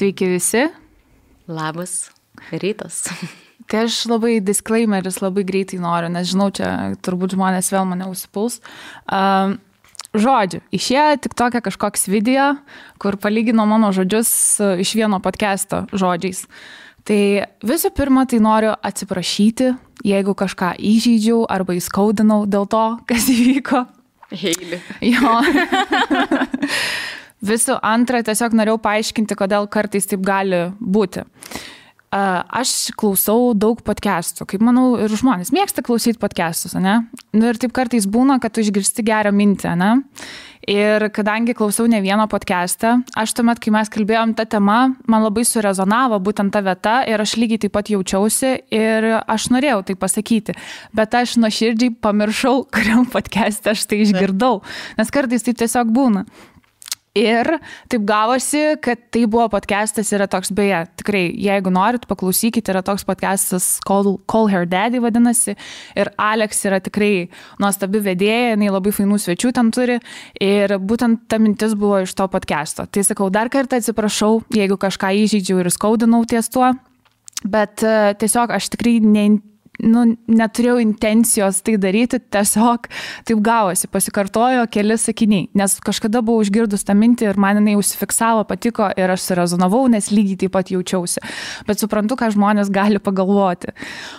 Sveiki visi. Labas rytas. Tai aš labai disclaimeris labai greitai noriu, nes žinau, čia turbūt žmonės vėl mane užsipuls. Žodžiu, išėjo tik tokia kažkoks video, kur palygino mano žodžius iš vieno podcast'o žodžiais. Tai visų pirma, tai noriu atsiprašyti, jeigu kažką įžeidžiau arba įskaudinau dėl to, kas įvyko. Heili. Jo. Visų antra, tiesiog norėjau paaiškinti, kodėl kartais taip gali būti. Aš klausau daug podcastų, kaip manau, ir žmonės mėgsta klausyti podcastus, ne? Nu, ir taip kartais būna, kad tu išgirsti gerą mintį, ne? Ir kadangi klausau ne vieno podcastą, aš tuomet, kai mes kalbėjom tą temą, man labai surezonavo būtent ta vieta ir aš lygiai taip pat jaučiausi ir aš norėjau tai pasakyti, bet aš nuoširdžiai pamiršau, kuriam podcast'e aš tai išgirdau, nes kartais tai tiesiog būna. Ir taip gavosi, kad tai buvo podcastas, yra toks, beje, tikrai, jeigu norit, paklausykite, yra toks podcastas Call Her Daddy vadinasi, ir Alex yra tikrai nuostabi vedėja, jinai labai fainų svečių ten turi, ir būtent ta mintis buvo iš to podcasto. Tai sakau, dar kartą atsiprašau, jeigu kažką įžeidžiau ir skaudinau ties tuo, bet tiesiog aš tikrai neturėjau intencijos tai daryti, tiesiog taip gavosi, pasikartojo keli sakiniai, nes kažkada buvau išgirdus tą mintį ir man jinai užsifiksavo, patiko ir aš surezonavau, nes lygiai taip pat jaučiausi. Bet suprantu, ką žmonės gali pagalvoti.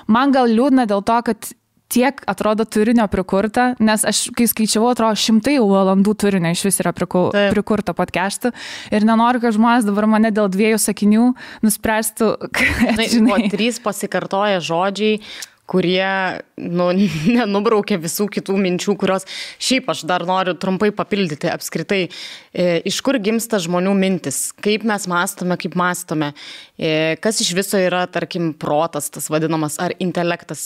Man gal liūdna dėl to, kad tiek atrodo turinio prikurta, nes aš, kai skaičiavau, atrodo 100 valandų turinio iš vis yra prikurta podcast'ų ir nenoriu, kad žmonės dabar mane dėl 2 sakinių nuspręstų, kad, žinai. 3 pasikartoja žodžiai, kurie nenubraukia visų kitų minčių, kurios šiaip aš dar noriu trumpai papildyti apskritai. Iš kur gimsta žmonių mintis, kaip mes mąstome, kaip mąstome, kas iš viso yra, tarkim, protas, tas vadinamas, ar intelektas.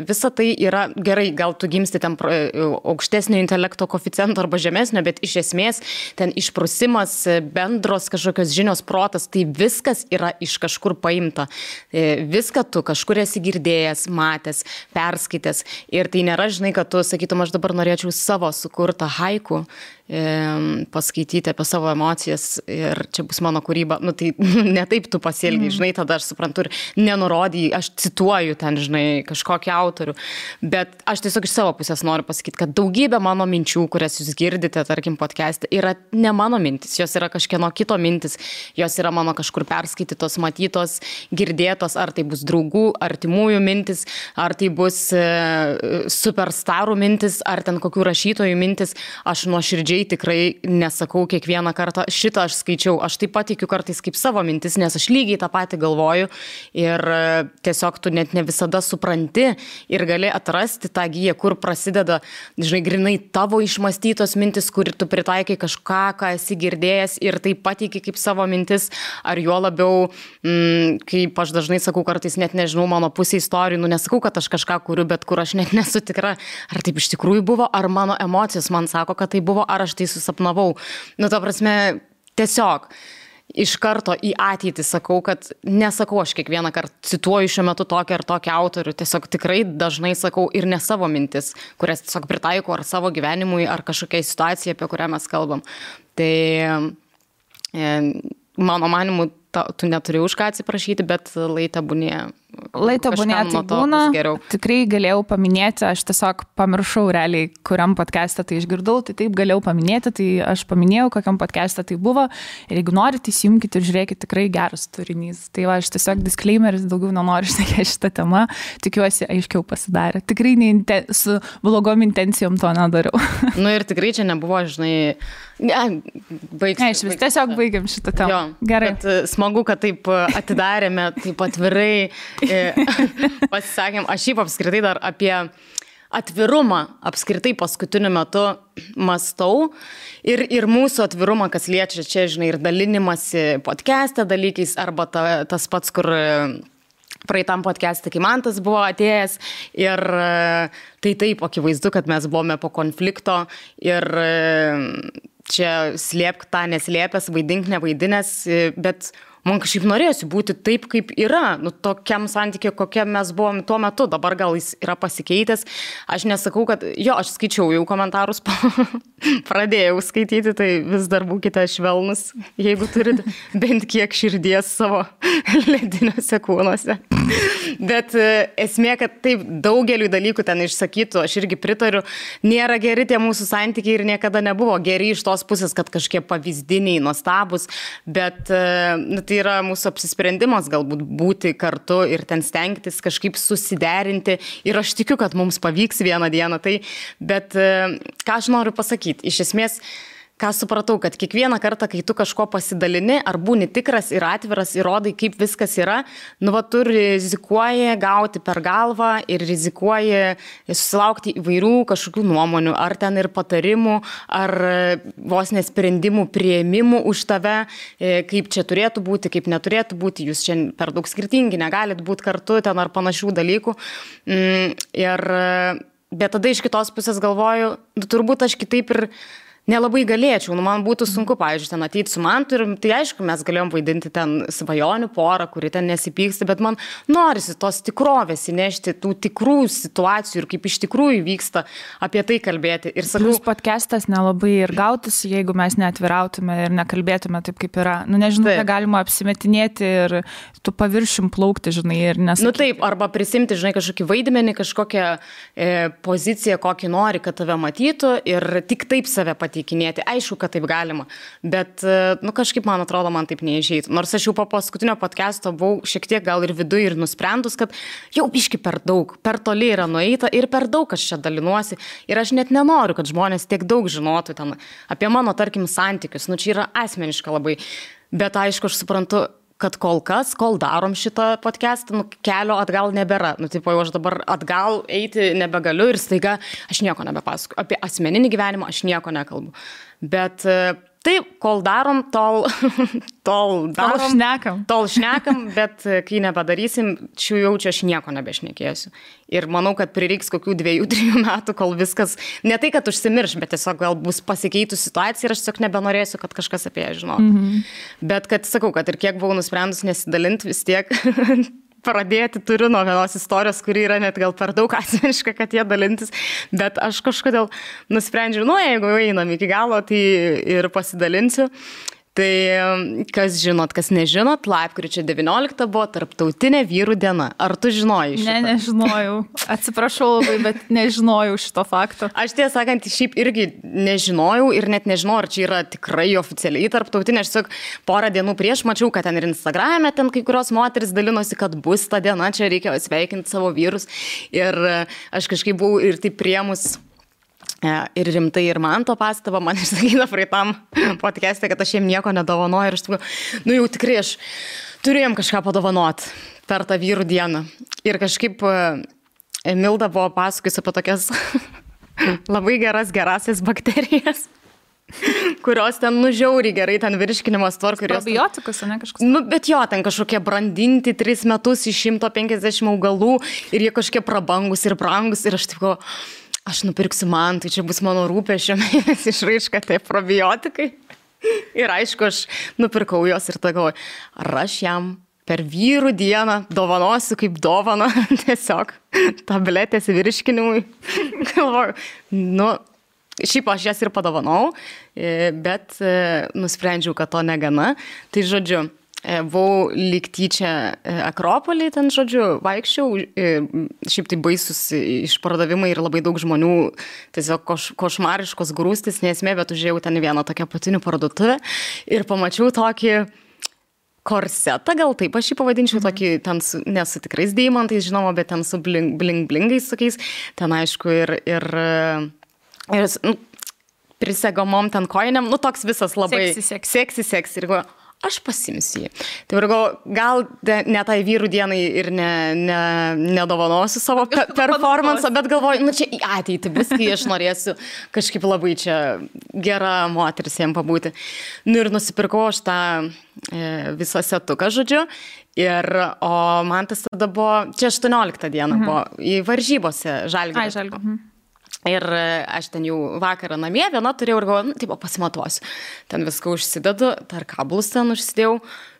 Visa tai yra gerai, gal tu gimsti ten aukštesnio intelekto koeficiento arba žemesnio, bet iš esmės ten išprusimas, bendros kažkokios žinios, protas, tai viskas yra iš kažkur paimta. Viską tu kažkur esi girdėjęs, matęs, perskaitęs. Ir tai nėra, žinai, kad tu sakytum, aš dabar norėčiau savo sukurtą haiku paskaityti apie savo emocijas ir čia bus mano kūryba. Nu tai ne taip tu pasielgiai, žinai, tada aš suprantu ir nenurodijai, aš cituoju ten, žinai, kažkokį autorių. Bet aš tiesiog iš savo pusės noriu pasakyti, kad daugybė mano minčių, kurias jūs girdite, tarkim, podcast'e, yra ne mano mintis, jos yra kažkieno kito mintis, jos yra mano kažkur perskaitytos, matytos, girdėtos, ar tai bus draugų, artimųjų mintis, ar tai bus superstarų mintis, ar ten kokių rašytojų mintis. Aš nuoširdžiai tikrai nesakau kiekvieną kartą, šitą aš skaičiau, aš taip pat tikiu kartais kaip savo mintis, nes aš lygiai tą patį galvoju ir tiesiog tu net ne visada supranti ir gali atrasti tą giją, kur prasideda, žinai, grinai tavo išmąstytos mintis, kur tu pritaikai kažką, ką esi girdėjęs ir tai pateiki kaip savo mintis, ar juo labiau, kaip aš dažnai sakau, kartais net nežinau mano pusė istorijų, nesakau, kad aš kažką kuriu, bet kur aš net nesu tikra, ar taip iš tikrųjų buvo, ar mano emocijos man sako, kad tai buvo, ar aš tai susapnavau. Nu, ta prasme, tiesiog iš karto į ateitį sakau, kad nesakau aš kiekvieną kartą cituoju šiuo metu tokį ar tokį autorių, tiesiog tikrai dažnai sakau ir ne savo mintis, kurias tiesiog pritaikau ar savo gyvenimui, ar kažkokiai situacijai, apie kurią mes kalbam. Tai mano manimu, tu neturi už ką atsiprašyti, bet laitebūnė tai būna, tikrai galėjau paminėti, aš tiesiog pamiršau realiai, kuriam podcast'e tai išgirdau, tai taip galėjau paminėti, tai aš paminėjau, kokiam podcast'e tai buvo ir jeigu norite, įsijungkite ir žiūrėkite, tikrai geras turinys. Tai va, aš tiesiog disclaimeris, daugiau nenoriu šnekėti šitą temą, tikiuosi aiškiau pasidarė. Tikrai su blogom intencijom to nedariau. Nu ir tikrai čia nebuvo, žinai, tiesiog baigiam šitą temą. Jo, gerai. Bet smagu, kad taip atidarėme, taip atvirai pasisakėm. Aš šiaip apskritai dar apie atvirumą apskritai paskutiniu metu mąstau ir mūsų atvirumą, kas liečia čia, žinai, ir dalinimasi podcast'e dalykais, arba tas pats, kur praeitam podcast'e, kai man tas buvo atėjęs ir tai taip, akivaizdu, kad mes buvome po konflikto ir čia slėpk tą neslėpęs, vaidink nevaidinęs, bet man kažkaip norėjosi būti taip, kaip yra, nu, tokiam santykiu, kokia mes buvom tuo metu, dabar gal jis yra pasikeitęs, aš nesakau, kad, aš skaičiau jau komentarus, pradėjau skaityti, tai vis dar būkite švelnus, jeigu turite bent kiek širdies savo lediniuose kūnuose. Bet esmė, kad taip daugeliu dalykų ten išsakytų, aš irgi pritariu, nėra geri tie mūsų santykiai ir niekada nebuvo geri iš tos pusės, kad kažkiek pavyzdiniai, nuostabus, bet tai yra mūsų apsisprendimas galbūt būti kartu ir ten stengtis kažkaip susiderinti ir aš tikiu, kad mums pavyks vieną dieną tai, bet ką aš noriu pasakyti, iš esmės, ką supratau, kad kiekvieną kartą, kai tu kažko pasidalini, ar būni tikras ir atviras, įrodai, kaip viskas yra, tu rizikuoji gauti per galvą ir rizikuoji susilaukti įvairių kažkokių nuomonių, ar ten ir patarimų, ar vos nesprendimų prieimimų už tave, kaip čia turėtų būti, kaip neturėtų būti, jūs čia per daug skirtingi, negalit būti kartu ten ar panašių dalykų. Bet tada iš kitos pusės galvoju, turbūt aš kitaip ir nelabai galėčiau, man būtų sunku, pavyzdžiui, ten ateiti su Mantu ir tai aišku, mes galėjom vaidinti ten svajonių porą, kuri ten nesipyksta, bet man norisi tos tikrovės įnešti, tų tikrų situacijų ir kaip iš tikrųjų vyksta apie tai kalbėti. Ir sakau, plus podcastas nelabai ir gautųsi, jeigu mes neatvirautume ir nekalbėtume taip, kaip yra. Nežinau, ką galima apsimetinėti ir tu paviršim plaukti, žinai, ir nesakyti. Taip, arba prisimti, žinai, kažkokį vaidmenį, kažkokią poziciją, kokį nori, kad tave matytų ir tik taip save pateikinėti. Aišku, kad taip galima, bet kažkaip, man atrodo, man taip neišeitų. Nors aš jau po paskutinio podcast'o buvau šiek tiek gal ir viduj ir nusprendus, kad jau biški per daug, per toli yra nueita ir per daug aš čia dalinuosi. Ir aš net nenoriu, kad žmonės tiek daug žinotų ten apie mano, tarkim, santykius. Čia yra asmeniška labai. Bet aišku, aš suprantu, kad kol darom šitą podcastą, kelio atgal nebėra. Tipo, jau aš dabar atgal eiti nebegaliu ir staiga aš nieko nebepasakoju. Apie asmeninį gyvenimą aš nieko nekalbu. Bet taip, kol darom, tol šnekam, bet kai nepadarysim, čia aš nieko nebešnekėsiu. Ir manau, kad prireiks kokių 2-3 metų, kol viskas, ne tai, kad užsimirš, bet tiesiog gal bus pasikeitų situacija ir aš tiesiog nebenorėsiu, kad kažkas apie ją žinotų. Bet kad sakau, kad ir kiek buvau nusprendus nesidalinti, vis tiek pradėti turiu nuo vienos istorijos, kuri yra net gal per daug asmeniška, kad jie dalintis, bet aš kažkodėl nusprendžiau, jeigu einam iki galo, tai ir pasidalinsiu. Tai kas žinot, kas nežinot, lapkričio 19 buvo tarptautinė vyrų diena. Ar tu žinojai šitą? Ne, nežinojau. Atsiprašau labai, bet nežinojau šito fakto. Aš tiesą sakant, šiaip irgi nežinojau ir net nežinau, ar čia yra tikrai oficialiai tarptautinė. Aš tiesiog porą dienų prieš mačiau, kad ten ir Instagrame ten kai kurios moteris dalinosi, kad bus ta diena, čia reikia sveikinti savo vyrus. Ir aš kažkaip buvau ir taip priemus ir rimtai ir man to pastabą, man išsakyta praeitam podcast'e, kad aš jiem nieko nedovanoju ir aš jau tikrai aš turėjom kažką padovanot per tą vyrų dieną. Ir kažkaip Milda buvo pasakojus apie tokias labai gerasias bakterijas, kurios ten žiauriai gerai, ten virškinimas tvarko. Probiotikus, ne kažkas? Bet jo, ten kažkokie brandinti 3 metus iš 150 augalų ir jie kažkokie prabangus ir brangus ir aš taip aš nupirksiu man, tai čia bus mano rūpesčio mėnesį išraiška, tai probiotikai. Ir aišku, aš nupirkau jos ir galvoju, ar aš jam per vyrų dieną dovanosiu kaip dovaną tiesiog tabletės virškinimui. Galvoju, šiaip aš jas ir padovanau, bet nusprendžiau, kad to negana. Tai žodžiu, buvau lyg tyčia Akropolį, ten žodžiu, vaikščiau, šiaip tai baisus išpardavimai ir labai daug žmonių, tiesiog košmariškos grūstis, nesmė, bet užėjau ten vieną tokią apatinių parduotuvę ir pamačiau tokį korsetą, gal taip aš jį pavadinčiau, tokį ten ne su tikrais deimantais, žinoma, bet ten su bling-blingais tokiais, ten aišku ir prisegomom ten koinėm, toks visas labai seksi ir aš pasimsiu jį. Tai gal ne tai vyrų dienai ir nedovanosiu savo performansą, bet galvoju, čia į ateitį bus, kai aš norėsiu kažkaip labai čia gera moteris jam pabūti. Ir nusipirkau aš tą visą setuką, žodžiu. O man tas tada buvo, čia 18 diena buvo, į varžybose Žalgirio. Ir aš ten jau vakarą namie, viena turėjau ir galvoju, taip, pasimatuosiu. Ten viską užsidedu, dar kablus ten užsidėjau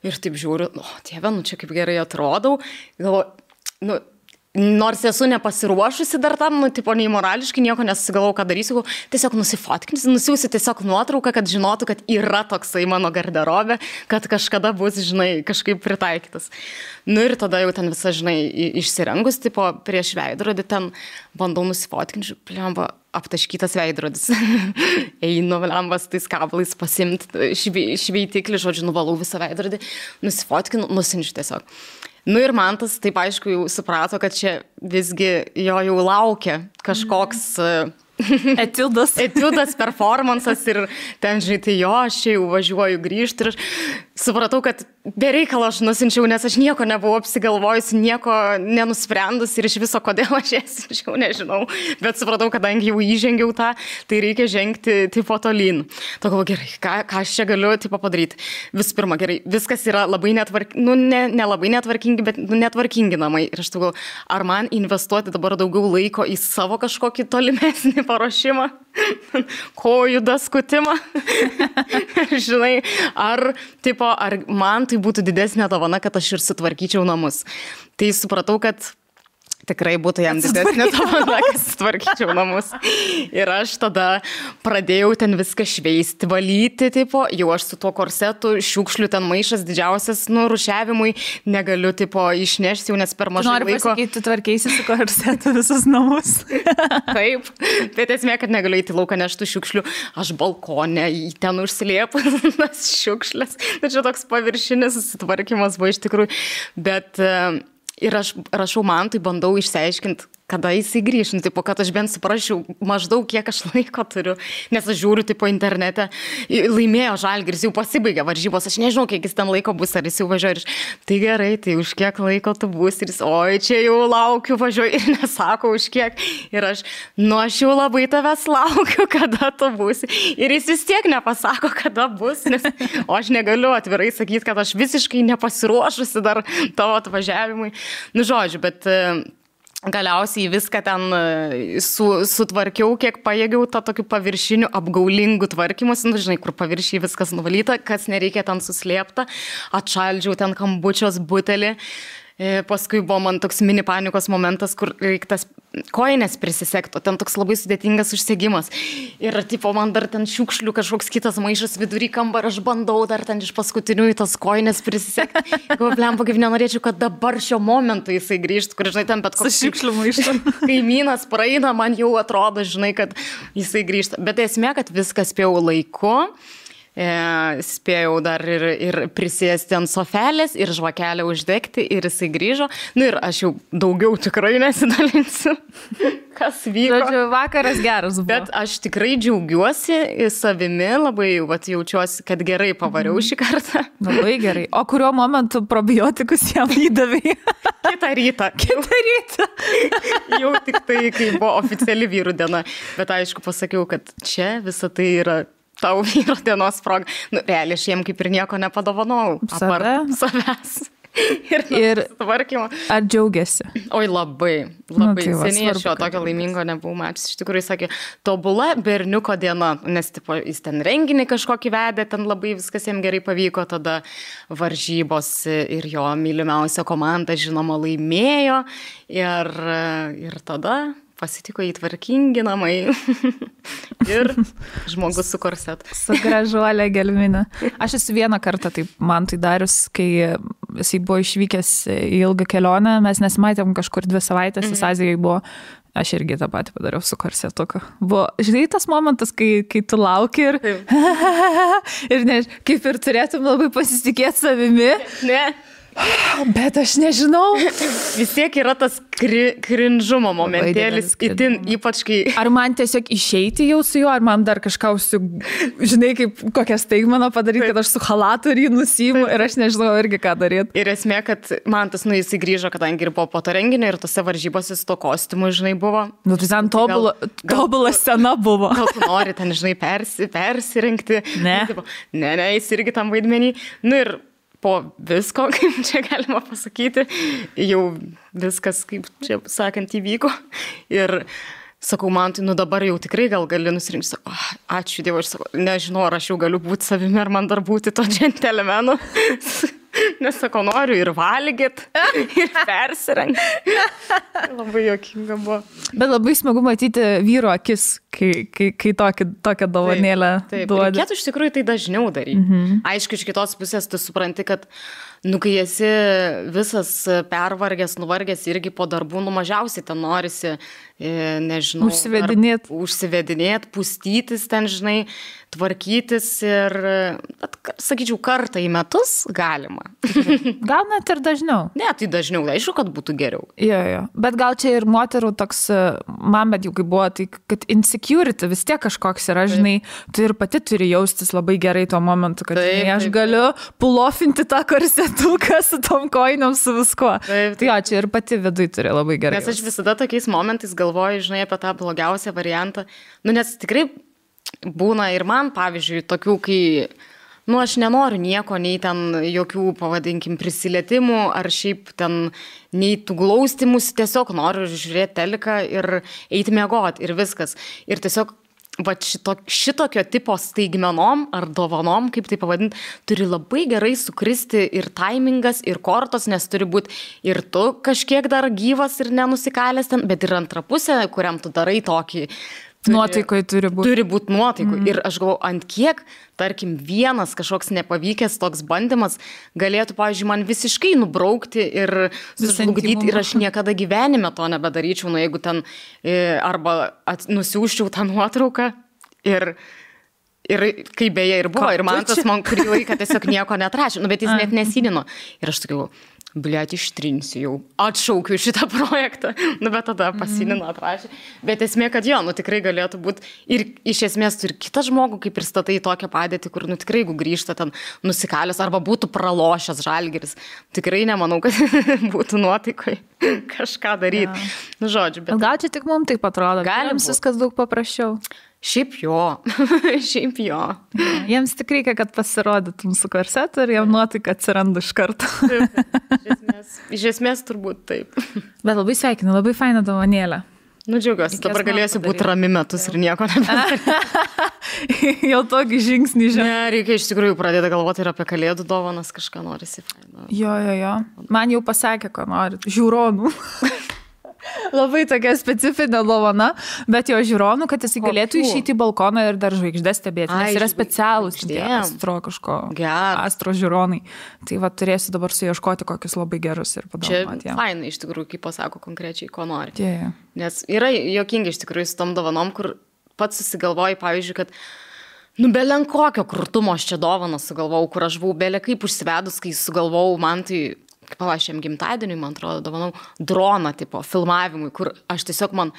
ir taip žiūriu, Dieve, čia kaip gerai atrodau. Galvoju, nors esu nepasiruošusi dar tam, tipo, nei morališkai nieko nesusigalvau, ką darysiu, tiesiog nusifotkinsiu, nusiųsiu tiesiog nuotrauką, kad žinotų, kad yra toksai mano garderobė, kad kažkada bus, žinai, kažkaip pritaikytas. Ir tada jau ten visa, žinai, išsirengus, tipo, prieš veidrodį ten bandau nusifotkinti, plemba, aptaškytas veidrodis. Einu, plemba, su tais kablais pasimti šveitiklį, žodžiu, nuvalau visą veidrodį, nusifotkinu, nusinčiu tiesiog. Ir Mantas taip aišku jau suprato, kad čia visgi jo jau laukia kažkoks etiudas, performansas ir ten, žinai, tai aš čia jau važiuoju grįžti ir aš supratau, kad bereikalo aš nusinčiau, nes aš nieko nebuvau apsigalvojusi, nieko nenusprendus ir iš viso kodėl aš jas sinčiau, nežinau, bet supratau, kadangi jau įžengiau tą, tai reikia žengti tipo tolyn. To galvoju, gerai, ką aš čia galiu tipo padaryti. Visų pirma, gerai, viskas yra labai nelabai netvarkingi, bet netvarkingi namai. Ir aš galvoju, ar man investuoti dabar daugiau laiko į savo kažkokį tolimesnį paruošimą, kojų daskutimą, žinai, ar man tai būtų didesnė dovana, kad aš ir sutvarkyčiau namus. Tai supratau, kad tikrai būtų jam didesnė dovana, kad sutvarkyčiau namus. Ir aš tada pradėjau ten viską šveisti, valyti, tipo, jau aš su tuo korsetu, šiukšlių ten maišas didžiausias, rūšiavimui, negaliu, tipo, išnešti jau, nes per mažai laiko. Noriu pasakyti, tu tvarkeisi su korsetu visus namus. Taip, bet esmė, kad negaliu įti lauką neštų šiukšlių, aš balkone į ten užsiliepu tas šiukšlės. Tai čia toks paviršinis susitvarkymas buvo iš tikrųjų, bet ir aš rašau Mantui, bandau išsiaiškinti, kada jisai grįš, tipo, kad aš bent suprasčiau maždaug, kiek aš laiko turiu, nes aš žiūriu, tipo, internete, laimėjo Žalgiris, jau pasibaigė varžybos, aš nežinau, kiek jis ten laiko bus, ar jis jau važiuoja, tai gerai, tai už kiek laiko tu bus, ir jis, oi, čia jau laukiu, važiuoju, ir nesako už kiek, ir aš jau labai tavęs laukiu, kada tu būsi, ir jis vis tiek nepasako, kada bus, nes aš negaliu atvirai sakyti, kad aš visiškai nepasiruošusi dar tavo atvažiavimui, žodžiu, bet galiausiai viską ten sutvarkiau, kiek pajėgiau tą tokių paviršinių apgaulingų tvarkymus, žinai, kur paviršiai viskas nuvalyta, kas nereikia ten suslėpta, atšaldžiau ten kambučios butelį. Paskui buvo man toks mini panikos momentas, kur reiktas koinės prisisekto, ten toks labai sudėtingas užsegimas. Ir tipo man dar ten šiukšlių kažkoks kitas maišas vidury kambarį, aš bandau dar ten iš paskutinių į tas koinės prisisekti. Blemba, kaip nenorėčiau, kad dabar šio momentu jisai grįžtų, kur, žinai, ten bet koks šiukšlių maišas. Kaimynas praeina, man jau atrodo, žinai, kad jisai grįžta. Bet esmė, kad viskas spėjau laiku. Spėjau dar ir prisėsti ant sofelės ir žvakelę uždegti ir jisai grįžo. Ir aš jau daugiau tikrai nesidalinsiu, kas vyko. Žodžiu, vakaras geras buvo. Bet aš tikrai džiaugiuosi savimi, labai jaučiuosi, kad gerai pavariau šį kartą. Labai gerai. O kuriuo momentu probiotikus jam įdavai? Kitą rytą. Jau tik tai, kai buvo oficiali vyrų diena. Bet aišku, pasakiau, kad čia visa tai yra tau vyro dienos proga. Realiai aš jiem kaip ir nieko nepadovanau. Apart savęs. Ir tvarkymo. Ar džiaugiasi? Oi, labai. Tai seniai aš jo tokio laimingo nebuvau matęs. Iš tikrųjų, sakė, tobula berniuko diena, nes tipo, jis ten renginį kažkokį vedė, ten labai viskas jam gerai pavyko, tada varžybos ir jo mylimiausia komanda, žinoma, laimėjo ir tada pasitiko įtvarkingi namai ir žmogus su korsetu. Su gražuolė gelminė. Aš esu vieną kartą taip man tai darius, kai jisai buvo išvykęs į ilgą kelionę, mes nesimatėm kažkur 2 savaitės, jis Azijai buvo, aš irgi tą patį padariau su korsetuku. Buvo, žinai, tas momentas, kai tu lauki ir ir ne, kaip ir turėtum labai pasitikėti savimi. Ne. Bet aš nežinau. Vis tiek yra tas krinžumo momentėlis, itin ypač kai... Ar man tiesiog išeiti jau su juo, ar man dar kažką žinai, kaip kokią staigmeną padaryti, kad aš su halatu ir jį nusiimu ir aš nežinau irgi ką daryti. Ir esmė, kad man tas, jisai grįžo, kadangi ir buvo po to renginio ir tose varžybose su to kostiumu, žinai, buvo. Tai ten tobula scena buvo. Gal tu nori ten, žinai, persirengti. Ne. Ne, jis irgi tam vaidmenį. Ir po visko, kaip čia galima pasakyti, jau viskas, kaip čia sakant, įvyko. Ir sakau, man tai, dabar jau tikrai gal gali nusirinkti, sakau, ačiū Dievui, aš sakau, nežinau, ar aš jau galiu būti savimi, ar man dar būti to džentelmenu. Nes sakau, noriu ir valgyt, ir persirengti. Labai juokinga buvo. Bet labai smagu matyti vyro akis, kai tokią dovanėlę duodi. Reikėtų iš tikrųjų tai dažniau daryti. Aišku, iš kitos pusės tu supranti, kad kai esi visas pervargęs, nuvargęs irgi po darbų, mažiausiai ten norisi, nežinau, užsivedinėt, pustytis ten, žinai, tvarkytis ir, sakyčiau, kartą į metus galima. Gal net ir dažniau. Ne, tai dažniau, aišku, kad būtų geriau. Jo. Bet gal čia ir moterų toks, man bet jau kaip buvo, tai kad insecurity vis tiek kažkoks yra, žinai, tu ir pati turi jaustis labai gerai tuo momentu, kad aš galiu pulofinti tą korsetuką su tom kojiniam, su viskuo. Tai jo, čia ir pati viduj turi labai gerai. Nes aš visada tokiais momentais galvoju, žinai, apie tą blogiausią variantą. Nes tikrai būna ir man, pavyzdžiui, tokių, kai, aš nenoriu nieko, nei ten jokių, pavadinkim, prisilietimų, ar šiaip ten, nei tų glaustimus, tiesiog noriu žiūrėti teliką ir eiti miegoti ir viskas. Ir tiesiog, šitokio tipo staigmenom ar dovanom, kaip tai pavadinti, turi labai gerai sukristi ir taimingas, ir kortos, nes turi būti ir tu kažkiek dar gyvas ir nenusikalęs ten, bet ir antra pusė, kuriam tu darai tokį. Nuotaikoj turi būti. Turi būti nuotaikoj. Ir aš galvoju, ant kiek, tarkim, vienas kažkoks nepavykęs toks bandymas galėtų, pavyzdžiui, man visiškai nubraukti ir sužlugdyti ir aš niekada gyvenime to nebedaryčiau, jeigu ten arba nusiųsčiau tą nuotrauką ir kaip beje ir buvo. Ir man tas kurį laiką tiesiog nieko neatrašė, bet jis net nesidino. Ir aš tokiu, bliat, ištrinsiu jau, atšaukiu šitą projektą, bet tada pasinino, atrašė. Bet esmė, kad jo, tikrai galėtų būti ir iš esmės tu ir kitą žmogų, kaip ir statai tokią padėtį, kur, tikrai, jeigu grįžta ten nusikalęs arba būtų pralošęs Žalgiris, tikrai nemanau, kad būtų nuotaikoj kažką daryti. Žodžiu, bet... Gal čia tik mums taip atrodo, jiems viskas daug paprasčiau. Šiaip jo. Jiems tik reikia, kad pasirodytum su korsetu ir jam nuotaika atsiranda iš karto. Iš esmės turbūt taip. Bet labai sveikinu, labai faina dovanėlė. Džiaugiuosi, dabar galėsiu būti rami metus ir nieko nebedaryti. Jau tokį žingsnį žinai. Ne, reikia iš tikrųjų pradėti galvoti ir apie kalėdų dovanas, kažką norisi. Jo. Man jau pasakė, ko nori. Žiūronų. Labai tokia specifinė dovana, bet jo žiūronų, kad jis galėtų išeiti į balkoną ir dar žvaigždės stebėti, nes yra specialūs astro žiūronai. Tai va, turėsiu dabar suieškoti kokius labai gerus ir padovanoti. Čia fainai iš tikrųjų, kaip pasako konkrečiai, ko nori. Nes yra juokingi iš tikrųjų su tom dovanom, kur pats susigalvoji, pavyzdžiui, kad belen kokio krūtumo aš čia dovaną sugalvojau, kur aš buvau belė kaip užsivedus, kai sugalvojau, man tai... Palašiam gimtadieniui, man atrodo, dovanau droną tipo filmavimui, kur aš tiesiog man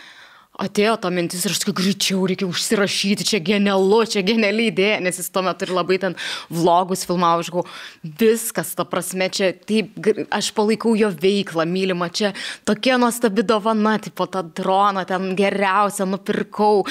atėjo ta mintis ir aš tik greičiau reikia užsirašyti, čia genialu, čia geniali idėja, nes jis tuo metu ir labai ten vlogus filmavo, aš galvoju, viskas, ta prasme, čia taip, aš palaikau jo veiklą, mylimą, čia tokia nuostabi dovana, tipo tą droną ten geriausia nupirkau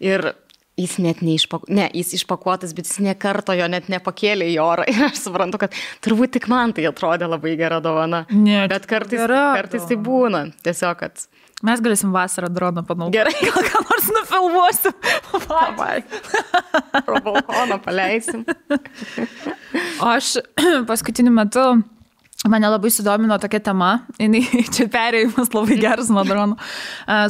ir... Jis net jis išpakuotas, bet jis nekarto jo net nepakėlė į orą. Ir aš suprantu, kad turbūt tik man tai atrodė labai gera dovana. Bet kartais tai būna. Tiesiog, kad... Mes galėsim vasarą droną panaudoti. Gerai, gal ką nors nufilmuosim. Pro balkoną paleisim. O aš paskutiniu metu... Mane labai sudomino tokia tema, čia perėjimas labai geras nuo dronų,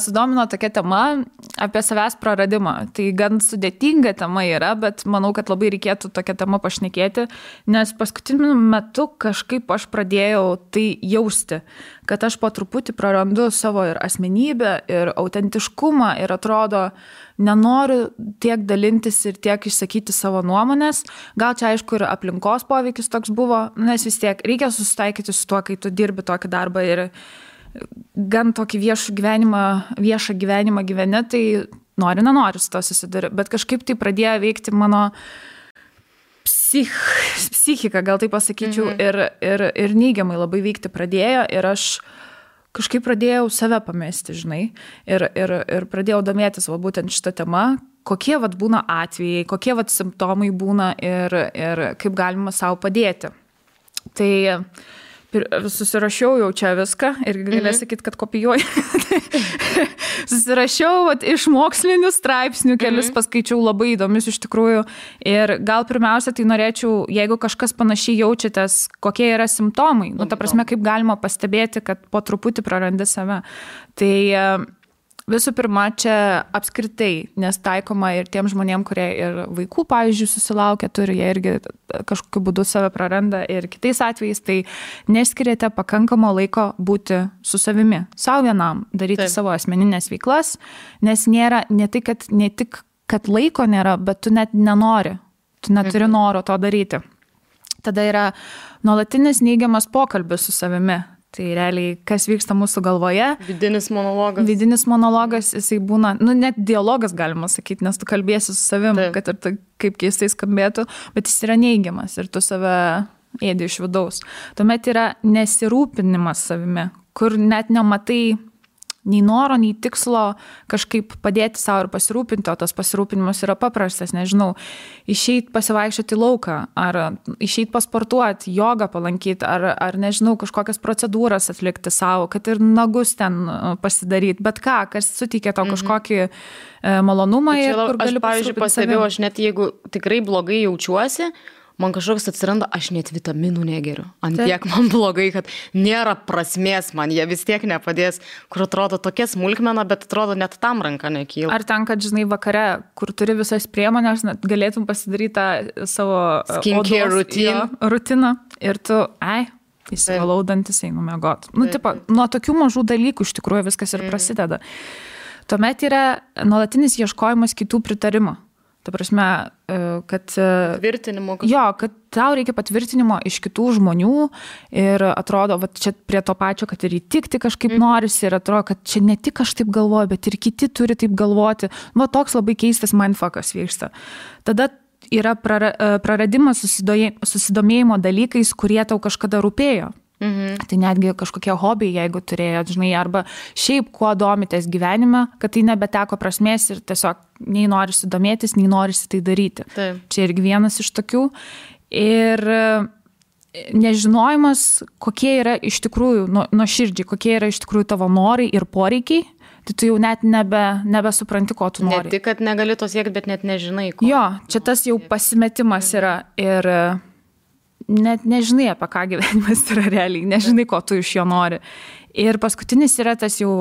sudomino tokia tema apie savęs praradimą. Tai gan sudėtinga tema yra, bet manau, kad labai reikėtų tokią temą pašnekėti, nes paskutiniu metu kažkaip aš pradėjau tai jausti, kad aš po truputį prarandu savo ir asmenybę, ir autentiškumą, ir atrodo, nenoriu tiek dalintis ir tiek išsakyti savo nuomonės. Gal čia aišku ir aplinkos poveikis toks buvo, nes vis tiek reikia susitaikyti su tuo, kai tu dirbi tokį darbą ir gan tokį viešą gyvenimą gyveni, tai nenori su to susiduri. Bet kažkaip tai pradėjo veikti mano psichika, gal tai pasakyčiau, ir neigiamai labai veikti pradėjo ir aš kažkaip pradėjau save pamesti, žinai, ir pradėjau domėtis būtent šitą temą, kokie būna atvejai, kokie simptomai būna ir kaip galima savo padėti. Tai susirašiau jau čia viską ir galės sakyti, kad kopijuoju. Susirašiau iš mokslinių straipsnių, kelis paskaičiau labai įdomius iš tikrųjų. Ir gal pirmiausia, tai norėčiau, jeigu kažkas panašiai jaučiatės, kokie yra simptomai, ta prasme, kaip galima pastebėti, kad po truputį prarandi save. Tai visų pirma, čia apskritai, nes taikoma ir tiem žmonėm, kurie ir vaikų, pavyzdžiui, susilaukia, turi, jie irgi kažkokiu būdu save praranda ir kitais atvejais, tai neskiriate pakankamo laiko būti su savimi, savo vienam, daryti savo asmeninės veiklas, nes nėra, ne tik, kad laiko nėra, bet tu net nenori, tu neturi noro to daryti. Tada yra nuolatinis neigiamas pokalbis su savimi. Tai realiai, kas vyksta mūsų galvoje. Vidinis monologas, jisai būna, net dialogas galima sakyti, nes tu kalbėsi su savim, kad ir kaip keistai skambėtų, bet jis yra neigiamas ir tu save ėdi iš vidaus. Tuomet yra nesirūpinimas savimi, kur net nematai nei noro, nei tikslo kažkaip padėti savo ir pasirūpinti, o tas pasirūpinimas yra paprastas, nežinau, išeit pasivaikščioti į lauką, ar išeit pasportuoti, jogą palankyti, ar nežinau, kažkokias procedūras atlikti savo, kad ir nagus ten pasidaryti, bet ką, kas suteikia tau kažkokį malonumą ir kur gali pasirūpinti savim. Aš, pavyzdžiui, pastebėjau, aš net jeigu tikrai blogai jaučiuosi, man kažkoks atsiranda, aš net vitaminų negeriu. Ant tiek man blogai, kad nėra prasmės man, jie vis tiek nepadės, kur atrodo tokia smulkmena, bet atrodo net tam ranka nekyla. Ar ten, kad, žinai, vakare, kur turi visas priemonės, galėtum pasidaryti tą savo skincare rutiną ir tu, įsivalau dantis, einu miegot. Nuo tokių mažų dalykų iš tikrųjų viskas ir prasideda. Tuomet yra nuolatinis ieškojimas kitų pritarimo. Ta prasme, kad kad tau reikia patvirtinimo iš kitų žmonių ir atrodo, va, čia prie to pačio, kad ir įtikti kažkaip norisi ir atrodo, kad čia ne tik aš taip galvoju, bet ir kiti turi taip galvoti. Va, toks labai keistas mindfuckas vyksta. Tada yra praradimas susidomėjimo dalykais, kurie tau kažkada rūpėjo. Tai netgi kažkokie hobiai, jeigu turėjot, žinai, arba šiaip kuo domitės gyvenime, kad tai nebeteko prasmės ir tiesiog nei norisi domėtis, nei norisi tai daryti. Čia irgi vienas iš tokių. Ir nežinojimas, kokie yra iš tikrųjų, nuoširdžiai, kokie yra iš tikrųjų tavo norai ir poreikiai, tai tu jau net nebesupranti, ko tu nori. Ne tik, kad negali to siekti, bet net nežinai, ko. Jo, čia tas jau pasimetimas yra ir net nežinai, apie ką gyvenimas yra realiai, nežinai, ko tu iš jo nori. Ir paskutinis yra tas jau,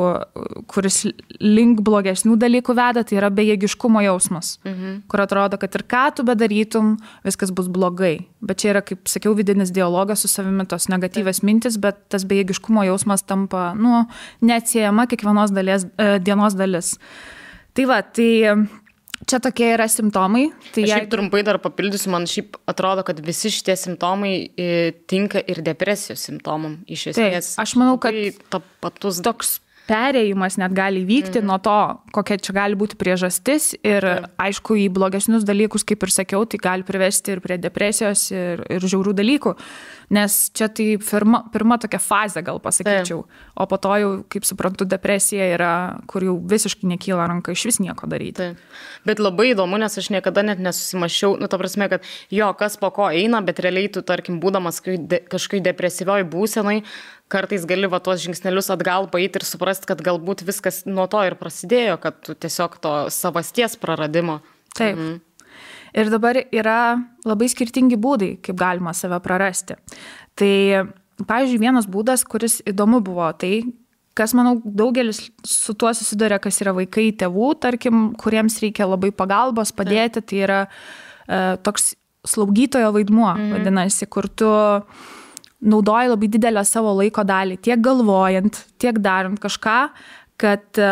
kuris link blogesnių dalykų veda, tai yra bejėgiškumo jausmas, kur atrodo, kad ir ką tu bedarytum, viskas bus blogai. Bet čia yra, kaip sakiau, vidinis dialogas su savimi, tos negatyvios mintis, bet tas bejėgiškumo jausmas tampa, neatsiejama kiekvienos dienos dalis. Tai va, čia tokie yra simptomai. Tai šiaip trumpai dar papildysiu, man šiaip atrodo, kad visi šitie simptomai tinka ir depresijos simptomam iš esmės. Taip, aš manau, kad toks perėjimas net gali vykti nuo to, kokia čia gali būti priežastis ir aišku, į blogesnius dalykus, kaip ir sakiau, tai gali privesti ir prie depresijos ir žiaurių dalykų. Nes čia tai pirma tokia fazė, gal pasakyčiau. O po to jau, kaip suprantu, depresija yra, kur jau visiškai nekyla ranka iš vis nieko daryti. Bet labai įdomu, nes aš niekada net nesusimašiau, ta prasme, kad kas po ko eina, bet realiai tu, tarkim, būdamas kažkai depresyvioj būsenai, kartais gali va tuos žingsnelius atgal paeiti ir suprasti, kad galbūt viskas nuo to ir prasidėjo, kad tu tiesiog to savasties praradimo. Taip. Ir dabar yra labai skirtingi būdai, kaip galima save prarasti. Tai, pavyzdžiui, vienas būdas, kuris įdomu buvo, tai, kas, manau, daugelis su tuo susiduria, kas yra vaikai tėvų, tarkim, kuriems reikia labai pagalbos, padėti, tai yra toks slaugytojo vaidmuo, vadinasi, kur tu naudoji labai didelę savo laiko dalį, tiek galvojant, tiek darant kažką, kad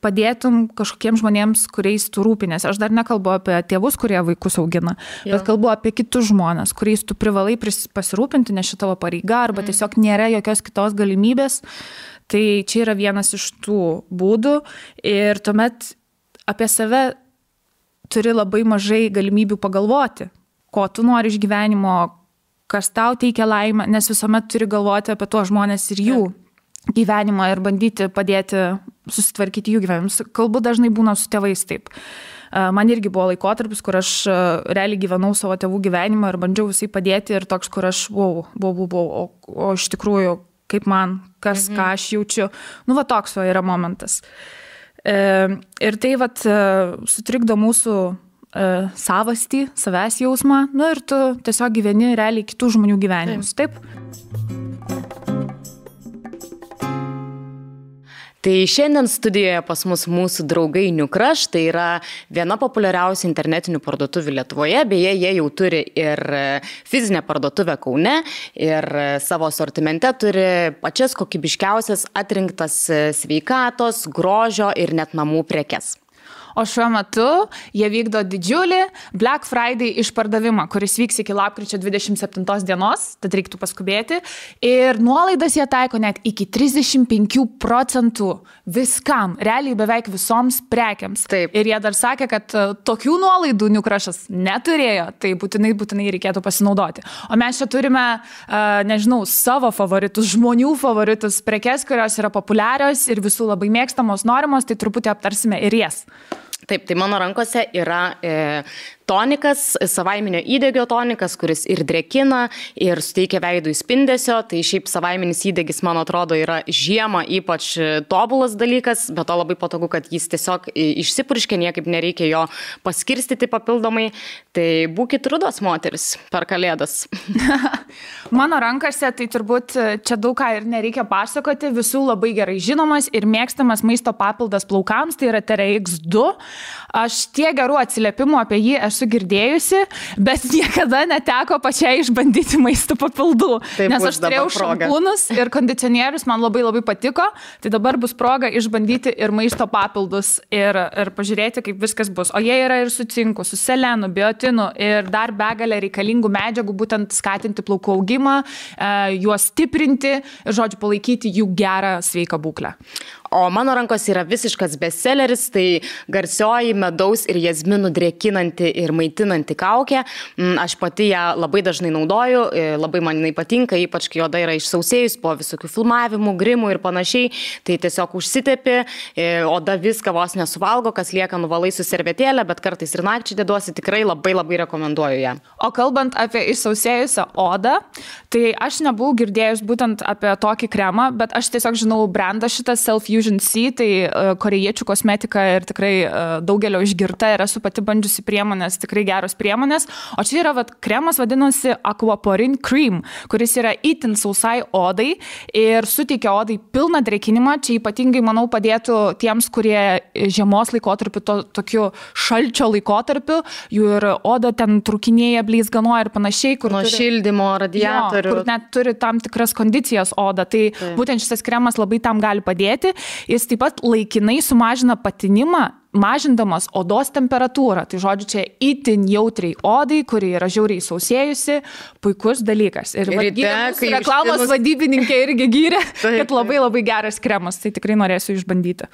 padėtum kažkokiems žmonėms, kuriais tu rūpinės. Aš dar nekalbu apie tėvus, kurie vaikus augina, bet kalbu apie kitus žmonės, kuriais tu privalai pasirūpinti, nes šita tavo pareiga, arba tiesiog nėra jokios kitos galimybės. Tai čia yra vienas iš tų būdų ir tuomet apie save turi labai mažai galimybių pagalvoti, ko tu nori iš gyvenimo, kas tau teikia laimę, nes visuomet turi galvoti apie tuos žmonės ir jų gyvenimą ir bandyti padėti susitvarkyti jų gyvenimus. Kalbu dažnai būna su tėvais taip. Man irgi buvo laikotarpis, kur aš realiai gyvenau savo tėvų gyvenimą ir bandžiau visai padėti ir toks, kur aš o iš tikrųjų, kaip man, ką aš jaučiu. Nu, va toks va yra momentas. Ir tai vat sutrikdo mūsų savastį, savęs jausmą, nu ir tu tiesiog gyveni realiai kitų žmonių gyvenimus. Taip? Tai šiandien studijoje pas mus mūsų draugai New Crush, tai yra viena populiariausių internetinių parduotuvių Lietuvoje, beje, jie jau turi ir fizinę parduotuvę Kaune ir savo asortimente turi pačias kokybiškiausias atrinktas sveikatos, grožio ir net namų prekes. O šiuo metu jie vykdo didžiulį Black Friday išpardavimą, kuris vyks iki lapkričio 27 dienos, tad reiktų paskubėti. Ir nuolaidas jie taiko net iki 35% viskam, realiai beveik visoms prekiams. Taip. Ir jie dar sakė, kad tokių nuolaidų New Crush'as neturėjo, tai būtinai reikėtų pasinaudoti. O mes čia turime, nežinau, savo favoritus, žmonių favoritus prekes, kurios yra populiarios ir visų labai mėgstamos, norimos, tai truputį aptarsime ir jas. Taip, tai mano rankose yra tonikas, savaiminio įdegio tonikas, kuris ir drėkina, ir suteikia veidui spindesio. Tai šiaip savaiminis įdegis, man atrodo, yra žiemą ypač tobulas dalykas, bet to labai patogu, kad jis tiesiog išsipurškia, niekaip nereikia jo paskirstyti papildomai. Tai būkit rudos moteris per kalėdas. Mano rankose, tai turbūt čia daug ką ir nereikia pasakoti, visų labai gerai žinomas ir mėgstamas maisto papildas plaukams, tai yra TRX2. Aš tiek gerų atsiliepimų apie jį esu girdėjusi, bet niekada neteko pačiai išbandyti maisto papildų. Taip, nes aš turėjau šampūnus ir kondicionierius, man labai patika, tai dabar bus proga išbandyti ir maisto papildus ir pažiūrėti, kaip viskas bus. O jie yra ir su cinku, su selenu, biotinu ir dar begalė reikalingų medžiagų, būtent skatinti plaukų augimą, juos stiprinti ir, žodžiu, palaikyti jų gerą sveiką būklę. O mano rankos yra visiškas bestselleris, tai garsioji medaus ir jazminų drėkinanti ir maitinanti kaukė. Aš pati ją labai dažnai naudoju, labai man jinai patinka, ypač kai oda yra išsausėjus po visokių filmavimų, grimų ir panašiai. Tai tiesiog užsitepi, oda viską vos nesuvalgo, kas lieka nuvalai su servetėlė, bet kartais ir nakčiai deduosi, tikrai labai rekomenduoju ją. O kalbant apie išsausėjusią odą, tai aš nebuvau girdėjus būtent apie tokį kremą, bet aš tiesiog žinau brandą šitą Self-Fusion C, tai korėjiečių kosmetika ir tikrai daugelio išgirta ir esu pati bandžiusi priemonės, tikrai geros priemonės. O čia yra kremas vadinasi Aquaporin Cream, kuris yra itin sausai odai ir suteikia odai pilną drėkinimą. Čia ypatingai, manau, padėtų tiems, kurie žiemos laikotarpiu, tokiu šalčio laikotarpiu, jų ir oda ten trūkinėja, bleizganoja ir panašiai. Nuo šildymo, radiatorių. Kur net turi tam tikras kondicijas oda. Tai būtent šis kremas labai tam gali padėti. Jis taip pat laikinai sumažina patinimą, mažindamas odos temperatūrą. Tai žodžiu, čia itin jautriai odai, kuri yra žiauriai sausėjusi, puikus dalykas. Ir reklamos vadybininkė irgi gyrė, kad labai geras kremas, tai tikrai norėsiu išbandyti.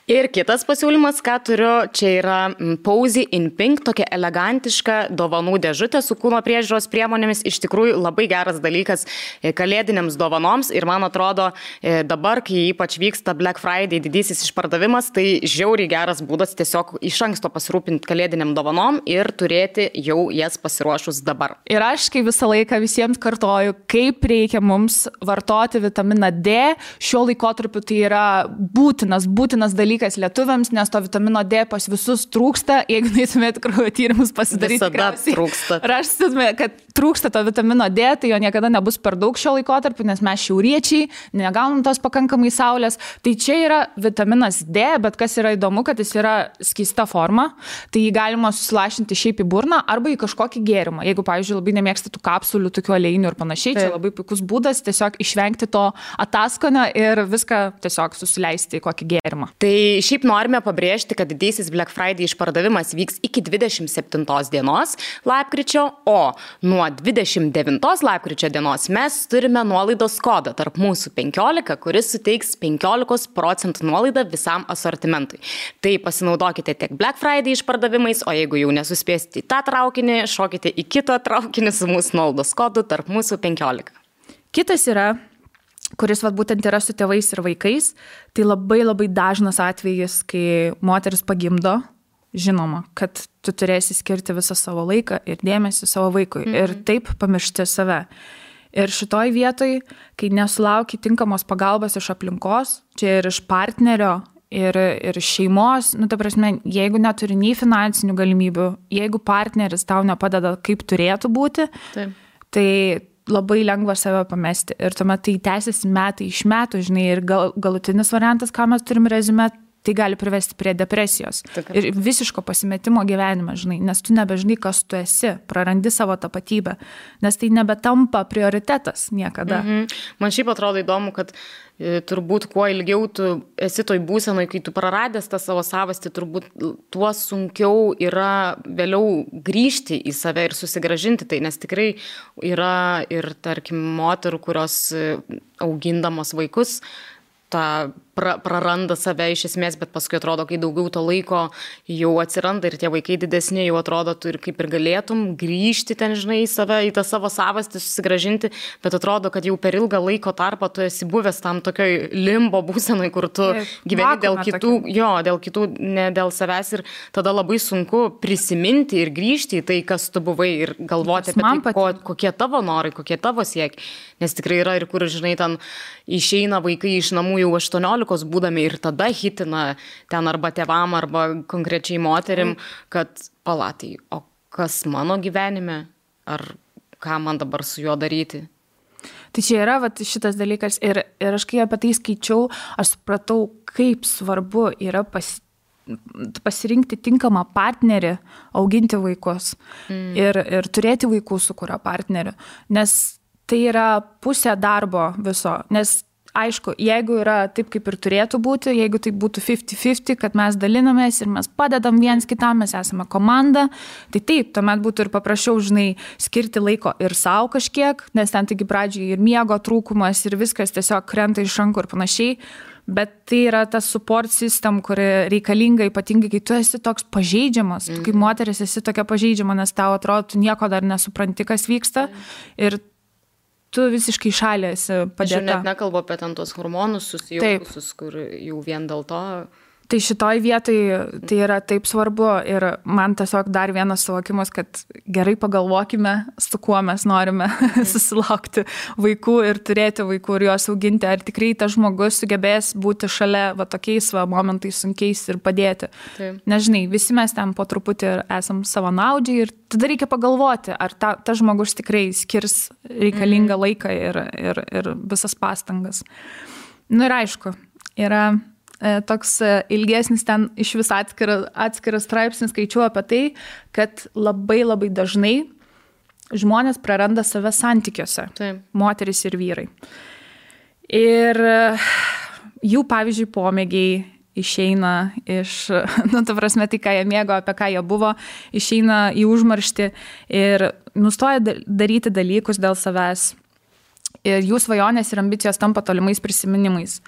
Ir kitas pasiūlymas, ką turiu, čia yra Posy in Pink, tokia elegantiška dovanų dėžutė su kūno priežiūros priemonėmis. Iš tikrųjų labai geras dalykas kalėdinėms dovanoms ir man atrodo dabar, kai ypač vyksta Black Friday didysis išpardavimas, tai žiauriai geras būdas tiesiog iš anksto pasirūpinti kalėdiniam dovanom ir turėti jau jas pasiruošus dabar. Ir aš kai visą laiką visiems kartoju, kaip reikia mums vartoti vitaminą D. Šiuo laikotarpiu tai yra būtinas dalykas lietuviams, nes to vitamino D pas visus trūksta. Jeigu neįtumėt kraujo tyrimus pasidaryti, visada trūksta. Rastume, kad trūksta to vitamino D, tai jo niekada nebus per daug šio laikotarpiu, nes mes šiauriečiai negaunam tos pakankamai saulės. Tai čia yra vitaminas D, bet kas yra įdomu, kad jis yra skysta forma, tai jį galima susilašinti šiaip į burną arba į kažkokį gėrimą. Jeigu, pavyzdžiui, labai nemėgsti tų kapsulių, tokių aliejinių ir panašiai, čia labai puikus būdas tiesiog išvengti to ataskonio ir viską tiesiog susileisti į kokį gėrimą. Tai šiaip norime pabrėžti, kad didysis Black Friday išpardavimas vyks iki 27 dienos lapkričio, o nuo 29 lapkričio dienos mes turime nuolaidos kodą tarp mūsų 15, kuris suteiks 15% nuolaidą visam asortimentui. Tai pasinaudokite tiek Black Friday išpardavimais, o jeigu jau nesuspėsite į tą traukinį, šokite į kitą traukinį su mūsų nuolaidos kodu tarp mūsų 15. Kitas yra, kuris būtent yra su tėvais ir vaikais, tai labai dažnas atvejis, kai moteris pagimdo žinoma, kad tu turėsi skirti visą savo laiką ir dėmesį savo vaikui ir taip pamiršti save. Ir šitoj vietoj, kai nesulauki tinkamos pagalbos iš aplinkos, čia ir iš partnerio, ir šeimos, ta prasme, jeigu neturi nei finansinių galimybių, jeigu partneris tau nepadeda, kaip turėtų būti, Taip. Tai labai lengva save pamesti. Ir tuomet tai tęsiasi metai iš metų, žinai, ir galutinis variantas, ką mes turim rezume, tai gali privesti prie depresijos. Ir visiško pasimetimo gyvenime, žinai, nes tu nebežinai, kas tu esi, prarandi savo tapatybę, nes tai nebetampa prioritetas niekada. Man šiaip atrodo įdomu, kad turbūt kuo ilgiau tu esi toj būsenoj, kai tu praradęs tą savo savastį, turbūt tuo sunkiau yra vėliau grįžti į save ir susigražinti tai, nes tikrai yra ir, tarkim, moterų, kurios augindamos vaikus, tą praranda save iš esmės, bet paskui atrodo, kai daugiau to laiko jau atsiranda ir tie vaikai didesni, jau atrodo, tu ir kaip ir galėtum grįžti ten, žinai, į save, į tą savo savastį, susigražinti, bet atrodo, kad jau per ilgą laiko tarpą tu esi buvęs tam tokioj limbo būsenoj, kur tu gyveni dėl kitų, dėl kitų, ne dėl savęs ir tada labai sunku prisiminti ir grįžti į tai, kas tu buvai ir galvoti apie tai, kokie tavo norai, kokie tavo siekiai, nes tikrai yra ir kur, žinai, ten išeina vaikai iš namų jau 18 būdami ir tada hitina ten arba tėvam, arba konkrečiai moterim, kad palatai, o kas mano gyvenime, ar ką man dabar su juo daryti? Tai čia yra šitas dalykas ir aš kai apie tai skaičiau, aš supratau, kaip svarbu yra pasirinkti tinkamą partnerį, auginti vaikus ir turėti vaikų su kurio partneriu, nes tai yra pusė darbo viso, nes aišku, jeigu yra taip, kaip ir turėtų būti, jeigu tai būtų 50-50, kad mes dalinamės ir mes padedam viens kitam, mes esame komanda, tai taip, tuomet būtų ir paprasčiau, žinai, skirti laiko ir savo kažkiek, nes ten taigi pradžiai ir miego trūkumas ir viskas tiesiog krenta iš rankų ir panašiai, bet tai yra ta support system, kuri reikalinga ypatingai, kai tu esi toks pažeidžiamas, tu kaip moteris esi tokia pažeidžiama, nes tau atrodo, tu nieko dar nesupranti, kas vyksta ir tu visiškai šalia esi padėta. Aš net nekalbu apie ten tos hormonus susijaukusius, kur jau vien dėl to. Tai šitoj vietoj tai yra taip svarbu ir man tiesiog dar vienas suvokimas, kad gerai pagalvokime, su kuo mes norime susilaukti vaikų ir turėti vaikų ir juos auginti. Ar tikrai tas žmogus sugebės būti šalia tokiais momentais sunkiais ir padėti. Nežinai, visi mes ten po truputį esam savanaudžiai ir tada reikia pagalvoti, ar tas žmogus tikrai skirs reikalingą laiką ir visas pastangas. Ir aišku, yra toks ilgesnis ten iš vis atskiras straipsnis skaičiuoja apie tai, kad labai labai dažnai žmonės praranda save santykiuose, moterys ir vyrai. Ir jų, pavyzdžiui, pomėgiai išeina iš, ta prasme, tai, ką jie mėgo, apie ką jie buvo, išeina į užmarštį ir nustoja daryti dalykus dėl savęs. Ir jų svajonės ir ambicijos tampa tolimais prisiminimais.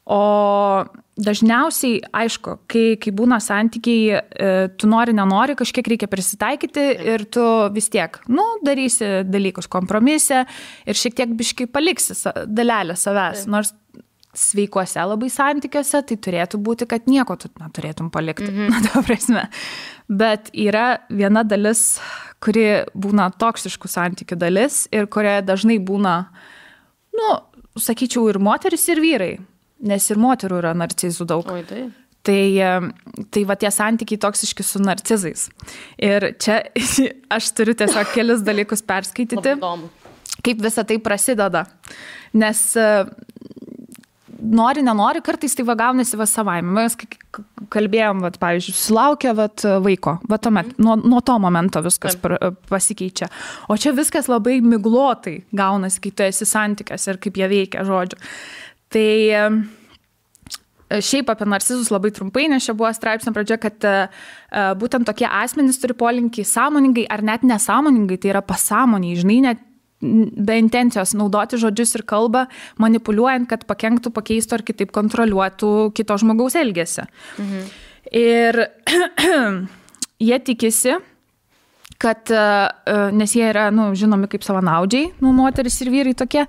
O dažniausiai, aišku, kai būna santykiai, tu nenori, kažkiek reikia prisitaikyti ir tu vis tiek, darysi dalykus kompromise ir šiek tiek biškai paliksi dalelę savęs. Nors sveikuose labai santykiuose, tai turėtų būti, kad nieko tu neturėtum palikti. Ta prasme. Bet yra viena dalis, kuri būna toksiškų santykių dalis ir kurioje dažnai būna, sakyčiau, ir moteris, ir vyrai. Nes ir moterų yra narcizų daug. Tai va tie santykiai toksiški su narcizais. Ir čia aš turiu tiesiog kelis dalykus perskaityti, kaip visa tai prasideda. Nes nori, nenori, kartais tai gaunasi savaime. Mes kalbėjom, pavyzdžiui, sulaukia vaiko, tuomet, nuo to momento viskas pasikeičia. O čia viskas labai miglotai gaunasi, kai tu esi santykiuose ir kaip jie veikia, žodžiu. Tai šiaip apie narcizus labai trumpai, nes čia buvo straipsnio pradžia, kad būtent tokie asmenys turi polinkį sąmoningai ar net nesąmoningai, tai yra pasąmoniai, žinai, net be intencijos naudoti žodžius ir kalbą, manipuliuojant, kad pakenktų, pakeistų ar kitaip kontroliuotų kito žmogaus elgesį. Ir jie tikisi, kad, nes jie yra, žinomi kaip savanaudžiai, moteris ir vyrai tokie,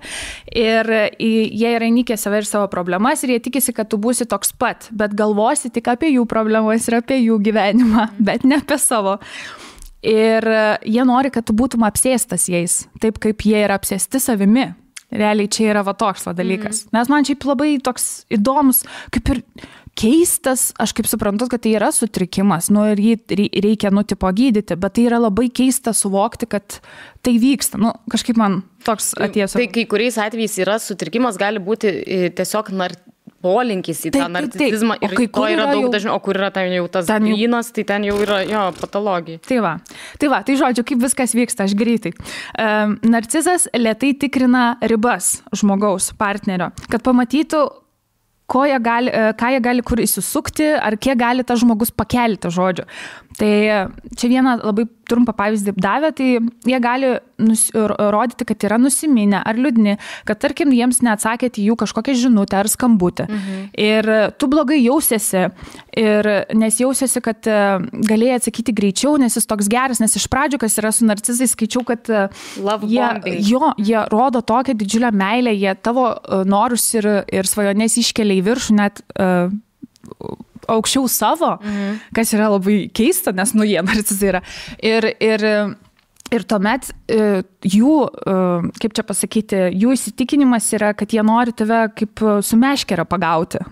ir jie yra įnikę save ir savo problemas, ir jie tikisi, kad tu būsi toks pat, bet galvosi tik apie jų problemas ir apie jų gyvenimą, bet ne apie savo. Ir jie nori, kad tu būtum apsėstas jais, taip kaip jie yra apsėsti savimi. Realiai čia yra toks dalykas. Nes man šiaip labai toks įdomus, kaip ir keistas, aš kaip suprantu, kad tai yra sutrikimas, ir jį reikia, tipo gydyti, bet tai yra labai keista suvokti, kad tai vyksta. Kažkaip man toks atėjęs. Tai kai kuriais atvejais yra sutrikimas, gali būti tiesiog polinkis į tą narcisizmą ir to yra daug dažniau, o kur yra ten jau tas grynas, tai ten jau yra patologija. Tai žodžiu, kaip viskas vyksta, aš greitai. Narcizas lėtai tikrina ribas žmogaus, partnerio, kad pamatytų, ką jie gali kur įsisukti, ar kiek gali tas žmogus pakelti, žodžiu. Tai čia vieną labai trumpą pavyzdį davė, tai jie gali rodyti, kad yra nusiminę ar liūdni, kad tarkim jiems neatsakėte jų kažkokią žinutę ar skambutę. Ir tu blogai jausiesi, nes jausiesi, kad galėjai atsakyti greičiau, nes jis toks geras, nes iš pradžių, kas yra su narcizais, skaičiau, kad jie rodo tokią didžiulę meilę, jie tavo norus ir svajonės iškelia į viršų, net aukščiau savo, kas yra labai keista, nes jie narcizai yra. Ir tuomet jų, kaip čia pasakyti, jų įsitikinimas yra, kad jie nori tave kaip su meškere pagauti.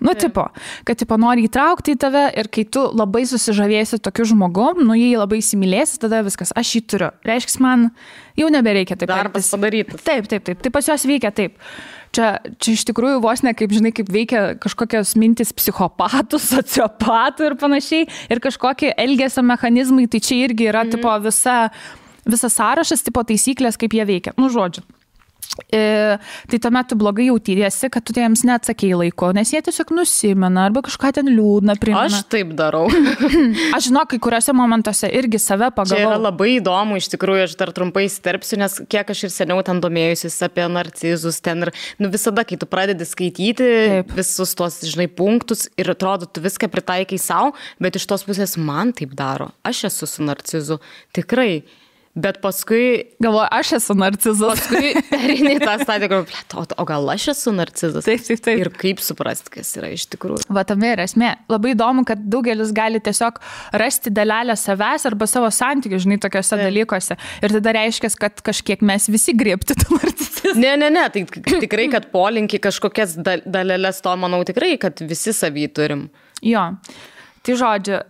Kad nori įtraukti į tave ir kai tu labai susižavėsi tokiu žmogum, jį labai įsimylėsi, tada viskas, aš jį turiu. Reiškia, man jau nebereikia taip. Darbas padarytas. Taip. Tai pas juos veikia taip. Čia iš tikrųjų vos ne kaip, žinai, kaip veikia kažkokios mintis psichopatų, sociopatų ir panašiai, ir kažkokie elgesio mechanizmai, tai čia irgi yra visas sąrašas, taisyklės, kaip jie veikia. Žodžiu. Tai tuomet tu blogai jautiesi, kad tu jiems neatsakėjai laiko, nes jie tiesiog nusimena arba kažką ten liūdna primena. Aš taip darau. Aš žinau, kai kuriuose momentuose irgi save pagavau. Čia yra labai įdomu, iš tikrųjų, aš dar trumpai įsiterpsiu, nes kiek aš ir seniau ten domėjusis apie narcizus, ten ir visada, kai tu pradedi skaityti visus tos, žinai, punktus ir atrodo, tu viską pritaikai savo, bet iš tos pusės man taip daro. Aš esu su narcizu, tikrai. Bet paskui... Galvoju, aš esu narcizas. Paskui perini tą stadiją, o gal aš esu narcizas? Taip. Ir kaip suprasti, kas yra iš tikrųjų. Tame yra esmė. Labai įdomu, kad daugelis gali tiesiog rasti dalelę savęs arba savo santykių, žinai, tokiuose dalykuose. Ir tada reiškia, kad kažkiek mes visi griebti tą narcisizmą. Ne. Tai tikrai, kad polinkį kažkokias dalelės to, manau, tikrai, kad visi savį turim. Jo. Tai žodžiu,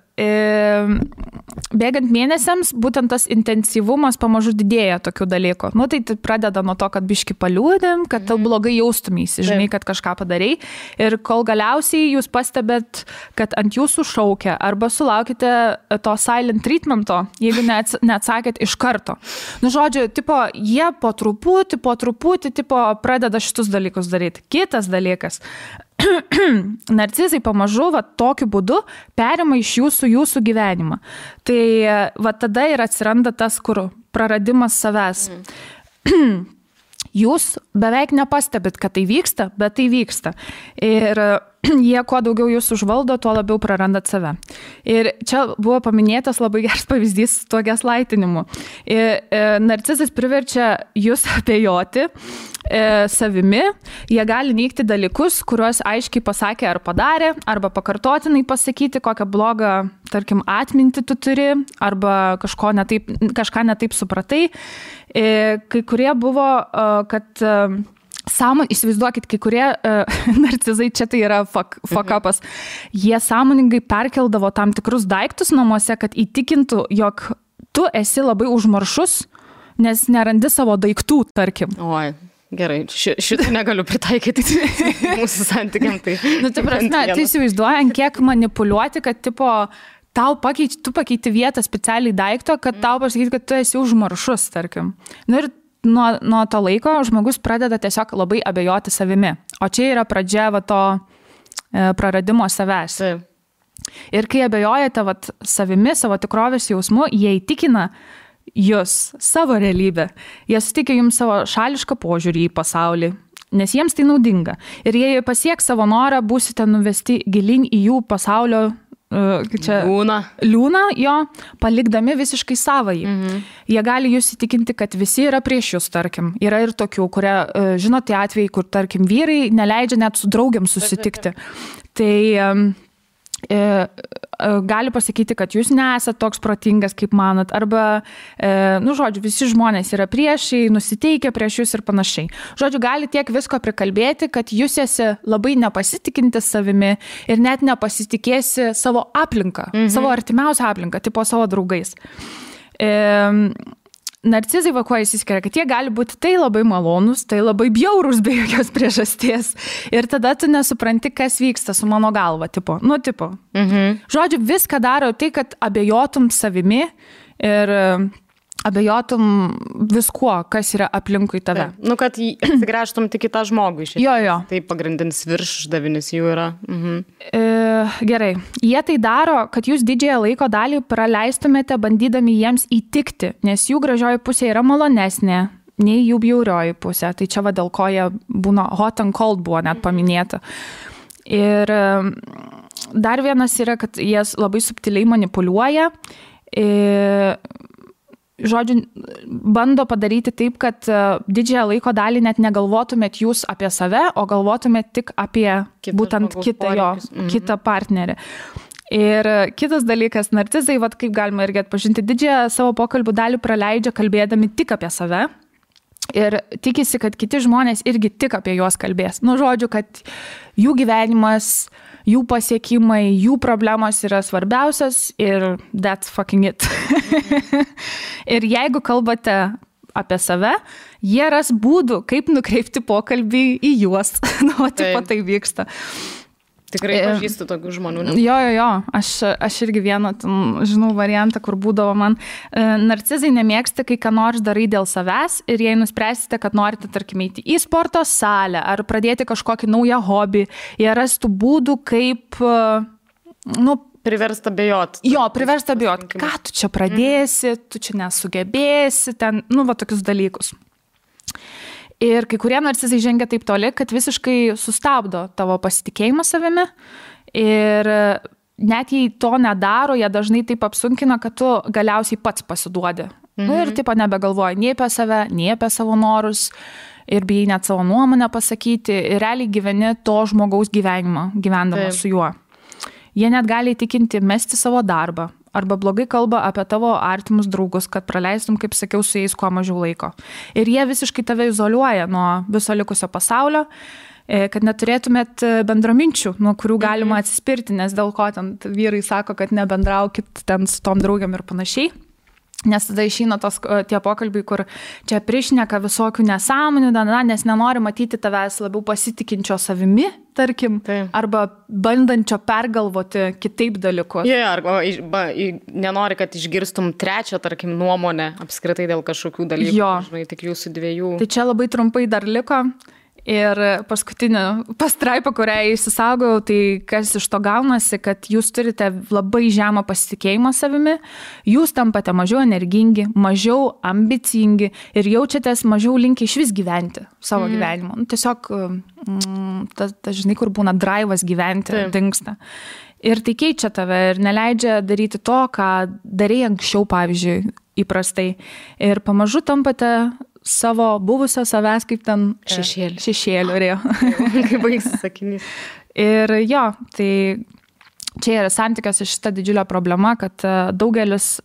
bėgant mėnesiams, būtent tas intensyvumas pamažu didėja tokių dalykų. Tai pradeda nuo to, kad biški paliūdėm, kad tau blogai jaustumėsi, žinai, kad kažką padarai. Ir kol galiausiai jūs pastebėt, kad ant jūsų šaukia arba sulaukite to silent treatmento, jeigu neatsakėt iš karto. Žodžiu, jie po truputį pradeda šitus dalykus daryti. Kitas dalykas. Narcizai pamažu tokiu būdu perima iš jūsų gyvenimą. Tai tada ir atsiranda tas, kur praradimas savęs. Jūs beveik nepastebit, kad tai vyksta, bet tai vyksta. Ir jie, kuo daugiau jūs užvaldo, tuo labiau prarandat save. Ir čia buvo paminėtas labai geras pavyzdys su tuo gaslightinimu. Narcizas priverčia jūs abejoti savimi, jie gali neigti dalykus, kuriuos aiškiai pasakė ar padarė, arba pakartotinai pasakyti, kokią blogą, tarkim, atmintį tu turi, arba kažką netaip supratai. Kai kurie buvo, kad įsivaizduokit, kai kurie narcizai, čia tai yra fuck upas, jie sąmoningai perkeldavo tam tikrus daiktus namuose, kad įtikintų, jog tu esi labai užmaršus, nes nerandi savo daiktų, tarkim. Oi. Gerai, šitą negaliu pritaikyti mūsų santykiam. Tai įsivaizduojant, kiek manipuliuoti, kad tu pakeiti vietą specialiai daikto, kad tau pasakyti, kad tu esi užmaršus, tarkim. Ir nuo to laiko žmogus pradeda tiesiog labai abejoti savimi. O čia yra pradžia to praradimo savęs. Ir kai abejojate savimi, savo tikrovės jausmu, jie įtikina jūs savo realybę. Jie suteikia jums savo šališką požiūrį į pasaulį, nes jiems tai naudinga. Ir jei pasieks savo norą, būsite nuvesti gilin į jų pasaulio liūną jo, palikdami visiškai savąjį. Jie gali jūs įtikinti, kad visi yra prieš jūs, tarkim. Yra ir tokių, kurie, žinot, tie atvejai, kur, tarkim, vyrai neleidžia net su draugiam susitikti. Tai gali pasakyti, kad jūs nesat toks protingas, kaip manat, arba, žodžiu, visi žmonės yra priešai, nusiteikia prieš jūs ir panašiai. Žodžiu, gali tiek visko prikalbėti, kad jūs esi labai nepasitikinti savimi ir net nepasitikėsi savo aplinką, savo artimiausią aplinką, tipo savo draugais. Narcizai kuo įsiskiria, kad jie gali būti tai labai malonus, tai labai bjaurus be jokios priežasties. Ir tada tu nesupranti, kas vyksta su mano galva, tipo. Žodžiu, viską daro tai, kad abejotum savimi ir abejotum viskuo, kas yra aplinkui tave. Kad atsigręžtum tik į tą žmogų iš esmės. Jo. Tai pagrindinis viršdavinis jų yra. Gerai. Jie tai daro, kad jūs didžiąją laiko dalį praleistumėte bandydami jiems įtikti, nes jų gražioji pusė yra malonesnė nei jų bjaurioji pusė. Tai čia dėl ko jie būna hot and cold buvo net paminėta. Ir dar vienas yra, kad jie labai subtiliai manipuliuoja. Žodžiu, bando padaryti taip, kad didžiąją laiko dalį net negalvotumėt jūs apie save, o galvotumėt tik apie būtent kitą partnerį. Ir kitas dalykas, narcizai, kaip galima irgi atpažinti, didžiąją savo pokalbių dalį praleidžia kalbėdami tik apie save ir tikisi, kad kiti žmonės irgi tik apie juos kalbės. Žodžiu, kad jų gyvenimas, jų pasiekimai, jų problemos yra svarbiausias ir that's fucking it. Ir jeigu kalbate apie save, jie ras būdų, kaip nukreipti pokalbį į juos. Tai vyksta. Tikrai pažįstu tokių žmonių. Jo. Aš irgi vieną, žinau, variantą, kur būdavo man. Narcizai nemėgsta, kai ką nors darai dėl savęs ir jei nuspręsite, kad norite, tarkim, eiti į sporto salę ar pradėti kažkokį naują hobį, jie rastų būdų, kaip, priversta bejot. Priversta bejot. Ką tu čia pradėsi, tu čia nesugebėsi, ten, tokius dalykus. Ir kai kurie narcizai žengia taip toli, kad visiškai sustabdo tavo pasitikėjimą savimi ir net jei to nedaro, jie dažnai taip apsunkina, kad tu galiausiai pats pasiduodi. Ir taip nebegalvoji nei apie save, nei apie savo norus ir bijai net savo nuomonę pasakyti ir realiai gyveni to žmogaus gyvenimą, gyvendamas su juo. Jie net gali įtikinti mesti savo darbą arba blogai kalba apie tavo artimus draugus, kad praleistum, kaip sakiau, su jais kuo mažiau laiko. Ir jie visiškai tave izoliuoja nuo viso likusio pasaulio, kad neturėtumėt bendraminčių, nuo kurių galima atsispirti, nes dėl ko ten vyrai sako, kad nebendraukit ten su tom draugiam ir panašiai. Nes tada išeina tie pokalbiai, kur čia prišneka visokių nesąmonių, nes nenori matyti tavęs labiau pasitikinčio savimi, tarkim, arba bandančio pergalvoti kitaip dalykus. Arba nenori, kad išgirstum trečią, tarkim, nuomonę apskritai dėl kažkokių dalykų, žinai, tik jūsų dviejų. Tai čia labai trumpai dar liko. Ir paskutinė pastraipa, kurią įsisaugojau, tai kas iš to gaunasi, kad jūs turite labai žemą pasitikėjimą savimi, jūs tampate mažiau energingi, mažiau ambicingi ir jaučiatės mažiau linkę išvis gyventi savo gyvenimo. Tiesiog, žinai, kur būna draivas gyventi, dingsta. Ir tai keičia tave ir neleidžia daryti to, ką darei anksčiau, pavyzdžiui, įprastai. Ir pamažu tampate savo buvusio savęs kaip ten šešėliu. Kaip baigsis sakinys. Ir tai čia yra santykiuose šita didžiulė problema, kad daugelis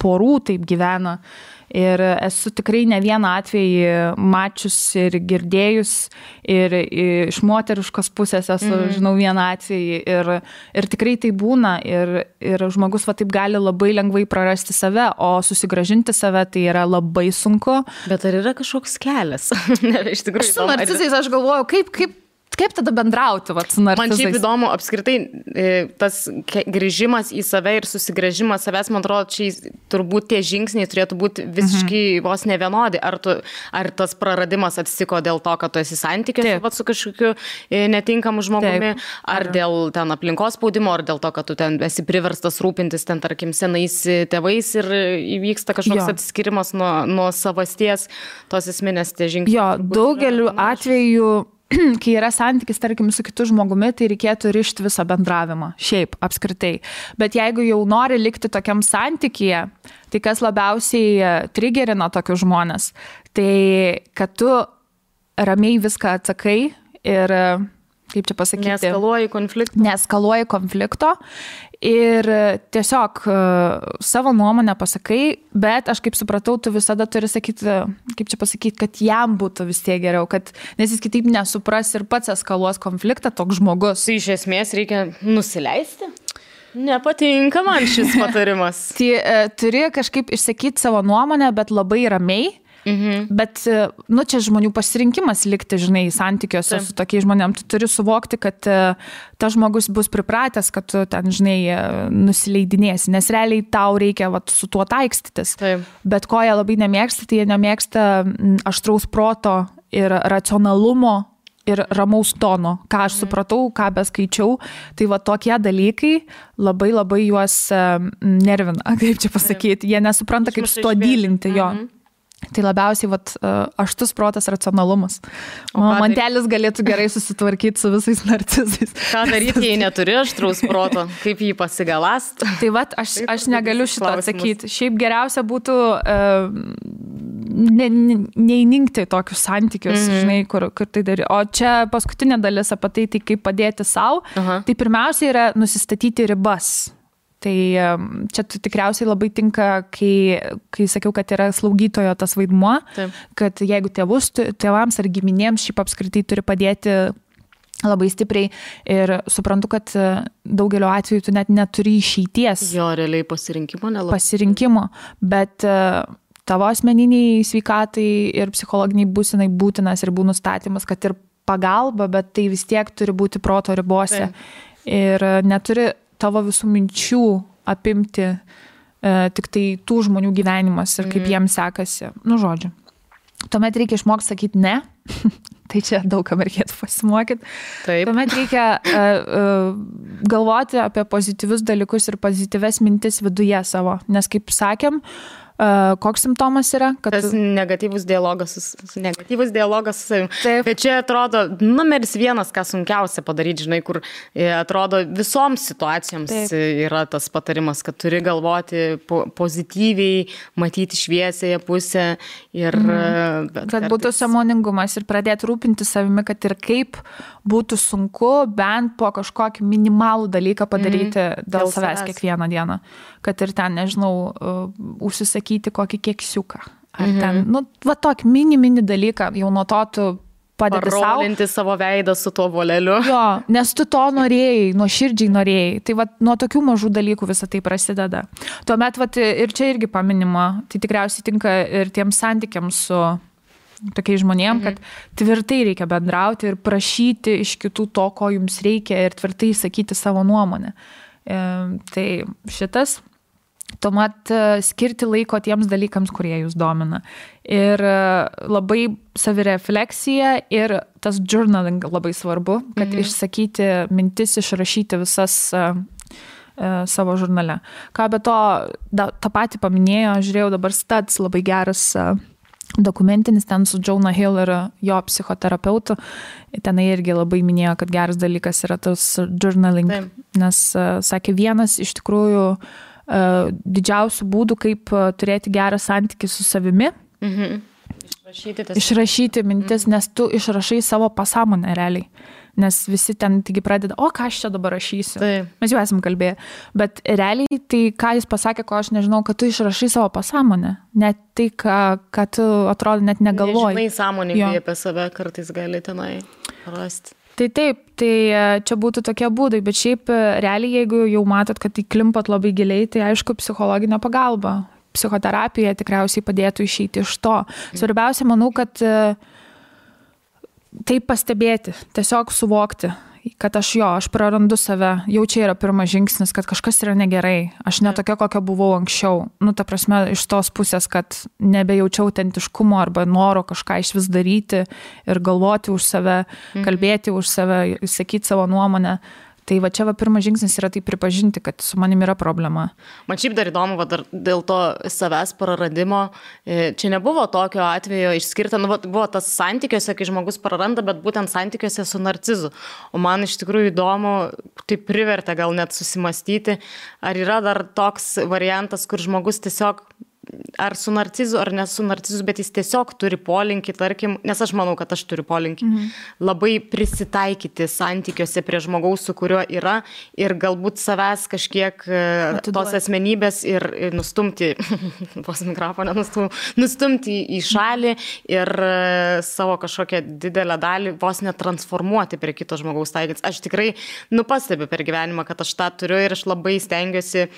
porų taip gyvena. Ir esu tikrai ne vieną atvejį mačius ir girdėjus ir iš moteriškos pusės esu, žinau, vieną atvejį ir tikrai tai būna ir žmogus taip gali labai lengvai prarasti save, o susigrąžinti save tai yra labai sunku. Bet ar yra kažkoks kelias? Iš tikrųjų, su narcizais aš galvoju, kaip tada bendrauti su narcizais? Man šiaip įdomu, apskritai, tas grįžimas į save ir susigrąžimas savęs, man atrodo, čia turbūt tie žingsniai turėtų būti visiškai vos nevienodi. Ar tas praradimas atsitiko dėl to, kad tu esi santykiuose su kažkokiu netinkamu žmogumi, ar dėl ten aplinkos spaudimo, ar dėl to, kad tu ten esi priverstas rūpintis ten, tarkim, senais tėvais ir įvyksta kažkoks atsiskirimas nuo savasties, tos esminės tie žingsniai. Daugeliu atveju kai yra santykis, tarkim, su kitu žmogumi, tai reikėtų rišti visą bendravimą, šiaip, apskritai. Bet jeigu jau nori likti tokiam santykyje, tai kas labiausiai trigerina tokius žmonės, tai kad tu ramiai viską atsakai ir, kaip čia pasakyti, neeskaluoji konflikto ir tiesiog savo nuomonę pasakai, bet aš kaip supratau, tu visada turi sakyti, kaip čia pasakyti, kad jam būtų vis tiek geriau, nes jis kitaip nesupras ir pats eskaluos konfliktą toks žmogus. Tai iš esmės reikia nusileisti? Nepatinka man šis patarimas. Tai turi kažkaip išsakyti savo nuomonę, bet labai ramiai. Bet, čia žmonių pasirinkimas likti, žinai, santykiuose su tokiais žmonėm. Tu turi suvokti, kad tas žmogus bus pripratęs, kad tu ten, žinai, nusileidinėsi, nes realiai tau reikia su tuo taikstytis. Bet ko jie labai nemėgsta, tai jie nemėgsta aštraus proto ir racionalumo ir ramaus tono. Ką aš supratau, ką beskaičiau, tai tokie dalykai labai labai juos nervina, kaip čia pasakyti. Jie nesupranta, kaip su tuo dylinti jo. Tai labiausiai aštus protas, racionalumas. Mantelis galėtų gerai susitvarkyti su visais narcizais. Ką daryti, jei neturi aštraus proto? Kaip jį pasigalast? Tai aš negaliu šito atsakyti. Šiaip geriausia būtų neįninkti tokius santykius, žinai, kur tai daryti. O čia paskutinė dalis apie tai kaip padėti savo. Tai pirmiausia yra nusistatyti ribas. Tai čia tikriausiai labai tinka, kai sakiau, kad yra slaugytojo tas vaidmuo, kad jeigu tėvams ar giminėms šiaip apskritai turi padėti labai stipriai ir suprantu, kad daugelio atveju tu net neturi išeities. Jo, realiai pasirinkimo nelabai. Pasirinkimo, bet tavo asmeniniai sveikatai ir psichologiniai būsenai būtinas ribų nustatymas, kad ir pagalba, bet tai vis tiek turi būti proto ribose. Ir neturi tavo visų minčių apimti tik tai tų žmonių gyvenimas ir kaip jiems sekasi. Žodžiu. Tuomet reikia išmokti sakyti ne. Tai čia daug kam reikėtų pasimokyti. Tuomet reikia galvoti apie pozityvius dalykus ir pozityves mintis viduje savo. Nes kaip sakėm, koks simptomas yra? Tas negatyvus dialogas su savim. Bet čia atrodo numeris vienas, ką sunkiausia padaryti, žinai, kur atrodo visoms situacijoms yra tas patarimas, kad turi galvoti pozityviai, matyti šviesėje pusę ir... Kad būtų sąmoningumas ir pradėti rūpinti savimi, kad ir kaip būtų sunku bent po kažkokį minimalų dalyką padaryti dėl savęs kiekvieną dieną. Kad ir ten, nežinau, užsisakyti kokį keksiuką. Ar ten, tokį mini dalyką, jau nuo to tu padedi savo. Parolinti savo veidą su tuo voleliu. Jo, nes tu to norėjai, nuoširdžiai norėjai. Tai nuo tokių mažų dalykų visą tai prasideda. Tuomet, ir čia irgi paminima, tai tikriausiai tinka ir tiems santykiams su tokiais žmonėm, kad tvirtai reikia bendrauti ir prašyti iš kitų to, ko jums reikia ir tvirtai sakyti savo nuomonę. Tai šitas, tuomet skirti laiko tiems dalykams, kurie jūs domina. Ir labai savirefleksija ir tas journaling labai svarbu, kad išsakyti mintis, išrašyti visas savo žurnale. Ką be to, tą patį paminėjo, žiūrėjau dabar Studs, labai geras dokumentinis ten su Jonah Hill ir jo psichoterapeutu. Tenai irgi labai minėjo, kad geras dalykas yra tas journaling, nes sakė, vienas iš tikrųjų didžiausių būdų, kaip turėti gerą santykį su savimi. Išrašyti mintis, nes tu išrašai savo pasąmonę realiai. Nes visi ten taigi pradeda, ką aš čia dabar rašysiu. Mes jau esam kalbėję. Bet realiai tai, ką jis pasakė, ko aš nežinau, kad tu išrašai savo pasąmonę. Net tai, ką tu atrodo net negalvoji. Nežinai sąmoningai apie save, kartais gali tenai rasti. Tai taip, tai čia būtų tokie būdai, bet šiaip realiai, jeigu jau matot, kad įklimpat labai giliai, tai aišku, psichologinė pagalba. Psichoterapija tikriausiai padėtų išeiti iš to. Svarbiausia, manau, kad tai pastebėti, tiesiog suvokti, kad aš prarandu save, jau čia yra pirmas žingsnis, kad kažkas yra negerai, aš ne tokia, kokia buvau anksčiau, ta prasme, iš tos pusės, kad nebejaučiau autentiškumo arba noro kažką iš vis daryti ir galvoti už save, kalbėti už save, sakyti savo nuomonę, Tai va čia pirmas žingsnis yra tai pripažinti, kad su manim yra problema. Man šiaip dar įdomu, dar dėl to savęs praradimo, čia nebuvo tokio atvejo išskirta, buvo tas santykiuose, kai žmogus praranda, bet būtent santykiuose su narcizu. O man iš tikrųjų įdomu, tai privertė gal net susimastyti, ar yra dar toks variantas, kur žmogus tiesiog ar su narcizu, ar ne su narcizu, bet jis tiesiog turi polinkį, tarkim, nes aš manau, kad aš turiu polinkį, labai prisitaikyti santykiuose prie žmogaus, su kuriuo yra ir galbūt savęs kažkiek tos asmenybės ir nustumti, vos mikrofoną nustumti į šalį ir savo kažkokią didelę dalį vos netransformuoti prie kito žmogaus taikyti. Aš tikrai pastebiu per gyvenimą, kad aš tą turiu ir aš labai stengiuosi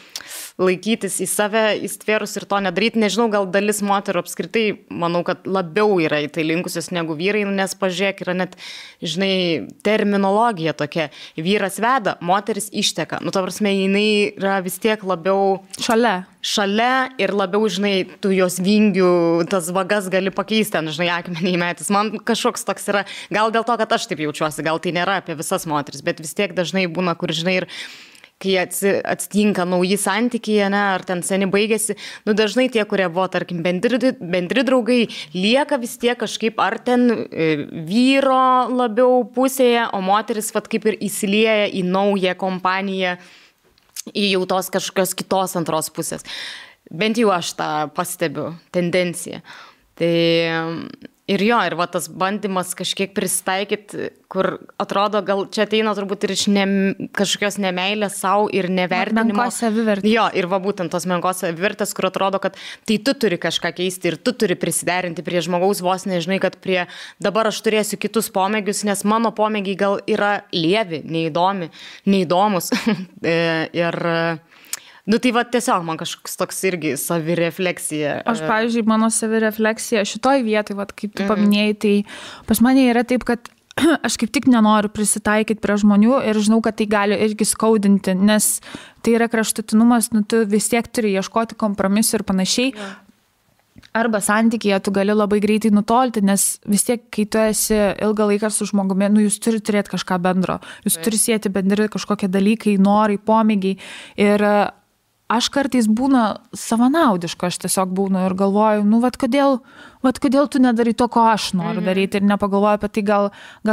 laikytis į save, įstvėrus ir to nedaryti. Nežinau, gal dalis moterų apskritai, manau, kad labiau yra į tai linkusios negu vyrai, nes pažiūrėk, yra net, žinai, terminologija tokia. Vyras veda, moteris išteka. Ta prasme, jinai yra vis tiek labiau šalia ir labiau, žinai, tu jos vingių, tas vagas gali pakeisti, ten, žinai, akmenį įmetis. Man kažkoks toks yra, gal dėl to, kad aš taip jaučiuosi, gal tai nėra apie visas moteris, bet vis tiek dažnai būna, kur, žinai, ir kai atsitinka nauji santykiai, ar ten seni baigėsi, dažnai tie, kurie buvo, tarkim, bendri draugai, lieka vis tiek kažkaip ar ten vyro labiau pusėje, o moteris kaip ir įsilieja į naują kompaniją, į jau tos kažkokios kitos antros pusės. Bent jau aš tą pastebiu, tendenciją. Tai ir tas bandymas kažkiek prisitaikyti, kur atrodo, gal čia ateina turbūt ir iš kažkokios nemeilės savo ir nevertinimo. Menkos savivertės. Jo, ir būtent tos menkos savivertės, kur atrodo, kad tai tu turi kažką keisti ir tu turi prisiderinti prie žmogaus, vos nežinai, kad dabar aš turėsiu kitus pomėgius, nes mano pomėgiai gal yra lievi, neįdomus. Ir tai tiesiog man kažkoks toks irgi savirefleksija. Aš, pavyzdžiui, mano savirefleksija šitoj vietoj, kaip tu paminėjai, tai pas mane yra taip, kad aš kaip tik nenoriu prisitaikyti prie žmonių ir žinau, kad tai gali irgi skaudinti, nes tai yra kraštutinumas, tu vis tiek turi ieškoti kompromisų ir panašiai. Arba santykyje tu gali labai greitai nutolti, nes vis tiek, kai tu esi ilgą laiką su žmogumi, jūs turi turėti kažką bendro, jūs turi sieti bendri kažkokie dalykai, norai, pomėgiai. Ir aš kartais būna savanaudiška, aš tiesiog būnu ir galvoju, kodėl tu nedarai to, ko aš noriu daryti ir nepagalvoju apie tai, gal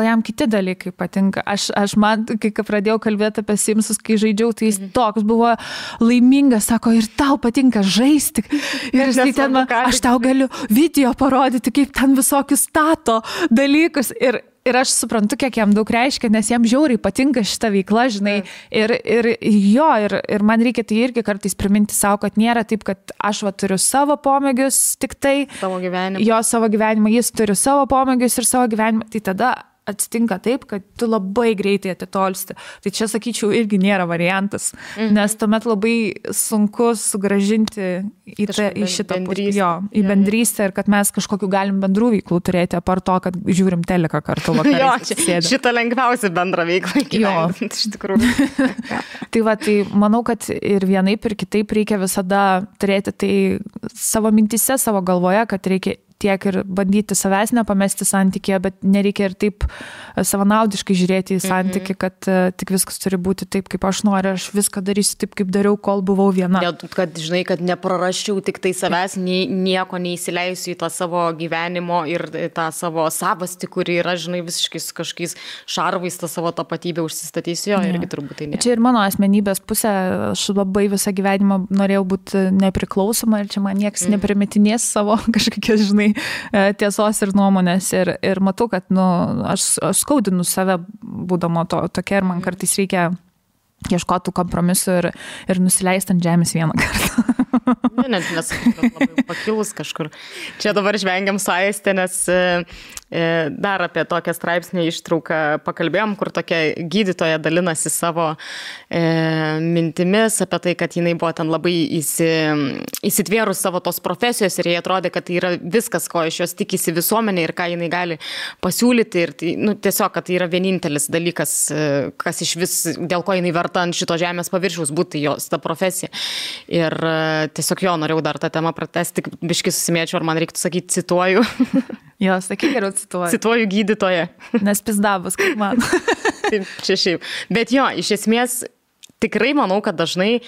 jam kiti dalykai patinka. Aš man, kai pradėjau kalbėti apie Simsus, kai žaidžiau, tai jis toks buvo laimingas, sako, ir tau patinka žaisti. Ir aš tau galiu video parodyti, kaip ten visokius stato dalykus. Ir aš suprantu, kiek jam daug reiškia, nes jam žiauriai patinka šita veikla, žinai. Ir man reikia tai irgi kartais priminti savo, kad nėra taip, kad aš turiu savo pomėgius tik tai. Savo gyvenimą. Savo gyvenimą, jis turi savo pomėgius ir savo gyvenimą. Tai tada atsitinka taip, kad tu labai greitai atitolsti. Tai čia, sakyčiau, irgi nėra variantas, nes tuomet labai sunku sugrąžinti į šitą pusę, į bendrystę ir kad mes kažkokiu galim bendrų veiklų turėti, apart to, kad žiūrim teleką kartu vakarais. Šitą lengviausia bendra veikla gyventi, iš tikrųjų. Tai manau, kad ir vienaip ir kitaip reikia visada turėti tai savo mintyse, savo galvoje, kad reikia tiek ir bandyti savęs nepamesti santykėje, bet nereikia ir taip savanaudiškai žiūrėti į santykį, kad tik viskas turi būti taip, kaip aš noriu, aš viską darysiu taip, kaip dariau, kol buvau viena. Kad, žinai, kad neprarasčiau tik tai savęs, nieko neįsileisiu į tą savo gyvenimo ir tą savo savastį, kuri yra, žinai, visiškai su kažkokiais šarvais tą savo tapatybę užsistatysiu, irgi turbūt tai ne. Čia ir mano asmenybės pusė, aš labai visą gyvenimą norėjau būti nepriklausoma ir čia man niekas neprimetinės savo kažkokias, žinai, tiesos ir nuomonės ir matau, kad aš skaudinu save būdama tokia ir man kartais reikia ieškoti kompromisų ir nusileisti ant žemės vieną kartą. Net labai pakilus kažkur. Čia dabar žvengiam su Aiste, nes dar apie tokią straipsnį ištrauką pakalbėjom, kur tokia gydytoja dalinasi savo mintimis apie tai, kad jinai buvo ten labai įsitvėrus savo tos profesijos ir jai atrodė, kad tai yra viskas, ko iš jos tikisi visuomenė ir ką jinai gali pasiūlyti ir tai, tiesiog, kad tai yra vienintelis dalykas, kas iš vis, dėl ko jinai verta ant šito žemės paviršiaus būti jos ta profesija. Ir tiesiog norėjau dar tą temą pratesti, tik biškai susimėčiau, ar man reiktų sakyti, cituoju. Jo, sakyk, geriau cituoju. Cituoju gydytoją. Nes pizdavus, kaip man. Taip, čia šiaip. Bet jo, iš esmės, tikrai manau, kad dažnai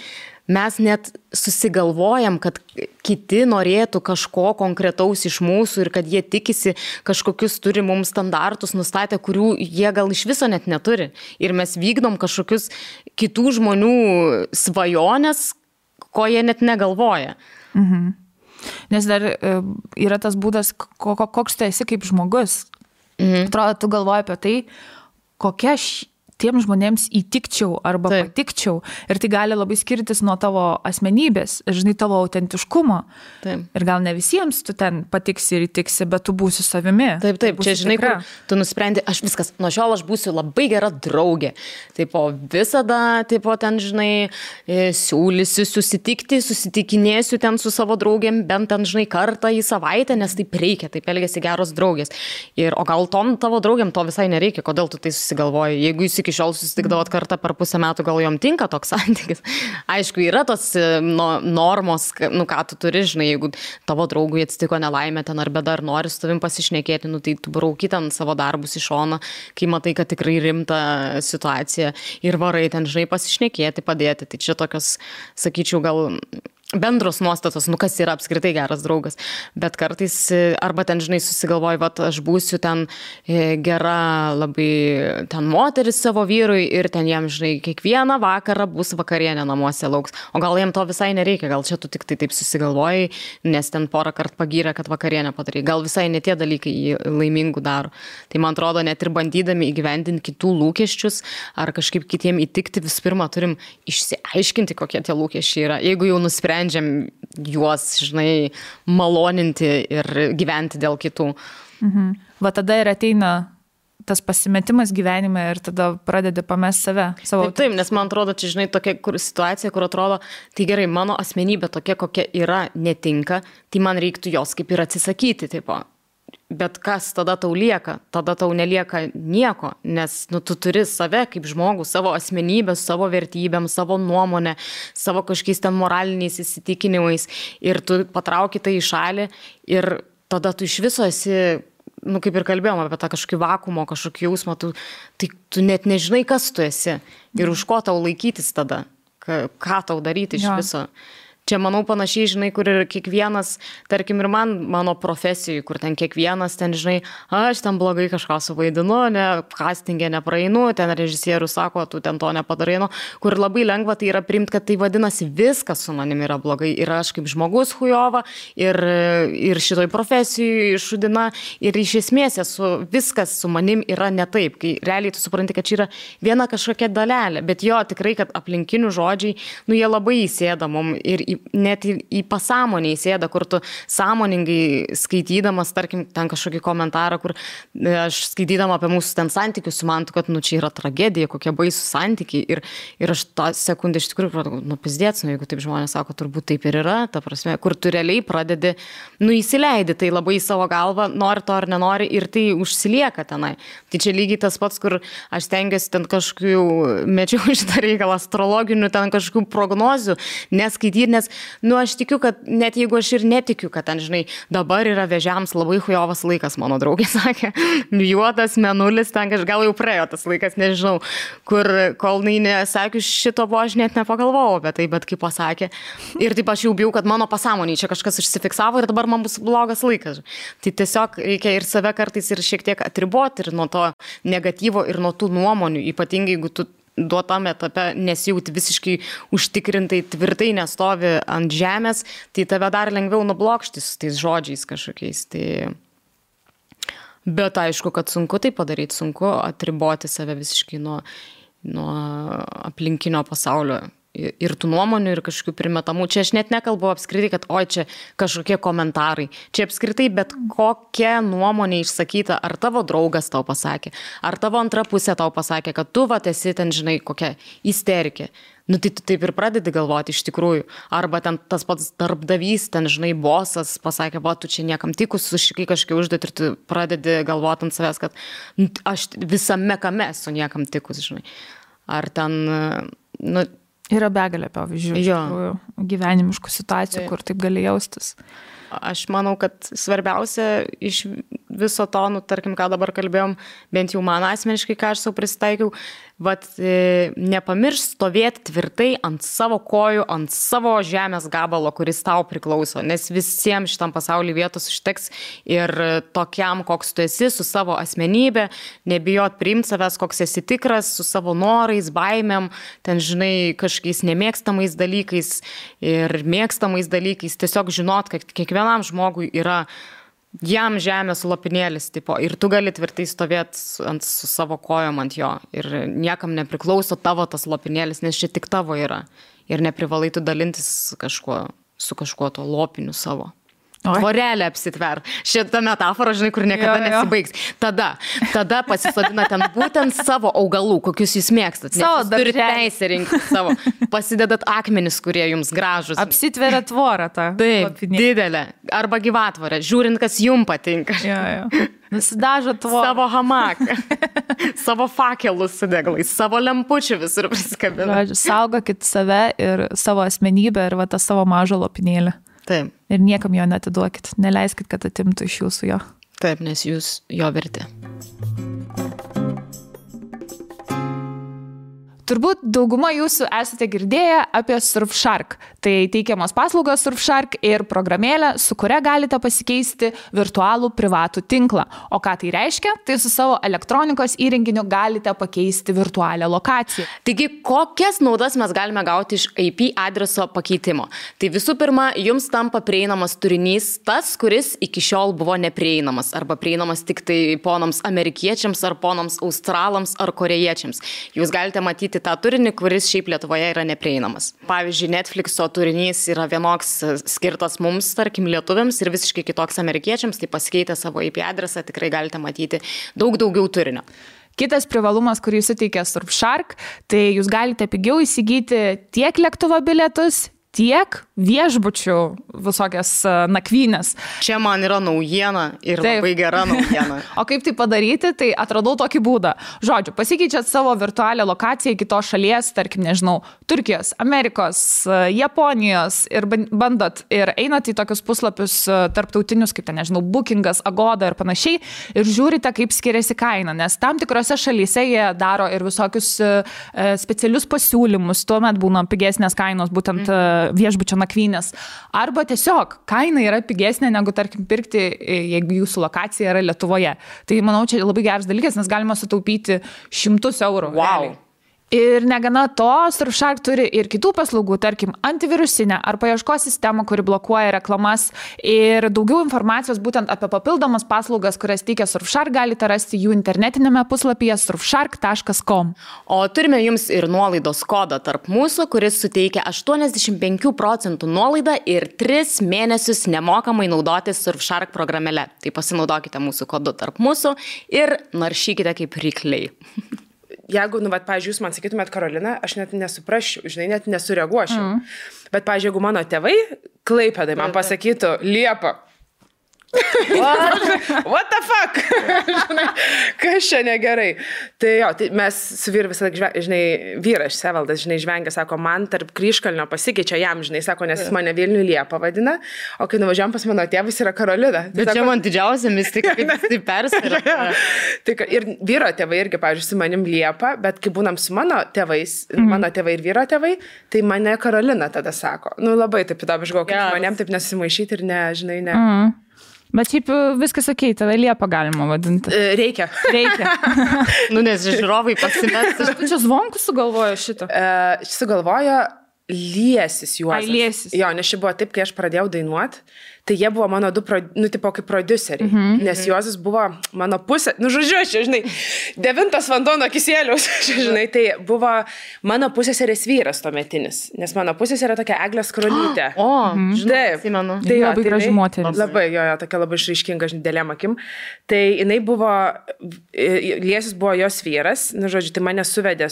mes net susigalvojam, kad kiti norėtų kažko konkretaus iš mūsų ir kad jie tikisi kažkokius turi mums standartus nustatę, kurių jie gal iš viso net neturi. Ir mes vykdom kažkokius kitų žmonių svajonės, ko jie net negalvoja. Mhm. Nes dar yra tas būdas, koks tu esi kaip žmogus. Atrodo, tu galvoji apie tai, kokia tiem žmonėms įtikčiau arba patikčiau. Ir tai gali labai skirtis nuo tavo asmenybės, žinai, tavo autentiškumo. Taip. Ir gal ne visiems tu ten patiksi ir įtiksi, bet tu būsi savimi. Taip, čia žinai, kur tu nusprendi, aš viskas, nuo šiol aš būsiu labai gera draugė. Taip, visada, taip, ten, žinai, siūlysiu susitikinėsiu ten su savo draugėm, bent ten, žinai, kartą į savaitę, nes taip reikia, taip elgiasi geros draugės. O gal tom tavo draugėm to visai nereikia, kodėl tu tai susigalvoji? Jeigu jūs iki šiol susitikdavot kartą per pusę metų, gal jom tinka toks santykis. Aišku, yra tos normos, ką tu turi, žinai, jeigu tavo draugui atsitiko nelaimė ten ar bėda, ar nori su tavim pasišnekėti, tai tu brauki ten savo darbus į šoną, kai matai, kad tikrai rimta situacija ir varai ten, žinai, pasišnekėti, padėti. Tai čia tokios, sakyčiau, gal bendros nuostatos, kas yra apskritai geras draugas. Bet kartais, arba ten, žinai, susigalvoji, aš būsiu ten gera labai ten moteris savo vyrui ir ten jam, žinai, kiekvieną vakarą bus vakarienė namuose lauks. O gal jam to visai nereikia, gal čia tu tik tai taip susigalvoji, nes ten porą kartų pagyrė, kad vakarienę padarai. Gal visai ne tie dalykai jį laimingų daro. Tai man atrodo, net ir bandydami įgyvendinti kitų lūkesčius ar kažkaip kitiem įtikti, visų pirma, turim išsiaiškinti, kokie tie lūkesčiai yra. Jeigu jau nusprendžiam juos, žinai, maloninti ir gyventi dėl kitų. Mhm. Va tada ir ateina tas pasimetimas gyvenime ir tada pradedi pamest save. Taip, nes man atrodo, čia, žinai, tokia situacija, kur atrodo, tai gerai, mano asmenybė tokia, kokia yra, netinka, tai man reiktų jos kaip ir atsisakyti, tipo. Bet kas tada tau lieka? Tada tau nelieka nieko, nes tu turi save kaip žmogų, savo asmenybę, savo vertybėm, savo nuomonę, savo kažkokiais ten moraliniais įsitikinimais ir tu patrauki tai į šalį ir tada tu iš viso esi, kaip ir kalbėjom apie tą kažkokį vakumo, kažkokį jausmą, tu net nežinai, kas tu esi ir už ko tau laikytis tada, ką tau daryti iš viso. Čia, manau, panašiai, žinai, kur ir kiekvienas, tarkim, ir mano profesijai, kur ten kiekvienas, ten, žinai, aš ten blogai kažką suvaidinu, castingė nepraeinu, ten režisierius sako, tu ten to nepadarai, kur labai lengva tai yra priimti, kad tai vadinasi viskas su manim yra blogai. Ir aš kaip žmogus hujova, ir šitoj profesijai šudina, ir iš esmės viskas su manim yra ne taip, kai realiai tu supranti, kad čia yra viena kažkokia dalelė, bet jo, tikrai, kad aplinkinių žodžiai, jie labai įsėda mum ir net į pasąmonę įsėda, kur tu sąmoningai skaitydamas, tarkim, ten kažkokį komentarą, kur aš skaitydama apie mūsų ten santykius, sumantu, kad čia yra tragedija, kokie baisų santykiai ir aš tą sekundę iš tikrųjų pradėjau, pizdėts, jeigu taip žmonės sako, turbūt taip ir yra, ta prasme, kur tu realiai pradedi, įsileidi tai labai į savo galvą, nori to ar nenori ir tai užsilieka tenai. Tai čia lygiai tas pats, kur aš stengiuosi ten kažkokių, mečiau šitą reikalą, astrologinių ten kažkokių prognozių, neskaityti, nes aš tikiu, kad net jeigu aš ir netikiu, kad ten, žinai, dabar yra vėžiams labai hujovas laikas, mano draugė sakė, juodas mėnulis, ten gal jau praėjo tas laikas, nežinau, kur kol nesakius šito buvo, aš net nepagalvojau apie tai, bet kaip pasakė. Ir taip aš jau bijau, kad mano pasąmonėje čia kažkas užsifiksavo ir dabar man bus blogas laikas. Tai tiesiog reikia ir save kartais ir šiek tiek atriboti ir nuo to negatyvo ir nuo tų nuomonių, ypatingai jeigu tu duotame etape nesijauti visiškai užtikrintai, tvirtai nestovi ant žemės, tai tave dar lengviau nublokšti su tais žodžiais kažkokiais. Bet aišku, kad sunku tai padaryti, sunku atriboti save visiškai nuo aplinkinio pasaulio ir tų nuomonių, ir kažkokių primetamų. Čia aš net nekalbu apskritai, kad čia kažkokie komentarai. Čia apskritai bet kokia nuomonė išsakyta, ar tavo draugas tau pasakė, ar tavo antra pusė tau pasakė, kad tu esi ten, žinai, kokia isterikė. Tai tu taip ir pradedi galvoti iš tikrųjų. Arba ten tas pats darbdavys, ten, žinai, bosas pasakė, tu čia niekam tikus, sušikai kažkiek užduoti ir tu pradedi galvoti ant savęs, kad aš visame kame esu niekam tikus, žinai. Ar ten, Yra begalė pavyzdžių, iš tikrųjų, gyvenimiškų situacijų, kur taip gali jaustis. Aš manau, kad svarbiausia iš viso to, nu, tarkim, ką dabar kalbėjom, bent jau man asmeniškai, ką aš savo prisitaikiau, nepamiršk stovėti tvirtai ant savo kojų, ant savo žemės gabalo, kuris tau priklauso, nes visiems šitam pasaulyje vietos užteks ir tokiam, koks tu esi, su savo asmenybė, nebijot priimti savęs, koks esi tikras, su savo norais, baimėm, ten, žinai, kažkokiais nemėgstamais dalykais ir mėgstamais dalykais, tiesiog žinot, kad kiekvienam žmogui yra jam žemės lopinėlis, tipo, ir tu gali tvirtai stovėti su savo kojom ant jo ir niekam nepriklauso tavo tas lopinėlis, nes čia tik tavo yra ir neprivalai tu dalintis su kažkuo to lopiniu savo. Tvorelę apsitver. Šitą metaforą, žinai, kur niekada nesibaigs. Tada pasisodina ten būtent savo augalų, kokius jūs mėgstat. Savo turite teisę rinkti savo. Pasidedat akmenis, kurie jums gražus. Apsitveria tvorą tą. Taip, didelę. Arba gyvatvorę. Žiūrint, kas jums patinka. Nusidažo tvorą. Savo hamaką. Savo fakelus su deglais. Savo lempučių visur prisikabina. Saugokit save ir savo asmenybę ir va tą savo mažą lopinėlį. Taip. Ir niekam jo netiduokit. Neleiskit, kad atimtų iš jūsų jo. Taip, nes jūs jo verti. Turbūt dauguma jūsų esate girdėję apie Surfshark. Tai teikiamos paslaugos Surfshark ir programėlė, su kuria galite pasikeisti virtualų privatų tinklą. O ką tai reiškia? Tai su savo elektronikos įrenginiu galite pakeisti virtualią lokaciją. Taigi, kokias naudas mes galime gauti iš IP adreso pakeitimo? Tai visų pirma, jums tampa prieinamas turinys tas, kuris iki šiol buvo neprieinamas arba prieinamas tik tai ponams amerikiečiams ar ponams australams ar korėjiečiams. Jūs galite matyti tą turinį, kuris šiaip Lietuvoje yra neprieinamas. Pavyzdžiui, Netflixo turinys yra vienoks skirtas mums, tarkim, lietuviams ir visiškai kitoks amerikiečiams, tai pasikeitę savo IP adresą tikrai galite matyti daug daugiau turinio. Kitas privalumas, kurį suteikia Surfshark, tai jūs galite pigiau įsigyti tiek lėktuvo bilietus, tiek viešbučių visokias nakvynės. Čia man yra naujiena ir taip. Labai gera naujiena. O kaip tai padaryti, tai atradau tokį būdą. Žodžiu, pasikeičiat savo virtualią lokaciją į kitos šalies, tarkim, nežinau, Turkijos, Amerikos, Japonijos ir bandot ir einat į tokius puslapius tarptautinius, kaip ten, nežinau, Bookingas, Agoda ir panašiai ir žiūrite, kaip skiriasi kaina, nes tam tikrose šalyse jie daro ir visokius specialius pasiūlymus, tuomet būna pigesnės kainos, būtent viešbučio nakvynės. Arba tiesiog kaina yra pigesnė negu, tarkim, pirkti, jeigu jūsų lokacija yra Lietuvoje. Tai, manau, čia labai geras dalykas, nes galima sutaupyti 100 eurų. Wow. Ir negana to, Surfshark turi ir kitų paslaugų, tarkim, antivirusinę ar paieškos sistemą, kuri blokuoja reklamas. Ir daugiau informacijos būtent apie papildomas paslaugas, kurias teikia Surfshark, galite rasti jų internetinėme puslapyje surfshark.com. O turime jums ir nuolaidos kodą tarp mūsų, kuris suteikia 85% nuolaidą ir 3 mėnesius nemokamai naudotis Surfshark programėle. Tai pasinaudokite mūsų kodu tarp mūsų ir naršykite kaip rykliai. Jeigu, pavyzdžiui, jūs man sakytumėt Karolina, aš net nesuprasčiau, žinai, net nesureaguočiau. Bet, pavyzdžiui, jeigu mano tėvai Klaipėdai man pasakytų Liepa. What the fuck? Žinai, kas čia negerai? Tai jo, tai mes su vyru visą, žinai, vyras Sevaldas, žinai, žvengia, sako, man tarp Kryžkalnio pasikeičia jam, žinai, sako, nes jis mane Vilnių Liepa vadina, o kai nuvažiuojam pas mano tėvus yra Karolina. Bet sako, čia man didžiausia mistika, kaip jis tai perspiria. Ir vyro tėvai irgi, pavyzdžiui, su manim Liepa, bet kai būnam su mano tėvais, mano tėvai ir vyro tėvai, tai mane Karolina tada sako. Nu, labai taip įdomu, žinau, kaip manėm taip nesimaišyti ir ne, žinai, ne. Bet šiaip viskas okei, tave Liepa galima vadinti. Reikia. Nes žiūrovai pasimest. Tu čia Zvonkus sugalvojo šitą? Sugalvojo Liesis Juozas. Ai, Liesis. Jo, nes čia buvo taip, kai aš pradėjau dainuoti, tai jie buvo mano tipo kaip prodiuseriai, nes Juozas buvo mano pusė, žodžiu, žinai, 9 vanduo nuo Kisieliaus, žinai, tai buvo mano pusėserės vyras tuometinis, nes mano pusėserė tokia Eglė Skrolytė. Žinai, atsimenu. Tai labai graži moteris. Labai, tokia labai išraiškinga, dėlėm akim. Tai jinai buvo, Liesis buvo jos vyras, žodžiu, tai mane suvedė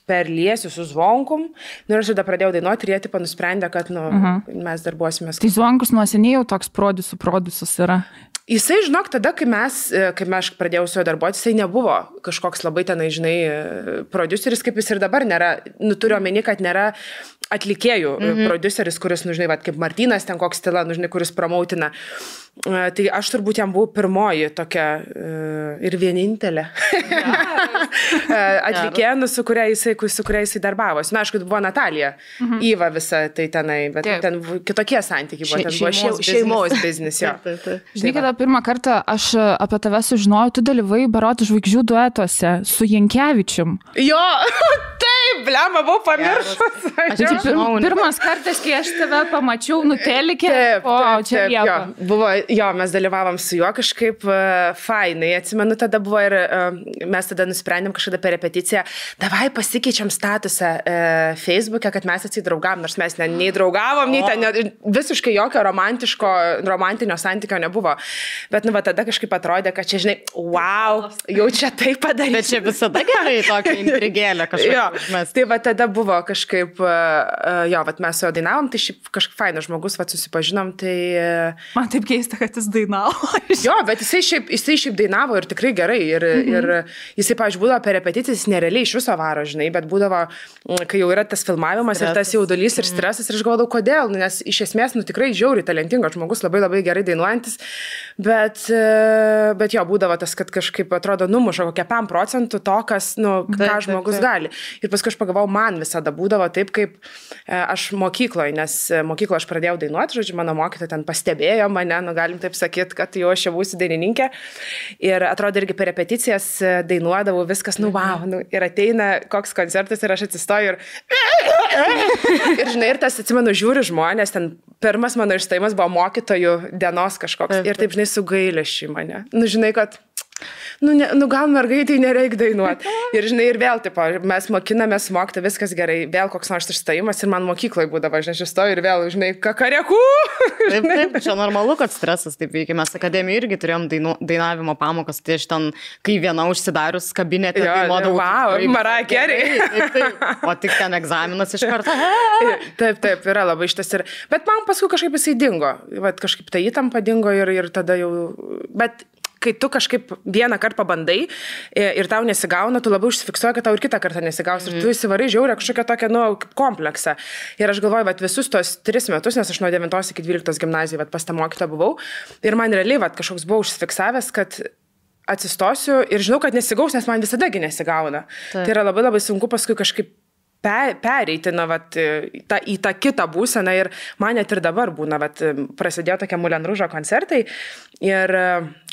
per Liesių su Zvonkum. Ir aš tada pradėjau dainuoti ir jie tipo nusprendė, kad mes darbuosimės. Tai Zvonkus nuo seniai jau toks prodiusas yra. Jisai, žinok, tada, kai aš pradėjau su juo darbuoti, jisai nebuvo kažkoks labai tenai, žinai, prodiuseris, kaip jis ir dabar nėra. Turiu omeny, kad nėra atlikėjų prodiuseris, kuris, žinai, kaip Martynas ten koks stila, žinai, kuris promautina. Tai aš turbūt jam buvau pirmoji tokia ir vienintelė atlikėja, su kuria jisai darbavosi. Na, aišku, buvo Natalija, Iva visa tai tenai, bet ten kitokie santykiai buvo. Ten buvo šeimos biznis, jo. Žinai, kada pirmą kartą aš apie tave sužinojau, tu dalyvai Barotų žvaigždžių duetuose su Jankevičium. Jo, taip, blema, buvau pamiršus. Pirmas kartas, kai aš tave pamačiau nutelikė, čia Liepa. Buvo, jo, mes dalyvavom su juo kažkaip fainai. Atsimenu, tada buvo ir mes tada nusprendėm kažkada per repeticiją, davai pasikeičiam statusą Facebook'e, kad mes atsidraugavom, nors mes nei draugavom, nei ten visiškai jokio romantinio santykio nebuvo. Bet, tada kažkaip atrodė, kad čia, žinai, wow, jau čia tai padaryti. Bet čia visada gerai tokia intrigėlė kažkaip. Tai tada buvo kažkaip, mes su juo dainavom, tai šiaip kažkaip fainas žmogus, susipažinom, tai... Man taip keista, kad jis dainavo. Jo, bet jisai šiaip dainavo ir tikrai gerai. Ir jisai, pavyzdžiui, būdavo per repeticijas, jis nerealiai iš viso varo, žinai, bet būdavo, kai jau yra tas filmavimas ir tas jaudulys ir stresas, ir aš galvodavau, kodėl, nes iš esmės, tikrai žiauriai talentingas žmogus, labai labai gerai dainuojantis, bet jo, būdavo tas, kad kažkaip atrodo numuša kokią 5% to, kas, ką žmogus gali. Ir paskui aš pagalvojau, man visada būdavo taip, kaip aš mokykloje, nes mokykloje aš pradėjau dainuoti, žodžiu, mano mokytoja ten pastebėjo mane, galim taip sakyti, kad jau aš jau būsiu dainininkė. Ir atrodo irgi per repeticijas dainuodavau viskas, wow, ir ateina koks koncertas ir aš atsistoju ir žinai, ir tas, atsimenu, žiūri žmonės, ten pirmas mano išstojimas buvo mokytojų dienos kažkoks ir taip, žinai, su gailesčiu mane. Žinai, kad gal mergaitai nereikia dainuoti. Ir žinai, ir vėl, tipo, mes mokinamės mokti, viskas gerai, vėl koks nors išstojimas ir man mokykloje būdavo, žinai, aš stoju ir vėl, žinai, kakarekų. Taip, čia normalu, kad stresas taip veikia. Mes akademijoje irgi turėjom dainavimo pamokas, tai aš ten, kai viena užsidarius kabinete, dainuodavau. Wow, Mariah Carey. Taip. O tik ten egzaminas iš karto. Taip, yra labai šitas ir... Bet man paskui kažkaip jisai dingo. Kažkaip ta įtampa dingo ir tada jau... Bet kai tu kažkaip vieną kartą pabandai ir tau nesigauna, tu labai užsifiksuoji, kad tau ir kitą kartą nesigaus. Ir tu įsivarai žiaurę kažkokią tokią, kompleksą. Ir aš galvoju, visus tos 3 metus, nes aš nuo 9 iki 12 gimnazijai pas tą mokytą buvau. Ir man realiai kažkoks buvo užsifiksavęs, kad atsistosiu ir žinau, kad nesigaus, nes man visadagi nesigauna. Tai yra labai labai sunku paskui kažkaip pereiti į tą kitą būseną ir man net ir dabar būna, prasidėjo tokie Moulin Rouge koncertai ir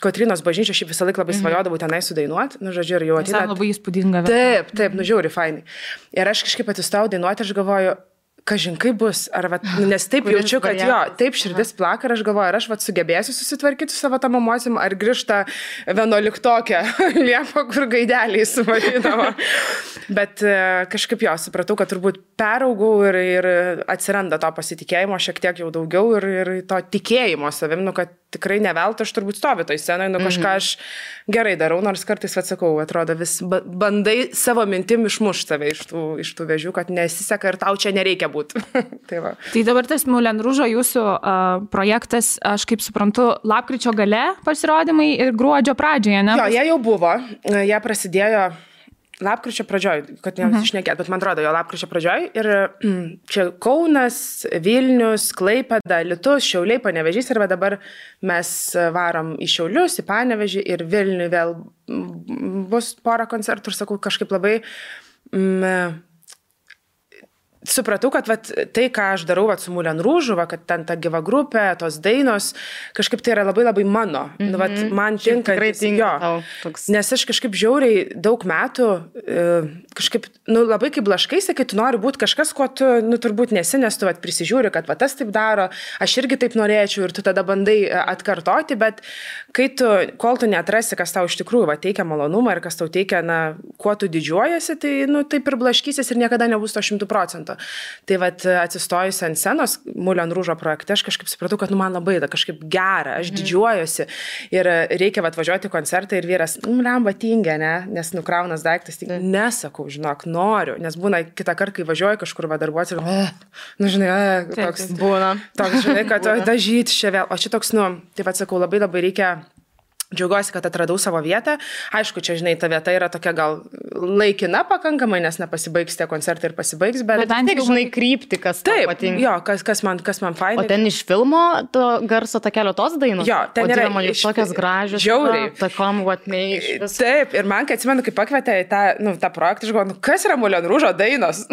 Kotrynos bažnyčia šiaip visą laiką labai svajodavau tenai sudainuoti, žodžiu, ir jau ateina. Labai įspūdinga. Taip, žiauri fainai. Ir aš kažkaip atsistojau dainuoti, aš galvoju, kažin kaip bus, nes taip jaučiu, kad jo, taip širdis plaka ir aš galvoju, ar aš sugebėsiu susitvarkyti su savo tam emocijom, ar grįžta 11-okė Liepa, kur gaideliai suvarydavo. Bet kažkaip jo, supratau, kad turbūt peraugau ir atsiranda to pasitikėjimo šiek tiek jau daugiau ir to tikėjimo savim, kad tikrai neveltui aš turbūt stoviu toj scenoje, kažką aš gerai darau, nors kartais, sakau, atrodo, vis bandai savo mintim išmušti save iš tų vėžių, kad nesiseka ir tau čia nereikia būti. Tai dabar tas Moulin Rouge jūsų projektas, aš kaip suprantu, lapkričio gale pasirodymai ir gruodžio pradžioje, ne? Jo, jie jau buvo, jie prasidėjo lapkričio pradžioj, kad nesušnekėt, bet man atrodo, jo lapkričio pradžioj ir čia Kaunas, Vilnius, Klaipėda, Alytus, Šiauliai, Panevėžys ir dabar mes varom į Šiaulius, į Panevėžį ir Vilnių vėl bus porą koncertų ir sakau, kažkaip labai supratau, kad tai, ką aš darau su Moulin Rouge, kad ten ta gyva grupė, tos dainos, kažkaip tai yra labai labai mano. Man tinka. Tikrai tinka. Nes aš kažkaip žiauriai daug metų, kažkaip, labai kaip blaškaisi, kai tu nori būti kažkas, ko tu, turbūt nesi, nes tu prisižiūri, kad tas taip daro, aš irgi taip norėčiau ir tu tada bandai atkartoti, bet kol tu neatrasi, kas tau iš tikrųjų teikia malonumą ir kas tau teikia, kuo tu didžiuojasi, tai taip ir blaškysis ir niekada nebus to 100%. Tai atsistojus ant scenos Moulin Rouge projekte, aš kažkaip supratau, kad man labai kažkaip gera, aš didžiuojuosi ir reikia važiuoti į koncertą ir vyras, lemba tingė, ne, nes nukraunas daiktas, tai nesakau, žinok, noriu, nes būna kitą kartą, kai važiuoju kažkur darbuotis ir, toks būna, toks, žinai, kad dažyti čia vėl, o čia toks, tai sakau, labai labai reikia Džiaugiuosi, kad atradau savo vietą. Aišku, čia, žinai, ta vieta yra tokia gal laikina pakankamai, nes nepasibaigs tie koncertai ir pasibaigs, bet bent jau žinai krypti, kas tau patinka. Jo, kas man fainai. O ten iš filmo to garso takelio tos dainos? Jo, ten yra iš tokias gražios. Žiauriai. Takom, vatmei. Taip, ir man, kai atsimenu, kai pakvietė į tą projektą, aš galvoju, kas yra Moulin Rouge'o dainos?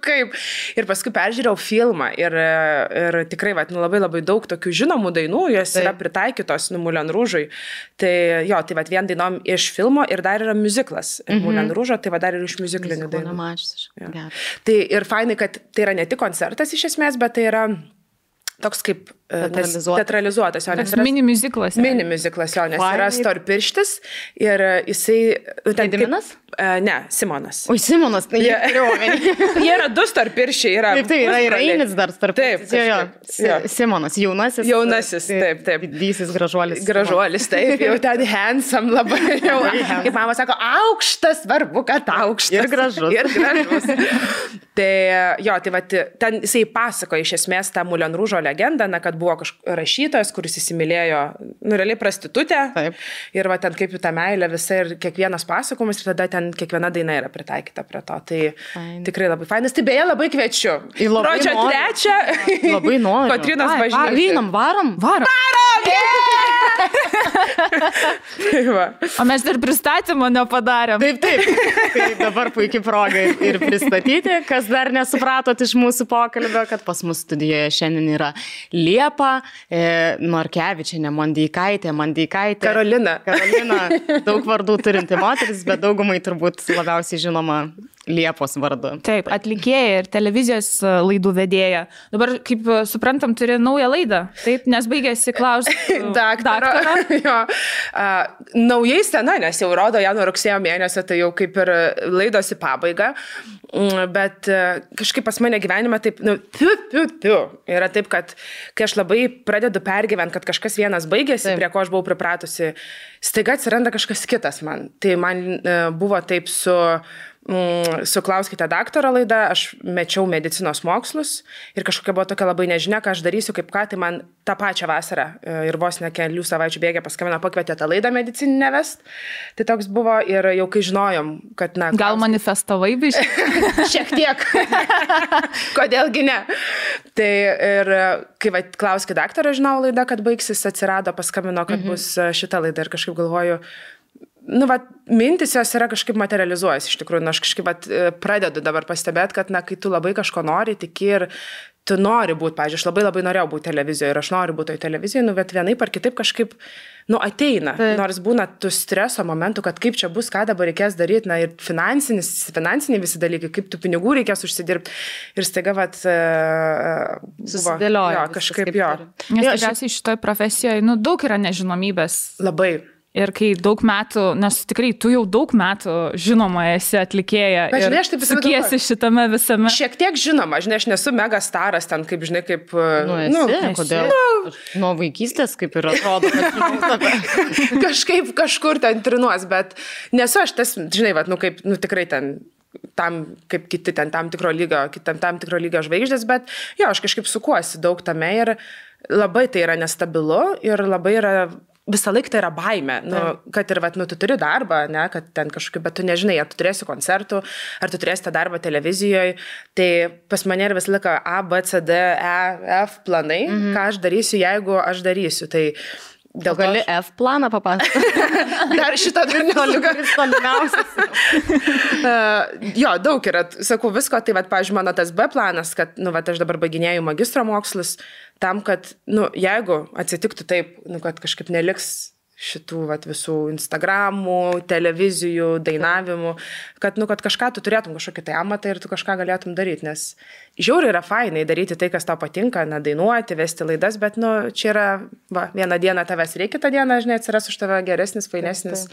Kaip? Ir paskui peržiūrėjau filmą ir tikrai, labai labai daug tokių žinomų dainų, jos yra pritaikytos Moulin Rouge'ui. Tai jo, tai vien dainom iš filmo ir dar yra muziklas Moulin Rouge'o, tai dar ir iš muziklinių dainų. Tai ir fainai, kad tai yra ne tik koncertas iš esmės, bet tai yra toks kaip teatralizuotas. Mini muziklas. Mini muziklas, jo, nes yra storpirštis ir jisai... Gediminas? Ne, Simonas. Oi, Simonas, tai jie yra du storpirščiai. Taip, tai yra Einis dar storpirštis. Taip, Simonas, jaunasis. Jaunasis, taip. Didysis gražuolis. Gražuolis, taip, jau ten handsome labai. Kaip mama sako, aukštas, svarbu, kad aukštas. Ir gražus. Ir gražus. Tai jo, tai va, ten jisai pasakoja iš esmės tą Moulin Rouge'o legendą, kad buvo rašytojas, kuris įsimylėjo, realiai prostitutę. Taip. Ir va ten kaip jų ta meilė visa ir kiekvienas pasakojimas ir tada ten kiekviena daina yra pritaikyta prie to. Tai tikrai labai fainas. Tai beje, labai kviečiu. Gruodžio 3. Labai noriu. Kotrynos bažnyčia. Varom. O mes dar pristatymą nepadarėm. Taip. Tai dabar puikiai proga ir pristatyti, kas dar nesupratot iš mūsų pokalbio, kad pas mus studijoje šiandien yra Liepa, Norkevičienė, Mandeikaitė. Karolina, daug vardų turinti moteris, bet daugumai turbūt labiausiai žinoma Liepos vardu. Taip, atlikėja ir televizijos laidų vedėja. Dabar, kaip suprantam, turi naują laidą. Taip, nes baigėsi klausti daktaro. Naujai sena, nes jau rodo ją nuo rugsėjo mėnesio, tai jau kaip ir laidos į pabaigą. Bet kažkaip pas mane gyvenime taip, yra taip, kad kai aš labai pradedu pergyventi, kad kažkas vienas baigėsi, prie ko aš buvau pripratusi, staiga atsiranda kažkas kitas man. Tai man buvo taip su Klauskite daktaro laida, aš mečiau medicinos mokslus ir kažkokia buvo tokia labai nežinia, ką aš darysiu, kaip ką, tai man tą pačią vasarą ir vos ne kelių savaičių bėgė paskambino, pakvietė tą laidą medicininę vest. Tai toks buvo ir jau kai žinojom, kad gal manifestavai biškai? Šiek tiek. Kodėlgi ne? Tai ir kai Klauskite daktaro žinau laida, kad baigsis, atsirado, paskambino, kad bus šita laida ir kažkaip galvoju, mintis jos yra kažkaip materializuojas iš tikrųjų, aš kažkaip pradedu dabar pastebėti, kad kai tu labai kažko nori, tiki ir tu nori būti, pavyzdžiui, aš labai labai norėjau būti televizijoje ir aš noriu būti toje televizijoje, bet vienaip ar kitaip kažkaip, ateina, nors būna tų streso momentų, kad kaip čia bus, ką dabar reikės daryti, ir finansiniai visi dalykai, kaip tų pinigų reikės užsidirbti ir staiga, susidėlioja. Kažkaip jo. Nes tikriausiai šitoje profesijoje, daug yra nežinomybės. Labai. Ir kai daug metų, nes tikrai tu jau daug metų žinoma esi atlikėja ir sukiesi šitame visame. Šiek tiek žinoma, aš nesu mega staras ten, kaip žinai, kaip... Kodėl? Nuo vaikystės kaip ir atrodo, kad kažkaip kažkur ten trinuos, bet nesu aš tas, žinai, kaip, tikrai ten... tam, kaip kiti ten tam tikro lygio žvaigždės, bet jo, aš kažkaip sukuosi daug tame ir labai tai yra nestabilu ir labai yra... Visą laiką tai yra baimė, kad ir tu turi darbą, kad ten kažkokiu, bet tu nežinai, ar tu turėsi koncertų, ar tu turėsi tą darbą televizijoje. Tai pas mane yra visą laiką A, B, C, D, E, F planai, ką aš darysiu, jeigu aš darysiu. Tai dėl gali F planą papasakoti. Dar šitą tolimiausias. Jo, daug yra, sakau, visko. Tai, pavyzdžiui, mano tas B planas, kad, aš dabar baiginėju magistro mokslus, tam, kad, jeigu atsitiktų taip, kad kažkaip neliks šitų visų Instagramų, televizijų, dainavimų, kad kažką tu turėtum kažkokį tai amatą ir tu kažką galėtum daryti, nes žiauriai yra fainai daryti tai, kas tau patinka, dainuoti, vesti laidas, bet, čia yra, vieną dieną tavęs reikia, kitą dieną, žinai, atsiras už tave geresnis, fainesnis,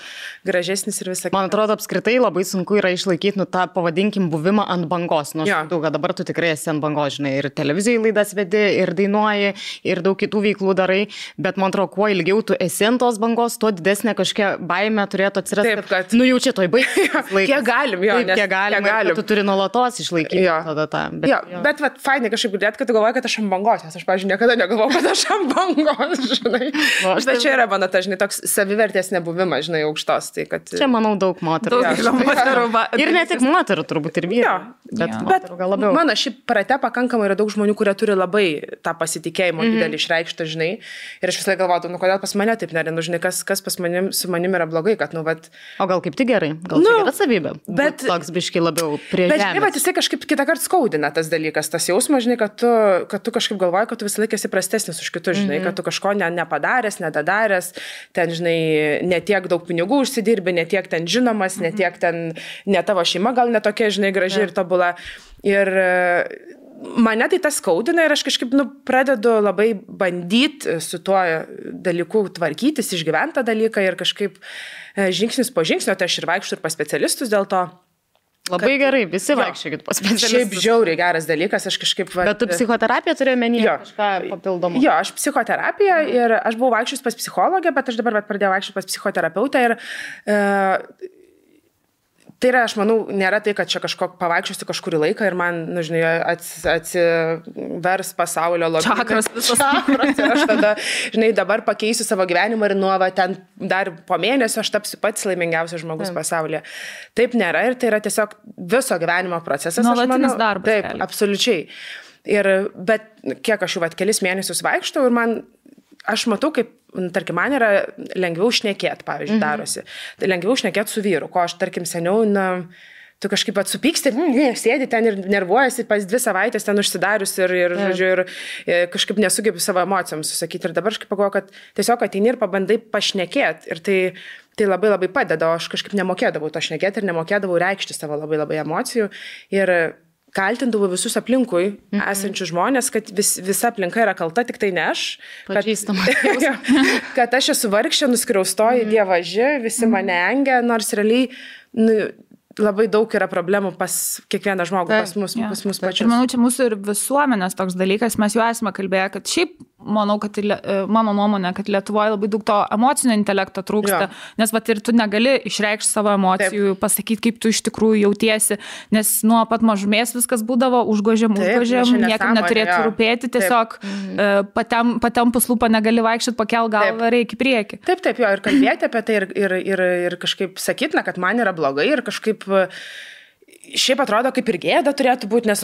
gražesnis ir visą. Man atrodo, apskritai labai sunku yra išlaikyti, tą pavadinkim buvimą ant bangos, kad dabar tu tikrai esi ant bangos, žinai, ir televizijai laidas vedi, ir dainuoji, ir daug kitų veiklų darai, bet man atrodo, kuo ilgiau tu esi ant tos bangos, bangos, tuo didesnė kažkokia baimė turėtų atsirasti. Taip, kad... Nu, jau čia toj baigsis laikas. Kiek galim, jo. Taip, kiek galim. Tu turi nuolatos išlaikyti tada tą. Bet vat, fainai kažkaip girdėt, kad tu galvoji, kad aš ant bangos, nes aš, pavyzdžiui, niekada negalvoju, kad aš ant bangos, žinai. Bet čia yra mano, žinai, toks savivertės nebuvimas, žinai, aukštos. Tai, kad... Čia, manau, daug moterų. Ir ne tik moterų, turbūt ir vyrų. Bet mano šiaip prate pakankamai yra daug žmonių, kurie turi labai tą pasitikėjimą didelį išreikštą, žinai. Ir aš visą laiką galvoju, nu kodėl pas mane taip nėra, nu žinai, kas su manim yra blogai, kad, nu, vat... O gal kaip tik gerai, gal tai yra savybė, bet toks biškai labiau prie žemės. Bet, žinai, jisai kažkaip kitą kartą skaudina tas dalykas, tas jausmas, žinai, kad tu kažkaip galvoji, kad tu visą laiką esi prastesnis už kitus, žinai, kad tu kažko nepadaręs, nedadaręs, ten, žinai, netiek daug pinigų užsidirbi, netiek ten žinomas, netiek ten, ne tavo šeima gal netokia, žinai, graži ir tobula. Ir mane tai tas skaudina ir aš kažkaip, nu, pradedu labai bandyti su tuo dalyku tvarkytis, išgyventą dalyką ir kažkaip žingsnis po žingsnio, tai aš ir vaikščiu ir pas specialistus dėl to. Labai gerai, visi vaikščiokit pas specialistus. Šiaip žiauriai geras dalykas, aš kažkaip... Bet tu psichoterapiją turėjai menyje kažką papildomą? Jo, aš psichoterapiją ir aš buvau vaikščius pas psichologę, bet aš dabar pradėjau vaikščius pas psichoterapeutą ir... Tai yra, aš manau, nėra tai, kad čia kažko pavaikščiosiu kažkurį laiką ir man, nu, žinai, atsivers pasaulio lobį. Čakras visas. Čakras ir aš tada, žinai, dabar pakeisiu savo gyvenimą ir nuo ten dar po mėnesio aš tapsiu pats laimingiausias žmogus pasaulyje. Taip nėra ir tai yra tiesiog viso gyvenimo procesas. Nuolatinis darbas. Taip, absoliučiai. Bet kiek aš jau kelis mėnesius vaikštau ir aš matau, kaip, tarkim, man yra lengviau šnekėti, pavyzdžiui, darosi. Tai lengviau šnekėti su vyru, ko aš, tarkim, seniau, tu kažkaip atsupyksti, sėdi ten ir nervuojasi, pas 2 savaitės ten užsidarius ir kažkaip nesugebi savo emocijams susakyti. Ir dabar aš pagalvoju, kad tiesiog ateini ir pabandai pašnekėti. Ir tai labai labai padeda, o aš kažkaip nemokėdavau to šnekėti ir nemokėdavau reikšti savo labai labai emocijų. Ir kaltindavau visus aplinkui esančius žmonės, kad visa aplinka yra kalta, tik tai ne aš. Kad aš esu vargšė, nuskriaustoji dievaži, visi mane engia, nors realiai labai daug yra problemų pas kiekvieną žmogų, pas mus pačius. Ir manau, čia mūsų ir visuomenės toks dalykas, mes jau esame kalbėję, kad šiaip, manau, kad mano nuomonė, kad Lietuvoje labai daug to emocinio intelekto trūksta, nes vat ir tu negali išreikšti savo emocijų, pasakyti, kaip tu iš tikrųjų jautiesi, nes nuo pat mažumės viskas būdavo užgožiam, niekam neturėtų rūpėti, tiesiog patempus lūpą negali vaikščioti, pakel galvą, reikia į priekį. Taip, jo, ir kalbėti apie tai ir kažkaip sakytina, kad man yra blogai ir kažkaip šiaip atrodo, kaip ir gėda turėtų būti, nes,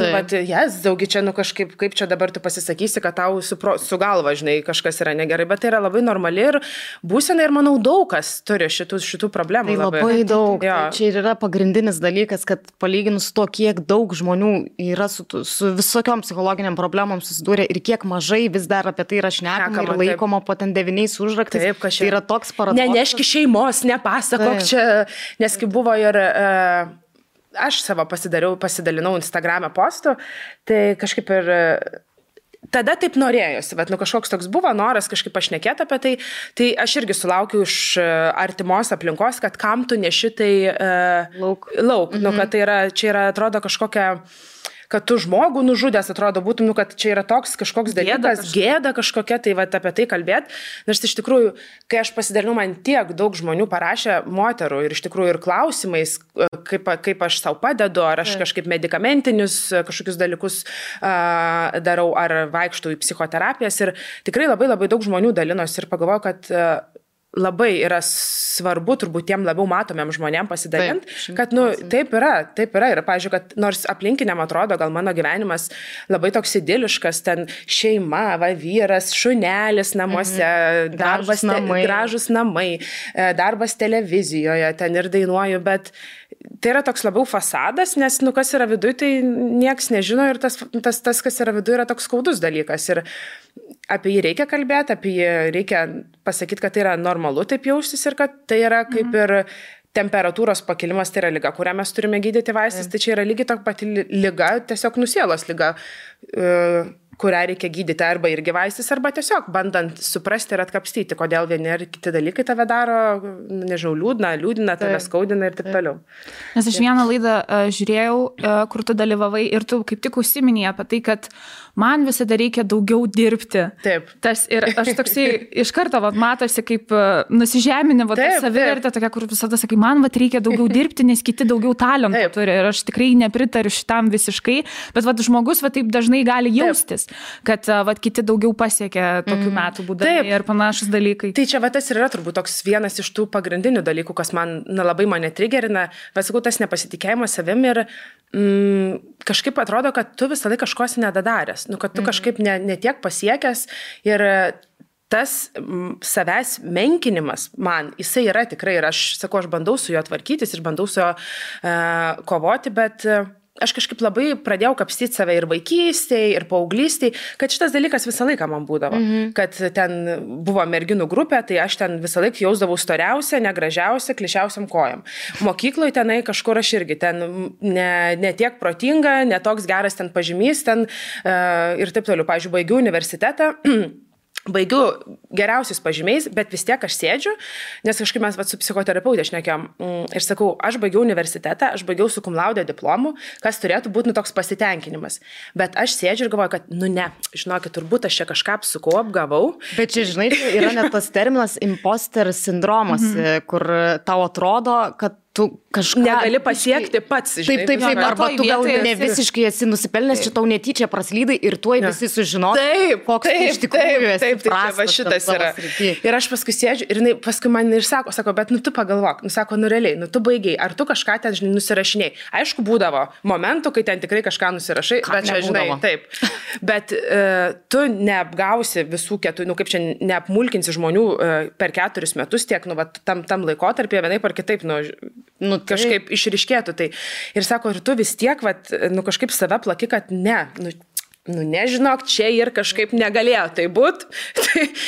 daugi čia, kažkaip, kaip čia dabar tu pasisakysi, kad tau su galva, žinai, kažkas yra negerai, bet tai yra labai normali ir būsena ir, manau, daug kas turi šitų problemų. Tai labai daug. Tai čia ir yra pagrindinis dalykas, kad palyginus to, kiek daug žmonių yra su visokiom psichologiniam problemom susidūrė ir kiek mažai vis dar apie tai yra šnekama ir laikoma po ten 9 užraktais. Taip, tai yra toks paradoksas. Neneški šeimos, nepasakok čia, nes kaip buvo ir... Aš savo pasidalinau Instagram'e postų, tai kažkaip ir tada taip norėjosi, bet kažkoks toks buvo noras kažkaip pašnekėti apie tai aš irgi sulaukiu iš artimos aplinkos, kad kam tu neši tai lauk. Kad čia yra, atrodo, kažkokia... kad tu žmogų nužudęs, atrodo, būtum, kad čia yra toks kažkoks dalykas, gėda kažkokia, tai apie tai kalbėti. Nes iš tikrųjų, kai aš pasidalinau, man tiek daug žmonių parašė moterų ir iš tikrųjų ir klausimais, kaip aš savo padedu, ar aš kažkaip medikamentinius kažkokius dalykus darau, ar vaikštau į psichoterapijas. Ir tikrai labai labai daug žmonių dalinosi ir pagalvojau, kad labai yra svarbu turbūt tiem labiau matomiem žmonėm pasidalinti, kad, taip yra. Ir, pavyzdžiui, kad nors aplinkiniam atrodo, gal mano gyvenimas labai toks idiliškas, ten šeima, vyras, šunelis namuose, gražus namai, darbas televizijoje, ten ir dainuoju, bet tai yra toks labiau fasadas, nes, kas yra viduje, tai nieks nežino ir tas, kas yra viduje, yra toks skaudus dalykas. Ir apie jį reikia kalbėti, apie jį reikia pasakyti, kad tai yra normalu taip jaustis ir kad tai yra kaip ir temperatūros pakilimas, tai yra liga, kurią mes turime gydyti vaistais, tai čia yra lygiai tokia pati liga, tiesiog nusielos liga. kurią reikia gydyti arba irgi vaistis, arba tiesiog bandant suprasti ir atkapstyti, kodėl vieni ar kiti dalykai tave daro, nežinau, liūdina, tave skaudina ir taip toliau. Nes aš vieną laidą žiūrėjau, kur tu dalyvavai ir tu kaip tik užsiminėjai apie tai, kad man visada reikia daugiau dirbti. Taip. Ir aš toksai iš karto matosi kaip nusižeminė, savivertė tokia, kur visada sakai, man reikia daugiau dirbti, nes kiti daugiau talentų turi. Ir aš tikrai nepritariu šitam visiškai, bet žmogus taip dažnai gali jaustis, kad kiti daugiau pasiekia tokių metų būdami ir panašus dalykai. Tai čia tas ir yra turbūt toks vienas iš tų pagrindinių dalykų, kas man labai mane trigerina, sakau, tas nepasitikėjimas savim ir kažkaip atrodo, kad tu visą laiką kažkos nedadaręs, kad tu kažkaip netiek pasiekęs ir tas savęs menkinimas man, jisai yra tikrai ir aš sakau, aš bandau su juo tvarkytis ir bandau su juo kovoti, bet aš kažkaip labai pradėjau kapstyti save ir vaikystėje, ir paauglystėje, kad šitas dalykas visą laiką man būdavo. Kad ten buvo merginų grupė, tai aš ten visą laiką jausdavau storiausią, negražiausią, klišiausiam kojam. Mokykloje tenai kažkur aš irgi ten ne tiek protinga, ne toks geras ten pažymys ten ir taip toliau. Pavyzdžiui, baigiau universitetą. Baigiu geriausius pažymiais, bet vis tiek aš sėdžiu, nes kažkaip mes su psichoterapeutė šnekėjom ir sakau, aš baigiau universitetą, aš baigiau su cum laude diplomu, kas turėtų būti toks pasitenkinimas. Bet aš sėdžiu ir galvoju, kad ne, žinokit, turbūt aš čia kažką apsukau, apgavau. Bet čia, žinai, yra net tas terminas imposter sindromas, kur tau atrodo, kad tu kažką negali pasiekti pats. Žinai, taip, arba tu gal ne visiškai esi nusipelnęs, čia tau netyčia praslydai ir tuoj visi sužinos, koks iš tikrųjų esi prastas. Šitas yra. Ir aš paskui sėdžiu ir paskui man ir sako, bet tu pagalvok, sako, realiai, tu baigiai, ar tu kažką ten, žinai, nusirašiniai. Aišku, būdavo momentų, kai ten tikrai kažką nusirašai, bet čia, žinai, taip. Bet tu neapgausi visų keturių, kaip čia neapmulkinsi žmonių per 4 metus tiek, tam laikotarpyje vienaip ar kitaip, kažkaip išryškėtų tai. Ir sako, ir tu vis tiek, kažkaip save plaki, kad nežinok, čia ir kažkaip negalėjo tai būti.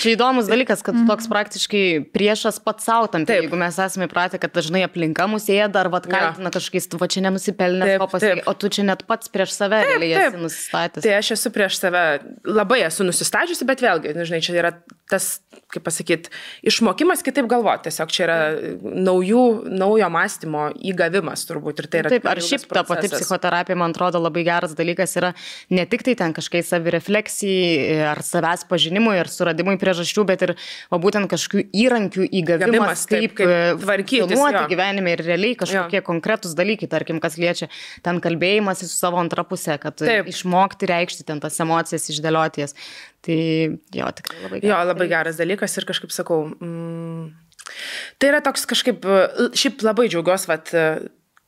Čia įdomus dalykas, kad toks praktiškai priešas pats savo tam. Jeigu mes esame įpratę, kad dažnai aplinka mus ėda ar kaltina kažkokiais, tu čia nenusipelnės, o tu čia net pats prieš save esi nusistatęs. Tai aš esu prieš save, labai esu nusistačiusi, bet vėlgi, žinai, čia yra tas, kaip pasakyti, išmokimas kitaip galvoti. Tiesiog čia yra naujo mąstymo įgavimas turbūt. Ir tai yra taip, ar šiaip ta pati psichoterapija, man atrodo, labai geras dalykas yra ne tik tai ten kažkai savirefleksijai ar savęs pažinimui ir suradimui priežasčių, bet ir būtent kažkokių įrankių įgavimas, kaip tvarkytis gyvenime ir realiai kažkokie konkretūs dalykai, tarkim, kas liečia ten kalbėjimas su savo antra pusė, kad išmokti reikšti ten tas emocijas, išdėlioti jas. Tai jo, tikrai labai geras. Jo, labai geras dalykas ir kažkaip sakau, tai yra toks kažkaip, šiaip labai džiaugiuosi,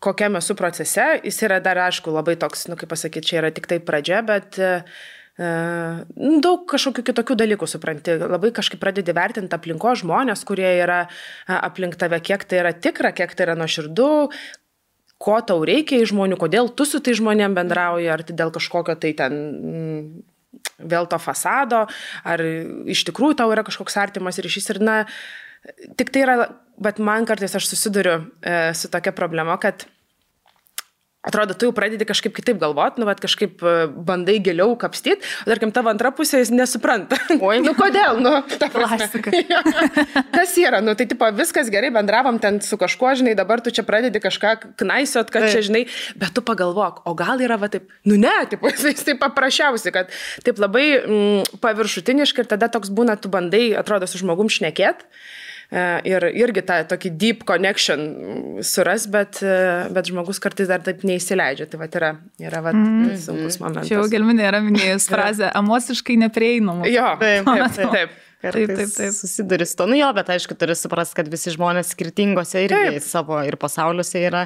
kokiam esu procese, jis yra dar, aišku, labai toks, kaip pasakyti, čia yra tik tai pradžia, bet daug kažkokių kitokių dalykų supranti, labai kažkaip pradedi vertinti aplinko žmonės, kurie yra aplink tave, kiek tai yra tikra, kiek tai yra nuoširdu, ko tau reikia iš žmonių, kodėl tu su tai žmonėm bendrauji, ar tai dėl kažkokio tai ten vėl to fasado, ar iš tikrųjų tau yra kažkoks artimas ryšys ir tik tai yra, bet man kartais aš susiduriu su tokia problema, kad atrodo, tu jau pradedi kažkaip kitaip galvoti, kažkaip bandai giliau kapstyti, o tarkim, tavo antra pusė jis nesupranta. Oi, kodėl? Ta klasika. Kas yra? Tai tipo, viskas gerai, bendravom ten su kažkuo, žinai, dabar tu čia pradedi kažką knaisiot, kad čia, žinai, bet tu pagalvok, o gal yra taip, ne, tipo, jis taip paprasčiausiai, kad taip labai paviršutiniškai ir tada toks būna, tu bandai, atrodo, su žmogum šnekėt. Ir irgi tą tokį deep connection suras, bet žmogus kartais dar taip neįsileidžia. Tai yra sunkus momentas. Čia jau Gelminė yra minėjus frazę emociškai neprieinama. Jo, taip. Kartais susiduri su to. Jo, bet aišku, turi suprasti, kad visi žmonės skirtingose irgi savo ir pasauliuose yra.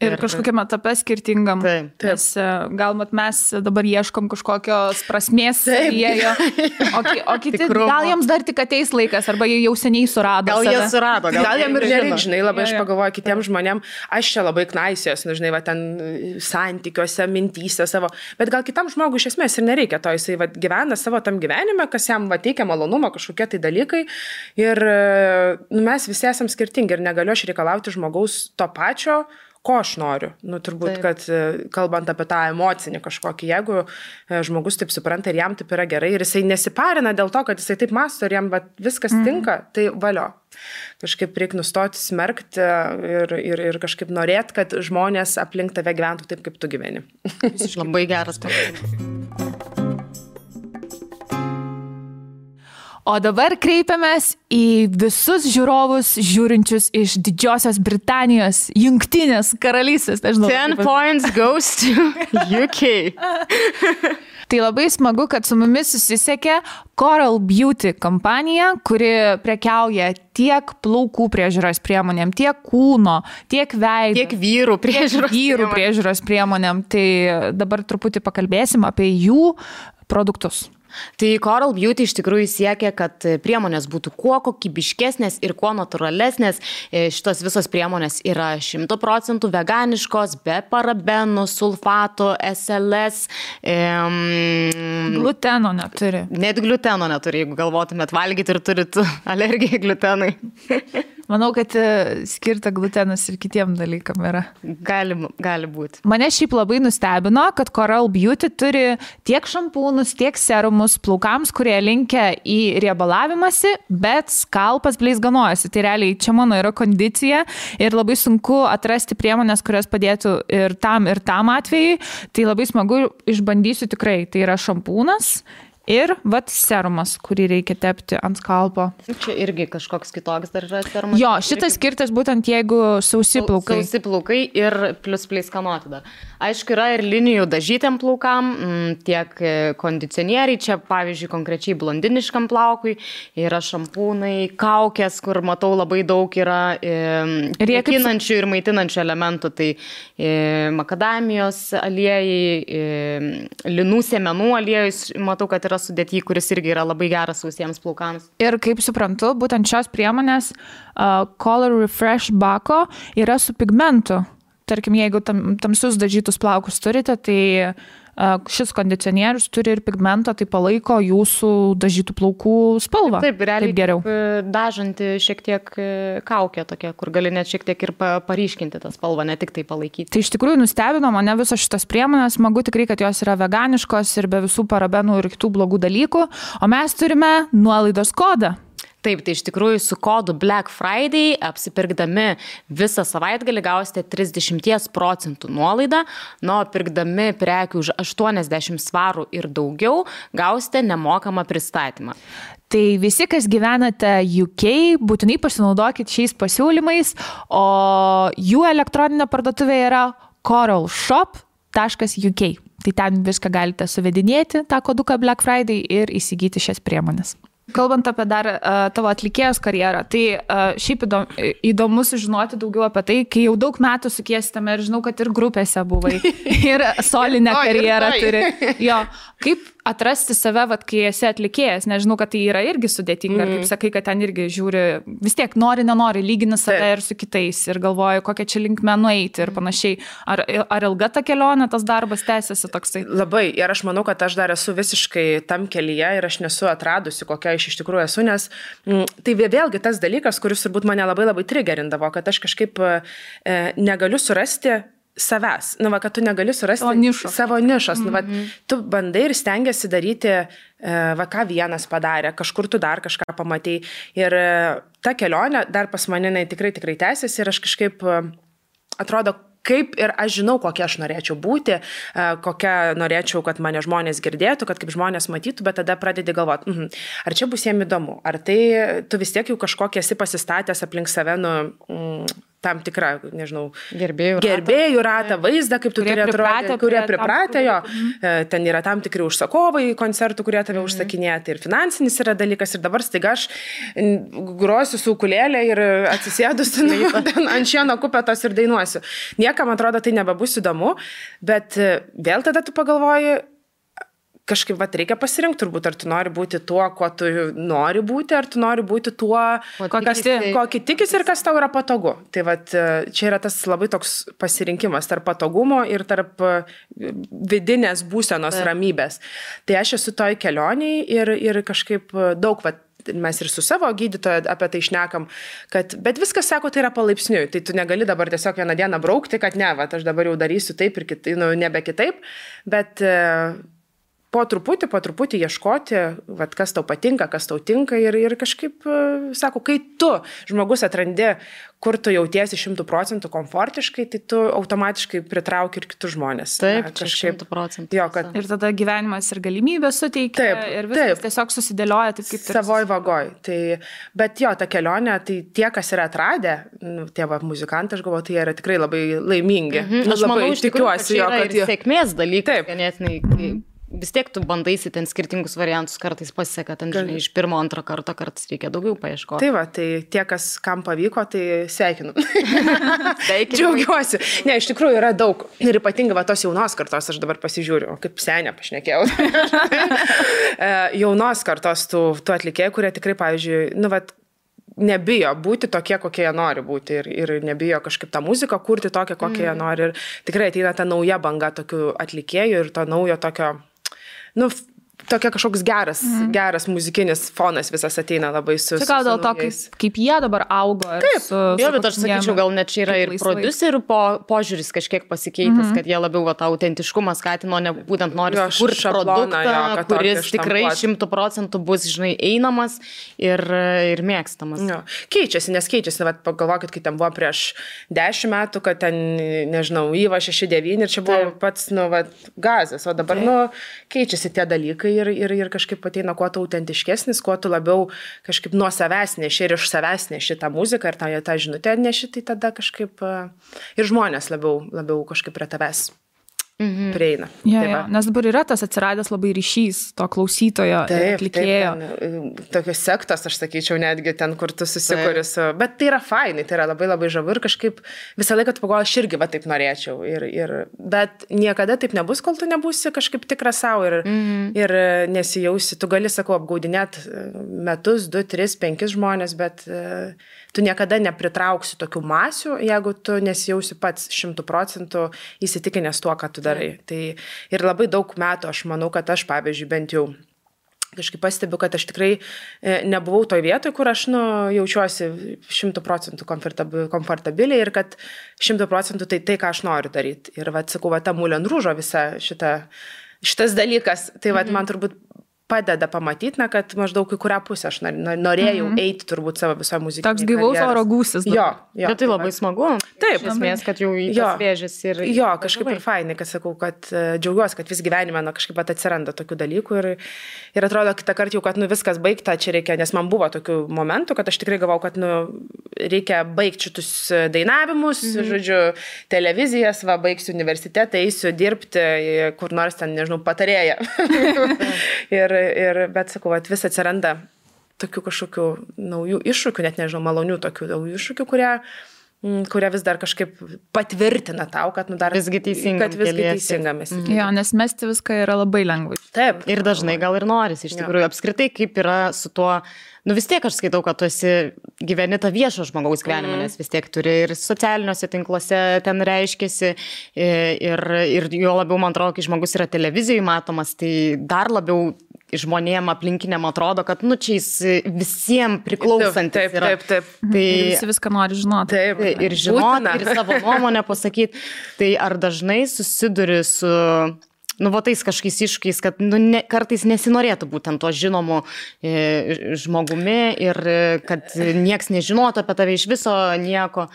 Ir kažkokiame etape skirtingam. Nes gal mes dabar ieškom kažkokios prasmės savyje, o kiti gal jiems dar tik ateis laikas, arba jie jau seniai surado. Gal jie surado. Gal jiem ir nereik, žinai, labai aš pagalvoju kitiems žmonėm, aš čia labai knaisios, žinai, ten santykiuose, mintyse savo, bet gal kitam žmogui iš esmės ir nereikia to, jisai gyvena savo tam gyvenime, kas jam teikia malonumą, kažkokie tai dalykai ir mes visi esam skirtingi ir negaliu aš reikalauti žmogaus to pačio, ko aš noriu. Nu, turbūt, kad kalbant apie tą emocinį kažkokį, jeigu žmogus taip supranta ir jam taip yra gerai ir jisai nesiparina dėl to, kad jisai taip mąsto ir jam viskas tinka, tai valio. Kažkaip reikia nustoti smerkti ir kažkaip norėti, kad žmonės aplink tave gyventų taip, kaip tu gyveni. Labai geras patarimas. O dabar kreipiamės į visus žiūrovus žiūrinčius iš Didžiosios Britanijos, Jungtinės karalystės. 10 points goes to UK. Tai labai smagu, kad su mumis susisiekė Coral Beauty kompanija, kuri prekiauja tiek plaukų priežiūros priemonėm, tiek kūno, tiek veido. Tiek vyrų priežiūros priemonėm. Tai dabar truputį pakalbėsim apie jų produktus. Tai Coral Beauty iš tikrųjų siekia, kad priemonės būtų kuo kokybiškesnės ir kuo natūralesnės. Šitos visos priemonės yra 100% veganiškos, be parabenų, sulfatų, SLS. Gluteno neturi. Net gluteno neturi, jeigu galvotumėt valgyti ir turit alergiją glutenui. Manau, kad skirta glutenas ir kitiem dalykam yra. Gali būti. Mane šiaip labai nustebino, kad Coral Beauty turi tiek šampūnus, tiek serumus plaukams, kurie linkia į riebalavimąsi, bet skalpas bleizganojasi. Tai realiai čia mano yra kondicija ir labai sunku atrasti priemonės, kurios padėtų ir tam atvejai. Tai labai smagu, išbandysiu tikrai. Tai yra šampūnas. Ir serumas, kurį reikia tepti ant skalpo. Čia irgi kažkoks kitoks dar yra serumas. Jo, šitas skirtas būtent jeigu sausi plaukai. Sausi plaukai ir plus pleiskanoti dar. Aišku, yra ir linijų dažytiem plaukam, tiek kondicionieriai, čia pavyzdžiui konkrečiai blondiniškam plaukui, yra šampūnai, kaukės, kur matau labai daug yra drėkinančių ir maitinančių elementų, tai makadamijos aliejai, linų sėmenų aliejus, matau, kad yra sudėty, kuris irgi yra labai geras sausiems plaukams. Ir kaip suprantu, būtent šios priemonės Color Refresh Bako yra su pigmentu. Tarkim, jeigu tamsius dažytus plaukus turite, tai šis kondicionierius turi ir pigmento, tai palaiko jūsų dažytų plaukų spalvą. Taip, realiai taip geriau. Dažanti šiek tiek kaukė tokia, kur gali net šiek tiek ir paryškinti tą spalvą, ne tik tai palaikyti. Tai iš tikrųjų nustebino mane visos šitas priemonės, smagu tikrai, kad jos yra veganiškos ir be visų parabenų ir kitų blogų dalykų, o mes turime nuolaidos kodą. Taip, tai iš tikrųjų su kodu Black Friday apsipirkdami visą savaitgalį gausite 30% nuolaidą, nuo pirkdami prekių už 80 svarų ir daugiau gausite nemokamą pristatymą. Tai visi, kas gyvenate UK, būtinai pasinaudokit šiais pasiūlymais, o jų elektroninė parduotuvė yra coralshop.uk. Tai ten viską galite suvedinėti, tą koduką Black Friday ir įsigyti šias priemonės. Kalbant apie dar tavo atlikėjos karjerą, tai šiaip įdomu sužinoti daugiau apie tai, kai jau daug metų sukiestame ir žinau, kad ir grupėse buvai, ir solinę karjerą turi. Jo, kaip atrasti save, kai esi atlikėjas, nežinau, kad tai yra irgi sudėtinga, kaip sakai, kad ten irgi žiūri, vis tiek nenori, lygini save ir su kitais ir galvoju, kokią čia linkmę nueiti ir panašiai. Ar ilga ta kelionė, tas darbas tęsiasi toksai? Labai, ir aš manau, kad aš dar esu visiškai tam kelyje ir aš nesu atradusi, kokia aš iš tikrųjų esu, nes tai vėlgi tas dalykas, kuris turbūt mane labai labai trigerindavo, kad aš kažkaip negaliu surasti savęs, kad tu negali surasti savo nišos. Tu bandai ir stengiasi daryti, ką vienas padarė, kažkur tu dar kažką pamatei. Ir ta kelionė dar pas mane tikrai tęsiasi ir aš kažkaip atrodo, kaip ir aš žinau, kokia aš norėčiau būti, kokia norėčiau, kad mane žmonės girdėtų, kad kaip žmonės matytų, bet tada pradedi galvoti, ar čia bus jiem įdomu, ar tai tu vis tiek jau kažkokie esi pasistatęs aplink save, tam tikrą, nežinau, gerbėjų ratą, vaizdą, kaip tu turi atrodyti, kurie pripratę jo. Ten yra tam tikri užsakovai koncertų, kurie tave užsakinėja, tai ir finansinis yra dalykas. Ir dabar staiga aš grosiu su ukulėlė ir atsisėdusi ant šieno kupetos ir dainuosiu. Niekam atrodo, tai nebebus įdomu, bet vėl tada tu pagalvoji, kažkaip reikia pasirinkti turbūt, ar tu nori būti tuo, kuo tu nori būti, ar tu nori būti tuo, ko tikis ir kas tau yra patogu. Tai čia yra tas labai toks pasirinkimas tarp patogumo ir tarp vidinės būsenos ramybės. Tai aš esu toj kelioniai ir kažkaip daug mes ir su savo gydytoju apie tai šnekam, bet viskas, sako, tai yra palaipsniui, tai tu negali dabar tiesiog vieną dieną braukti, kad ne, va, aš dabar jau darysiu taip ir kitaip, nebe kitaip, bet po truputį ieškoti, vat, kas tau patinka, kas tau tinka ir kažkaip, sako, kai tu, žmogus, atrandi, kur tu jautiesi 100% komfortiškai, tai tu automatiškai pritrauki ir kitus žmonės. Taip, kažkaip 100%. Jo, kad... Ir tada gyvenimas ir galimybės suteikia ir viskas tiesiog susidėlioja taip, kaip savoj vagoj. Tai, bet jo, ta kelionė, tai tie, kas yra atradę, tie muzikantai, aš galvoju, tai jie yra tikrai labai laimingi. Aš manau, iš tikrųjų, tikiuosi, kad ir sėkmės dalykai, ganėtinai. Vis tiek tu bandaisi ten skirtingus variantus, kartais pasiseka, ten žinai, iš pirmo, antro karto, kartais reikia daugiau paieškoti. Tai va, tai tie, kam pavyko, tai sveikinu. Džiaugiuosi. Ne, iš tikrųjų yra daug. Ir ypatingai va tos jaunos kartos, aš dabar pasižiūriu, kaip senė pašnekėjau. Jaunos kartos tų atlikėjų, kurie tikrai, pavyzdžiui, nebijo būti tokie, kokie jie nori būti ir nebijo kažkaip tą muziką kurti tokią, kokią jie nori. Ir tikrai ateina ta nauja banga tokių atlikėjų ir to naujo tokio, tokia kažkoks geras muzikinis fonas visas ateina labai su... Čia gal dėl to, kaip jie dabar augo. Taip, jo, bet aš sakyčiau, gal net čia yra ir prodiuserių požiūris kažkiek pasikeitęs, kad jie labiau tą autentiškumą skatino, ne būtent nori sukurti produktą, kuris tikrai 100% bus, žinai, einamas ir mėgstamas. Jo. Keičiasi, pagalvokit, kai ten buvo prieš 10 metų, kad ten, nežinau, Yva 6-9 ir čia buvo pats, gazas, o dabar, keičiasi tie dalykai. Ir kažkaip ateina kuo tu autentiškesnis, kuo tu labiau kažkaip nuo savęs neši ir iš savęs neši tą muziką ir tą žinutę neši, tai tada kažkaip ir žmonės labiau kažkaip prie tavęs prieina. Ja, nes dabar yra tas atsiradęs labai ryšys to klausytojo ir atlikėjo. Tokios sektos, aš sakyčiau, netgi ten, kur tu susikuri su... Bet tai yra fainai, tai yra labai labai žavu ir kažkaip visą laiką tu pagalvoji, aš irgi taip norėčiau. Bet niekada taip nebus, kol tu nebūsi kažkaip tikras savo ir nesijausi. Tu gali, sakau, apgaudinėt metus, 2, 3, 5 žmonės, bet tu niekada nepritrauksi tokių masių, jeigu tu nesijausi pats 100% įsitikinęs tuo, ką tu darai. Tai ir labai daug metų aš manau, kad aš, pavyzdžiui, bent jau kažkaip pastebiu, kad aš tikrai nebuvau toj vietoj, kur aš jaučiuosi 100% komfortabiliai ir kad 100% tai, ką aš noriu daryti. Ir sakau, ta Moulin Rouge visa šitas dalykas, tai man turbūt padeda pamatyti, kad maždaug į kurią pusę aš norėjau eiti turbūt savo viso muzikinį. Toks gyvaus oro gūsis. Jo. Bet tai labai smagu. Taip. Iš esmės, kad jau į tas vėžės ir... Jo, kažkaip ir fainai, kad sakau, kad džiaugiuosi, kad vis gyvenime kažkaip atsiranda tokių dalykų ir atrodo kitą kartą jau, kad viskas baigta, čia reikia, nes man buvo tokių momentų, kad aš tikrai galvau, kad reikia baigti šitus dainavimus, žodžiu, televizijas, baigsiu universitetą, eisiu dirbti kur nors ten, nežinau, patarėja. Bet sakau, vis atsiranda tokių kažkokių naujų iššūkių, net nežinau, malonių tokių naujų iššūkių, kurie vis dar kažkaip patvirtina tau, kad dar visgi teisingamis. Jo, nes mesti viską yra labai lengvai. Taip. Ir dažnai gal ir norisi, iš tikrųjų, apskritai, kaip yra su tuo, vis tiek aš skaitau, kad tu esi gyveni tą viešo žmogaus gyvenimą, nes vis tiek turi ir socialiniuose tinkluose ten reiškiasi ir jo labiau, man atrodo, kai žmogus yra televizijoje matomas, tai dar labiau žmonėm aplinkiniam atrodo, kad čia jis visiems priklausantis yra. Taip. Tai visi viską nori žinoti. Taip. Ir žinoti, ir savo nuomonę pasakyti. Tai ar dažnai susiduri su... tais kažkokiais iššūkiais, kad kartais nesinorėtų būtent to žinomu žmogumi ir kad nieks nežinotų apie tave iš viso nieko.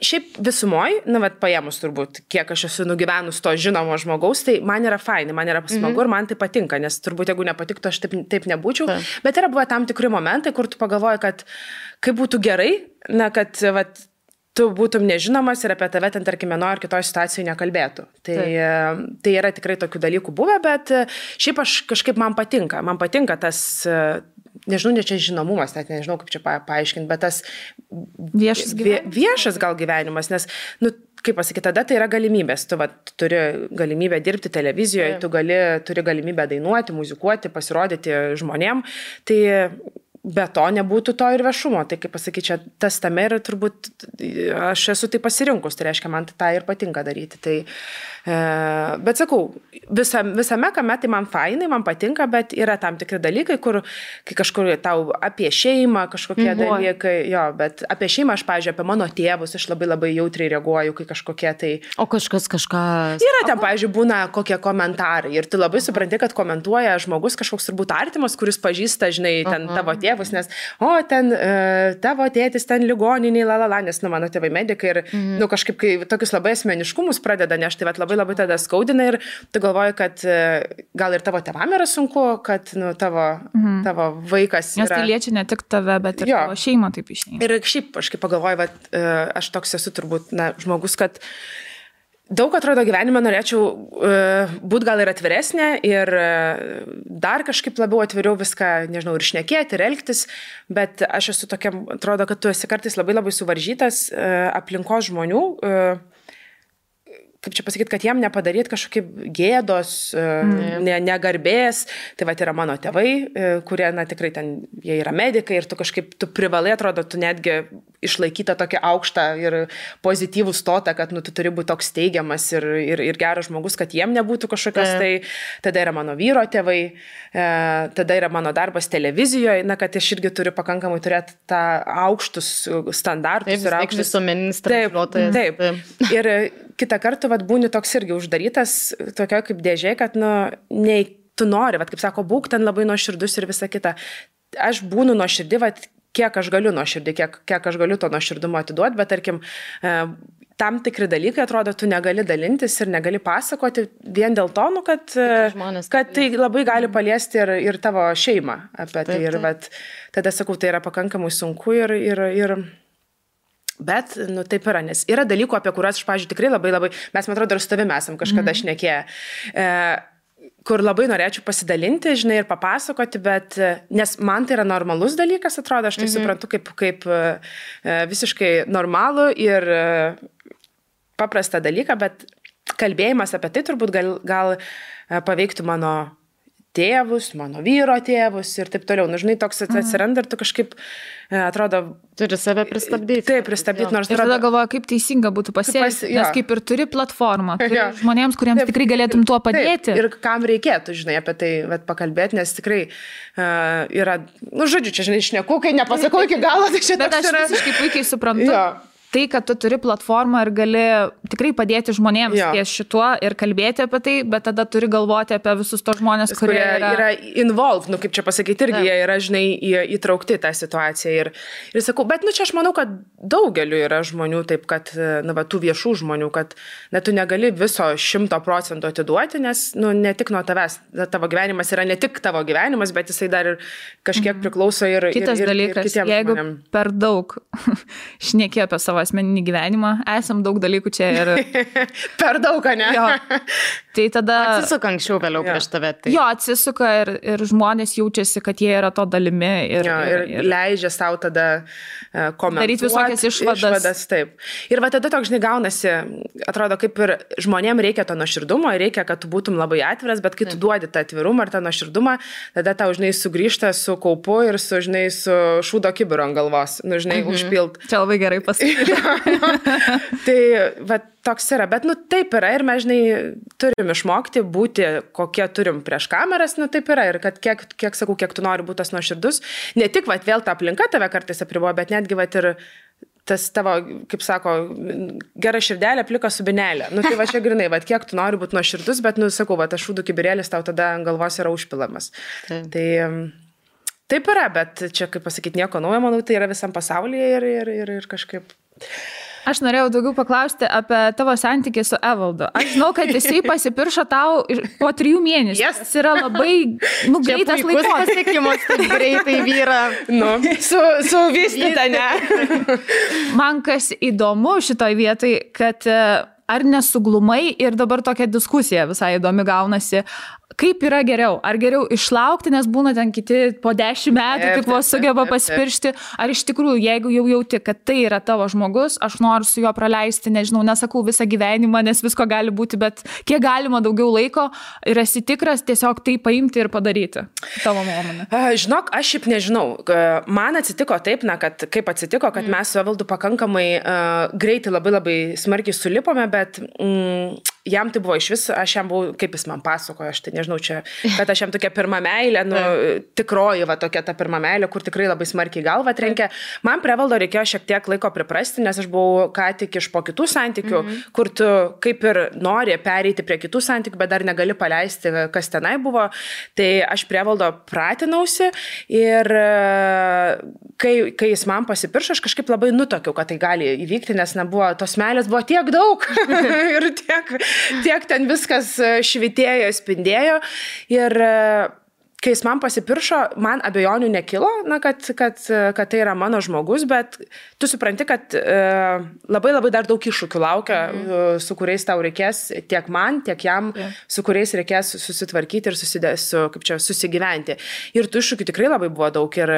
Šiaip visumoj, paėmus turbūt, kiek aš esu nugyvenus to žinomo žmogaus, tai man yra fainai, man yra smagu ir man tai patinka, nes turbūt jeigu nepatiktų, aš taip nebūčiau. Bet yra buvo tam tikri momentai, kur tu pagalvoji, kad kaip būtų gerai, kad tu būtum nežinomas ir apie tave ten, tarkim, vienoje ar kitoje situacijoje nekalbėtų. Tai yra tikrai tokių dalykų buvę, bet šiaip aš kažkaip man patinka tas, nežinau, ne čia žinomumas, net nežinau, kaip čia paaiškinti, bet tas viešas gal gyvenimas, nes, kaip pasakyti, tada tai yra galimybės. Tu turi galimybę dirbti televizijoje, tu turi galimybę dainuoti, muzikuoti, pasirodyti žmonėm. Tai be to nebūtų to ir viešumo. Tai kaip pasakyti, čia tas tame ir turbūt aš esu tai pasirinkus, tai reiškia, man tai ir patinka daryti. Tai, bet sakau, visame kame tai man fainai, man patinka, bet yra tam tikri dalykai, kur kai kažkur tau apie šeimą, kažkokie dalykai, jo, bet apie šeimą aš, pavyzdžiui, apie mano tėvus, aš labai jautriai reaguoju, kai kažkokie tai... O kažkas kažką... Yra ten, pavyzdžiui, būna kokie komentarai ir tu labai supranti, kad komentuoja žmogus kažkoks turbūt artimas, kuris pažįsta, žinai, ten tavo tėvus, nes, ten tavo tėtis ten ligoniniai, nes, mano tėvai medikai ir, kažkaip, kai tokius labai asmeniškumus pradeda nešti, tai labai tada skaudina ir tu galvoji, kad gal ir tavo tėvam yra sunku, kad, tavo vaikas yra... Nes tai liečia ne tik tave, bet ir tavo šeimą taip išeina. Ir šiaip, aš kaip pagalvoju, aš toks esu turbūt, žmogus, kad daug atrodo gyvenime norėčiau būti gal ir atviresnė ir dar kažkaip labiau atviriau viską, nežinau, ir šnekėti, ir elgtis, bet aš esu tokia, atrodo, kad tu esi kartais labai suvaržytas aplinkos žmonių, kaip čia pasakyti, kad jiem nepadaryti kažkokie gėdos, negarbės. Tai va, yra mano tėvai, kurie, tikrai ten, jie yra medikai ir tu kažkaip, tu privalai, atrodo, tu netgi išlaikyta tokia aukštą ir pozityvų stotą, kad, tu turi būti toks teigiamas ir geras žmogus, kad jiem nebūtų kažkokios, tai tada yra mano vyro tėvai, tada yra mano darbas televizijoje, kad aš irgi turiu pakankamai turėti tą aukštus standartus. Taip, visuomeninis transliuotojas. Taip. Ir kitą kartą, būni toks irgi uždarytas, tokio kaip dėžė, kad, nei tu nori, kaip sako, būk ten labai nuoširdus ir visa kita. Aš būnu nuoširdį, kiek aš galiu nuoširdį, kiek aš galiu to nuoširdumo atiduoti, bet, tarkim, tam tikri dalykai, atrodo, tu negali dalintis ir negali pasakoti vien dėl to, kad tai labai gali paliesti ir tavo šeimą apie tai. Ir tada, sakau, tai yra pakankamai sunku ir bet, taip yra, nes yra dalykų, apie kuriuos aš, pavyzdžiui, tikrai labai, mes, man atrodo, ir su tavimi esam kažkada šnekėję, kur labai norėčiau pasidalinti, žinai, ir papasakoti, bet, nes man tai yra normalus dalykas, atrodo, aš tai suprantu kaip visiškai normalų ir paprastą dalyką, bet kalbėjimas apie tai turbūt gal paveiktų mano tėvus, mano vyro tėvus ir taip toliau. Žinai, toks atsiranda ir tu kažkaip, atrodo... Turi save pristabdyti. Taip, pristabdyti, nors... Ir tada galvoju, kaip teisinga būtų pasielgti, nes kaip ir turi platformą, turi žmonėms, kuriems tikrai galėtum tuo padėti. Taip, ir kam reikėtų, žinai, apie tai pakalbėti, nes tikrai yra... Žodžiu, čia, žinai, šneku, kai nepasakau iki galo, tai čia toks yra... Bet aš visiškai puikiai suprantu. Tai, kad tu turi platformą ir gali tikrai padėti žmonėms ties šituo ir kalbėti apie tai, bet tada turi galvoti apie visus tos žmonės, kurie yra involved, kaip čia pasakyti, irgi jie yra, žinai, įtraukti tą situaciją. Ir sakau, bet, čia aš manau, kad daugeliu yra žmonių taip, kad, tų viešų žmonių, kad tu negali viso 100% atiduoti, nes, ne tik nuo tavęs, tavo gyvenimas yra ne tik tavo gyvenimas, bet jisai dar ir kažkiek priklauso ir kitas dalykas, jeigu per daug šnekė apie savo asmeninį gyvenimą, esam daug dalykų čia ir... Per daug, ne? Jo. Tai tada... Atsisuka anksčiau vėliau prieš tave. Tai... Jo, atsisuka ir žmonės jaučiasi, kad jie yra to dalimi. Ir leidžia savo tada komentuoti. Daryti visokias išvadas. Taip. Ir tada toks, žinai, gaunasi, atrodo, kaip ir žmonėm reikia to nuoširdumo, reikia, kad tu būtum labai atviras, bet kai tu duodi tą atvirumą ir tą nuoširdumą, tada tau, žinai, sugrįžta su kaupu ir su šūdo kibiru ant galvos, žinai, užpilt. Čia labai gerai pasakyti. Tai toks yra, bet taip yra ir mes, žinai, turim išmokti būti, kokie turim prieš kameras, taip yra ir kad kiek sakau, kiek tu nori būti tas nuoširdus, ne tik vėl ta aplinka tave kartais apriboja, bet netgi ir tas tavo, kaip sako, gera širdelė, plika subinelė. Tai čia grinai, kiek tu nori būti nuoširdus, bet, sakau, tas šūdų kibirėlis tau tada ant galvos yra užpilamas. Tai taip yra, bet čia, kaip pasakyti, nieko naujo, manau, tai yra visam pasaulyje ir kažkaip... Aš norėjau daugiau paklausti apie tavo santykį su Evaldu. Aš žinau, kad jisai pasipiršo tau po 3 mėnesių. Yes. Tas yra labai greitas laikos. Pasiekimas, taip greitai vyra. Su vystyta, ne? Man kas įdomu šitoj vietoj, kad ar nesuglumai ir dabar tokia diskusija visai įdomi gaunasi, kaip yra geriau? Ar geriau išlaukti, nes būna ten kiti po 10 metų tik vos sugeba pasipiršti, ar iš tikrųjų, jeigu jau jauti, kad tai yra tavo žmogus, aš noriu su juo praleisti, nežinau, nesakau visą gyvenimą, nes visko gali būti, bet kiek galima daugiau laiko ir esi tikras tiesiog tai paimti ir padaryti, tavo nuomonė. Žinok, aš šiaip nežinau. Man atsitiko taip, kad kaip atsitiko, kad mes su Evaldu pakankamai greitai labai smarkiai sulipome, bet jam tai buvo iš vis, aš jam buvau, kaip jis man pasakojo, aš tai nežinau čia, kad aš jam tokia pirma meilė, tikroji va tokia ta pirma meilė, kur tikrai labai smarkiai galva trenkė. Man prie Evaldo reikėjo šiek tiek laiko priprasti, nes aš buvau ką tik iš po kitų santykių, kur tu kaip ir nori pereiti prie kitų santykių, bet dar negali paleisti, kas tenai buvo. Tai aš prie Evaldo pratinausi ir kai jis man pasipiršo, aš kažkaip labai nutokiau, kad tai gali įvykti, nes nebuvo, tos meilės buvo tiek daug ir tiek ten viskas švitėjo, spindėjo ir kai jis man pasipiršo, man abejonių nekilo, kad tai yra mano žmogus, bet tu supranti, kad labai dar daug iššūkių laukia, su kuriais tau reikės tiek man, tiek jam, su kuriais reikės susitvarkyti ir susigyventi. Ir tų iššūkių tikrai labai buvo daug. Ir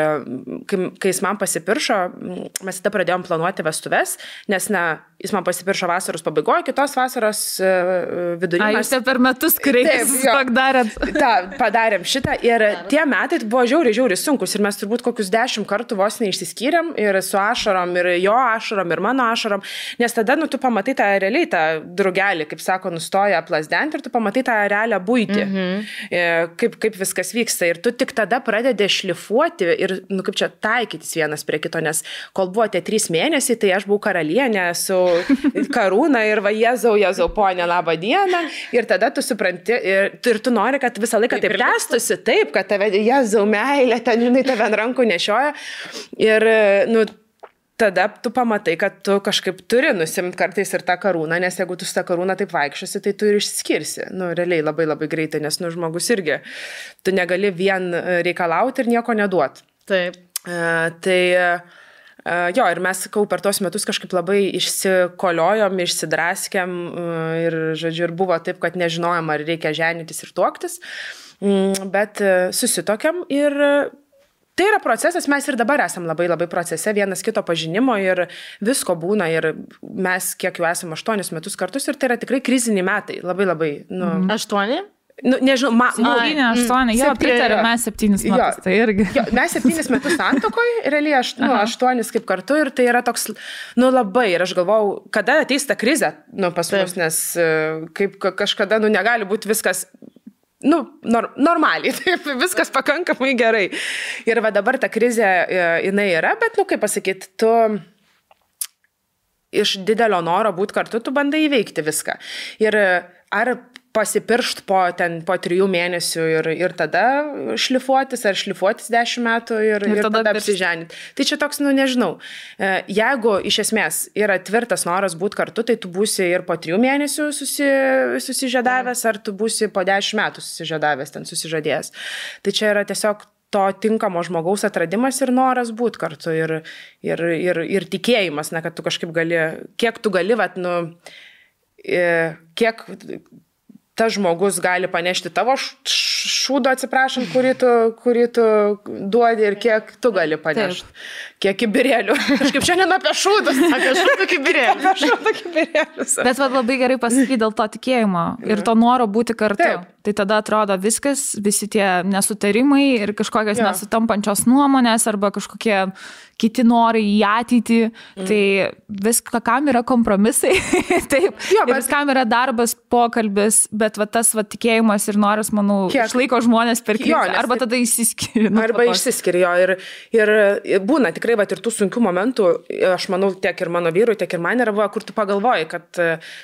kai jis man pasipiršo, mes tada pradėjom planuoti vestuves, nes jis man pasipiršo vasaros pabaigoje, kitos vasaros vidury. Jūs per metus kreiptis padarėt. Padarėm šitą. Ir tie metai buvo žiauriai sunkus ir mes turbūt kokius 10 kartų vos neišsiskyrėm ir su ašarom, ir jo ašarom, ir mano ašarom, nes tada, tu pamatai tą realiai, tą drugelį, kaip sako, nustoja plasdenti ir tu pamatai tą realią buitį, kaip viskas vyksta ir tu tik tada pradedi šlifuoti ir, kaip čia taikytis vienas prie kito, nes kol buvo tie 3 mėnesiai, tai aš buvau karalienė su karūna ir va, Jėzau, ponė, labą dieną ir tada tu supranti ir tu nori, kad visą laiką taip tęstusi, taip, kad tave, Jėzau, meilė, ten, žinai, tave ant rankų nešioja ir, tada tu pamatai, kad tu kažkaip turi nusimti kartais ir tą karūną, nes jeigu tu su tą karūną taip vaikščiosi, tai tu ir išskirsi, realiai labai greitai, nes, žmogus irgi, tu negali vien reikalauti ir nieko neduoti. Taip. Jo, ir mes, per tos metus kažkaip labai išsikoliojom, išsidraskėm ir, žodžiu, ir buvo taip, kad nežinojom, ar reikia ženytis ir tuoktis, bet susitokiam ir tai yra procesas, mes ir dabar esam labai procese, vienas kito pažinimo ir visko būna ir mes kiek jau esam 8 metus kartus ir tai yra tikrai kriziniai metai, labai. 8? Nežinau, 8, jo, pritariu, mes 7 metus, tai irgi. Jo, mes 7 metus santuokoje, realiai 8 kaip kartu ir tai yra toks, labai, ir aš galvau, kada ateis ta krizė, pas mus, nes kaip kažkada, negali būti viskas, normaliai, taip, viskas pakankamai gerai. Ir va dabar ta krizė, jinai yra, bet, kaip pasakyti, tu iš didelio noro būti kartu, tu bandai įveikti viską. Ir ar pasipiršt po 3 mėnesių ir tada šlifuotis, ar šlifuotis 10 metų ir tada apsiženyti. Tai čia toks, nežinau, jeigu iš esmės yra tvirtas noras būti kartu, tai tu būsi ir po 3 mėnesių susižadavęs, ar tu būsi po 10 metų susižadavęs, ten susižadėjęs. Tai čia yra tiesiog to tinkamo žmogaus atradimas ir noras būti kartu ir tikėjimas, kad tu kažkaip gali, kiek tu gali, kiek tas žmogus gali panešti tavo šūdo, atsiprašant, kurį tu duodi ir kiek tu gali panešti. Kiek kibirėlių. Kažkaip šiandien apie šūdus. Apie šūdų kibirėlius. Bet labai gerai pasakyti dėl to tikėjimo ir to noro būti kartu. Taip. Tai tada atrodo viskas, visi tie nesutarimai ir kažkokios nesutampančios nuomonės arba kažkokie kiti norai į ateitį. Tai viskam yra kompromisai. Taip. Jo, bet viskam yra darbas, pokalbis, bet tas tikėjimas ir noras, manau, išlaiko žmonės per krizę. Arba tada išsiskiria. Arba išsiskiria jo. Ir būna tikrai ir tų sunkių momentų, aš manau, tiek ir mano vyrui, tiek ir man yra, kur tu pagalvoji, kad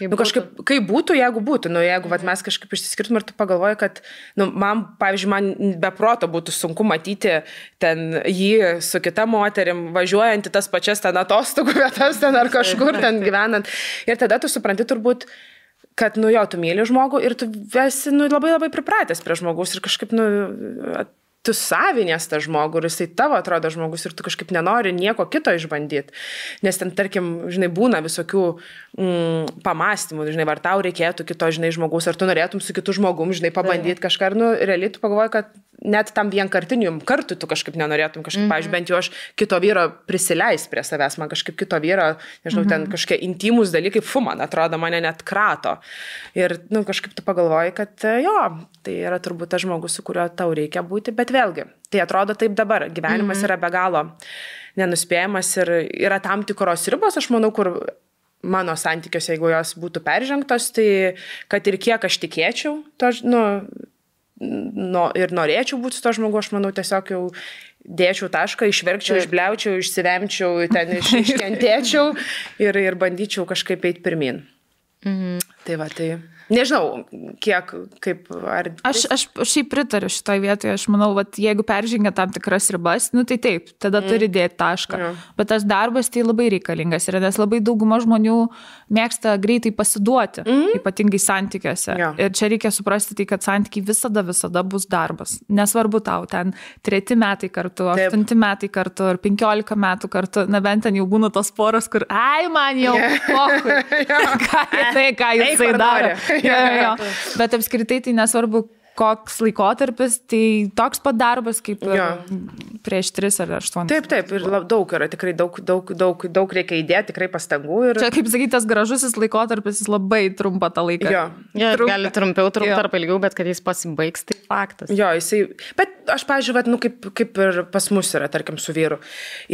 kažkaip, kaip būtų, jeigu būtų, jeigu mes kažkaip išsiskirtum ir tu pagalvoji, kad, pavyzdžiui, man be proto būtų sunku matyti ten jį su kita moterim, važiuojant į tas pačias ten atostogų vietas ten ar kažkur ten gyvenant. Ir tada tu supranti turbūt, kad, tu myli žmogų ir tu esi, labai pripratęs prie žmogaus ir kažkaip, tu savinės tą žmogų ir jisai tavo atrodo žmogus ir tu kažkaip nenori nieko kito išbandyti. Nes ten, tarkim, žinai, būna visokių pamastymų, žinai, ar tau reikėtų kito, žinai, žmogus, ar tu norėtum su kitu žmogum, žinai, pabandyti kažką. Ir, realiai tu pagalvoji, kad net tam vienkartiniu kartu tu kažkaip nenorėtum, kažkaip, pavyzdžiui, bent jau aš kito vyro prisileis prie savęs, man kažkaip kito vyro, nežinau, ten kažkokie intimus dalykai, man atrodo, mane net krato. Ir, kažkaip tu pagalvoji, kad jo, tai yra turbūt tas žmogus, su kuriuo tau reikia būti, bet vėlgi, tai atrodo taip dabar, gyvenimas yra be galo nenuspėjamas ir yra tam tikros ribos, aš manau, kur mano santykiuose, jeigu jos būtų peržengtos, tai kad ir kiek aš tikėčiau, to, ir norėčiau būti su to žmogu, aš manau, tiesiog jau dėčiau tašką, išverkčiau, išbliaučiau, išsivemčiau, ten iškentėčiau ir bandyčiau kažkaip eiti pirmin. Tai va, tai nežinau, kiek, kaip, ar... Aš šiaip pritariu šitoj vietoje, aš manau, vat, jeigu peržengia tam tikras ribas, tai taip, tada turi dėti tašką. Bet tas darbas tai labai reikalingas yra, nes labai dauguma žmonių mėgsta greitai pasiduoti, ypatingai santykiuose. Ir čia reikia suprasti tai, kad santykiai visada bus darbas. Nesvarbu tau, ten 3 metai kartu, 8 metai kartu, ar 15 metų kartu, na bent ten jau būna tos poros, kur, man jau pokui, ką jisai daro. Jo. Bet apskritai tai nesvarbu, koks laikotarpis, tai toks pat darbas kaip prieš 3 ar 8. Taip, ir daug yra, tikrai daug reikia įdėti, tikrai pastangų. Ir... Čia, kaip sakyt, tas gražusis laikotarpis, jis labai trumpa tą laiką. Gali trumpiau arba ilgiau, bet kad jis pasibaigs, tai faktas. Jisai... Bet aš, pavyzdžiui, kaip ir pas mus yra, tarkim, su vyru.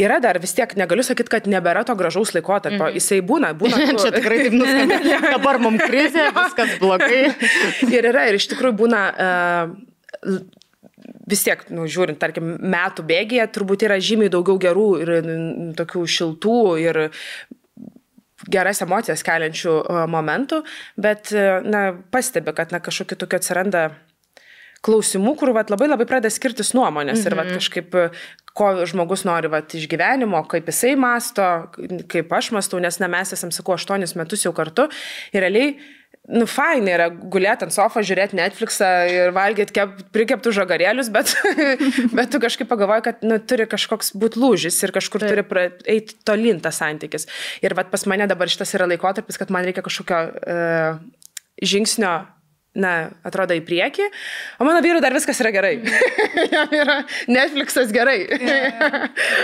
Yra dar vis tiek, negaliu sakyti, kad nebėra to gražaus laikotarpio. Jisai būna Čia tikrai taip nuskambė. Dabar mums krizė, viskas blogai. Ir yra, ir iš tikrųjų būna... vis tiek, žiūrint, tarkim, metų bėgyje, turbūt yra žymiai daugiau gerų ir tokių šiltų ir geras emocijas keliančių momentų, bet, pastebi, kad, kažkokiu tokiu atsiranda klausimų, kur, labai pradeda skirtis nuomonės ir, kažkaip, ko žmogus nori, iš gyvenimo, kaip jisai masto, kaip aš mastau, nes, mes esam, sakau, 8 metus jau kartu ir realiai fainai yra gulėti ant sofą, žiūrėti Netflixą ir valgyti prikeptų žagarėlius, bet tu kažkaip pagalvoji, kad turi kažkoks būti lūžis ir kažkur turi eiti tolyn tas santykis. Ir pas mane dabar šitas yra laikotarpis, kad man reikia kažkokio žingsnio, atrodo į priekį, o mano vyrui dar viskas yra gerai. Jam yra Netflixas gerai.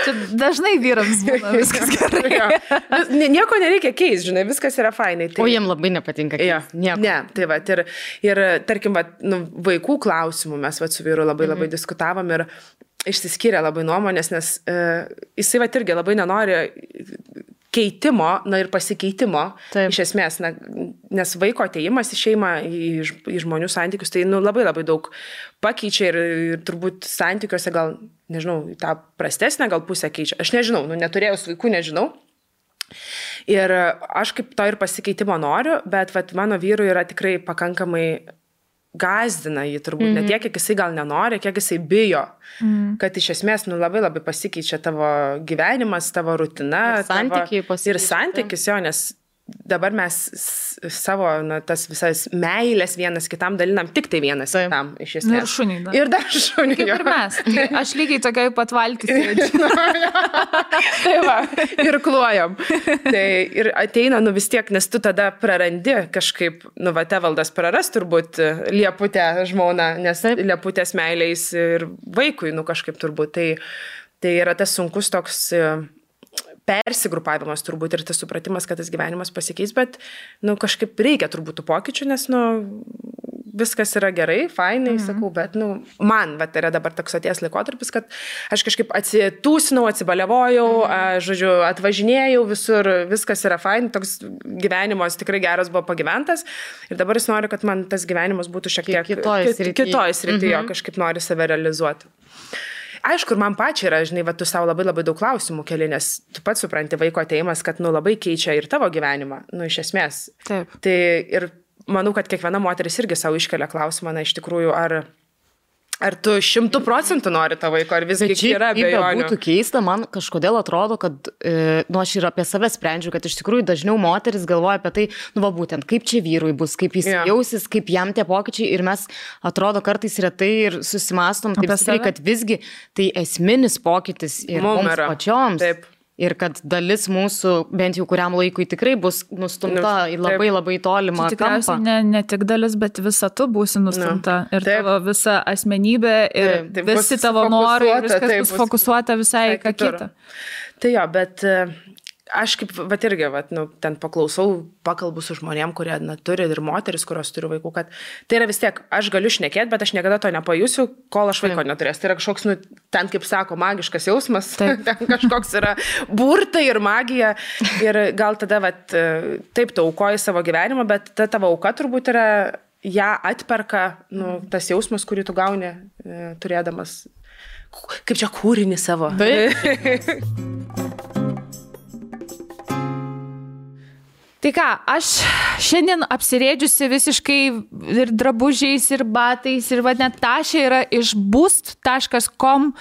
Čia dažnai vyrams būna viskas gerai. Nieko nereikia keisti, žinai, viskas yra fainai. O jiem labai nepatinka keisti. Ne, tai ir tarkim, vaikų klausimų mes su vyru labai diskutavom ir išsiskyrė labai nuomonės, nes jisai irgi labai nenori keitimo, ir pasikeitimo, iš esmės, nes vaiko atėjimas į šeimą, į žmonių santykius, tai labai daug pakeičia ir turbūt santykiuose gal, nežinau, tą prastesnę gal pusę keičia. Aš nežinau, neturėjus vaikų, nežinau. Ir aš kaip to ir pasikeitimo noriu, bet mano vyrui yra tikrai pakankamai gazdina jį turbūt, ne tiek, kiek jisai gal nenori, kiek jisai bijo, kad iš esmės labai pasikeičia tavo gyvenimas, tavo rutina. Ir santykis, nes dabar mes savo, tas visas meilės vienas kitam dalinam tik tai vienas kitam, iš esmės. Ir šuniai. Ir dar šuniai. Kaip ir mes. Aš lygiai tokiai pat valtys sėdžiu. Tai va, ir kluojam. Tai ir ateina, vis tiek, nes tu tada prarandi kažkaip, Tevaldas praras turbūt Lieputę žmoną, nes Lieputės meiliais ir vaikui, kažkaip turbūt. Tai yra tas sunkus toks persigrupavimas turbūt ir tas supratimas, kad tas gyvenimas pasikeis, bet kažkaip reikia turbūt tų pokyčių, nes viskas yra gerai, fainai, sakau, bet man yra dabar toks atėjęs laikotarpis, kad aš kažkaip atsitūsinau, atsibaliavojau, žodžiu, atvažinėjau visur, viskas yra fain, toks gyvenimas tikrai geras buvo pagyventas ir dabar jis nori, kad man tas gyvenimas būtų šiek tiek kitoj srityje, kažkaip nori save realizuoti. Aišku, ir man pačiai yra, žinai, tu savo labai daug klausimų keli, nes tu pats supranti vaiko atėjimas, kad, labai keičia ir tavo gyvenimą, iš esmės. Taip. Tai ir manau, kad kiekviena moteris irgi savo iškelia klausimą, iš tikrųjų, Ar tu 100% nori tą vaiko, ar visgi yra abejonių? Būtų keista, man kažkodėl atrodo, kad, aš ir apie save sprendžiu, kad iš tikrųjų dažniau moteris galvoja apie tai, būtent, kaip čia vyrui bus, kaip jis jausis, kaip jam tie pokyčiai ir mes atrodo kartais retai ir susimastom taip stipriai, kad visgi tai esminis pokytis ir mums pačioms. Taip. Ir kad dalis mūsų, bent jau kuriam laikui, tikrai bus nustumta į labai labai tolimą kampą. Tikriausiai ne tik dalis, bet visa tu būsi nustumta. Ir tavo visa asmenybė, ir visi tavo norai, viskas bus fokusuota visai ką kitą. Tai jo, bet aš kaip, irgi, ten pakalbu su žmonėm, kurie turi ir moteris, kurios turi vaikų, kad tai yra vis tiek, aš galiu šnekėti, bet aš niekada to nepajusiu, kol aš vaiko neturės. Tai yra kažkoks, ten, kaip sako, magiškas jausmas, ten kažkoks yra burtai ir magija. Ir gal tada, taip, tu aukoji savo gyvenimą, bet ta tavo auka turbūt yra, ją atperka, tas jausmas, kurį tu gauni, turėdamas, kaip čia kūrinį savo. Tai ką, aš šiandien apsirėdžiusi visiškai ir drabužiais, ir batais, ir net Tašė yra iš boost.com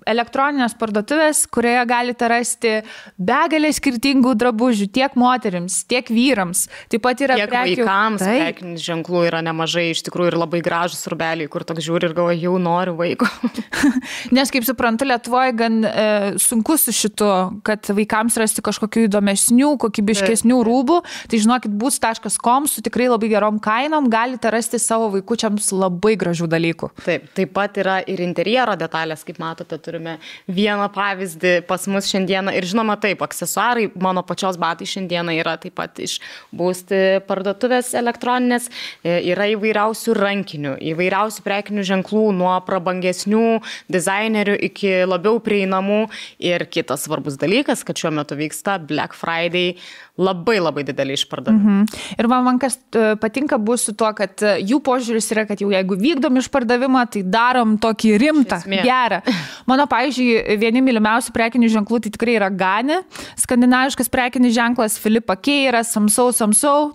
elektroninės parduotuvės, kurioje galite rasti begalę skirtingų drabužių, tiek moterims, tiek vyrams. Taip pat yra tiek vaikams, prekinių ženklų yra nemažai, iš tikrųjų ir labai gražus rūbeliai, kur toks žiūri ir galvoja, jau noriu vaiko. Nes, kaip suprantu, Lietuvoje gan sunku su šitu, kad vaikams rasti kažkokių įdomesnių, kokybiškesnių rūbų. Tai žinokit, boost.com su tikrai labai gerom kainom galite rasti savo vaikučiams labai gražių dalykų. Taip pat yra ir interjero detalės, kaip matote, turime vieną pavyzdį pas mus šiandieną ir žinoma taip, aksesuarai, mano pačios batai šiandieną yra taip pat iš Boost parduotuvės elektroninės, yra įvairiausių rankinių, įvairiausių prekinių ženklų, nuo prabangesnių dizainerių iki labiau prieinamų ir kitas svarbus dalykas, kad šiuo metu vyksta Black Friday, labai labai didelį išpardavimą. Ir man kas patinka bus su tuo, kad jų požiūris yra, kad jau jeigu vykdom išpardavimą, tai darom tokį rimtą, gerą. Mano, pavyzdžiui, vieni mylimiausių prekinių ženklų tai tikrai yra Gani, skandinaviškas prekinis ženklas, Filipa Keira, Samsau,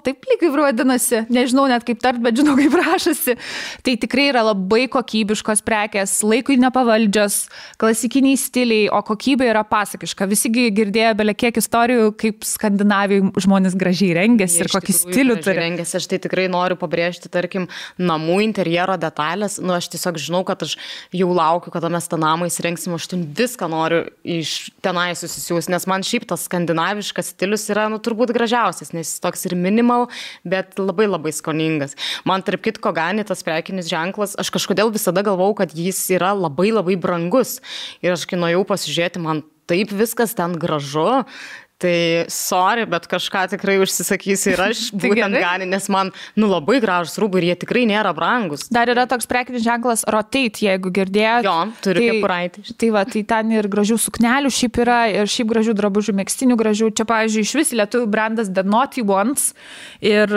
taip lyg ir vadinasi, nežinau net kaip tart, bet žinau kaip rašasi. Tai tikrai yra labai kokybiškos prekės, laikui nepavaldžios, klasikiniai stiliai, o kokybė yra pasakiška. Visi girdėjo bele kiek istorijų, kaip Skandinavijai žmonės gražiai rengiasi ir kokį stilių turi. Rengiasi, aš tai tikrai noriu pabrėžti, tarkim, namų interjero detalės. Aš tiesiog žinau, kad aš jau laukiu, kada mes tą namą įsirengsim, aš ten viską noriu iš tenai susisiūs, nes man šiaip tas skandinaviškas stilius yra, turbūt gražiausias, nes jis toks ir minimal, bet labai labai skoningas. Man tarp kitko Gani tas prekinis ženklas, aš kažkodėl visada galvau, kad jis yra labai labai brangus. Ir aš kai nuėjau pasižiūrėti, man taip viskas ten gražu. Tai sorry, bet kažką tikrai užsisakysiu ir aš būtent Gani, nes man labai gražus rūbai ir jie tikrai nėra brangus. Dar yra toks prekinis ženklas Rotate, jeigu girdėjot. Jo, turiu kepuraitį. Tai ten ir gražių suknelių šiaip yra, ir šiaip gražių drabužių, megztinių gražių. Čia, pavyzdžiui, iš vis lietuvių brandas The Naughty Ones, ir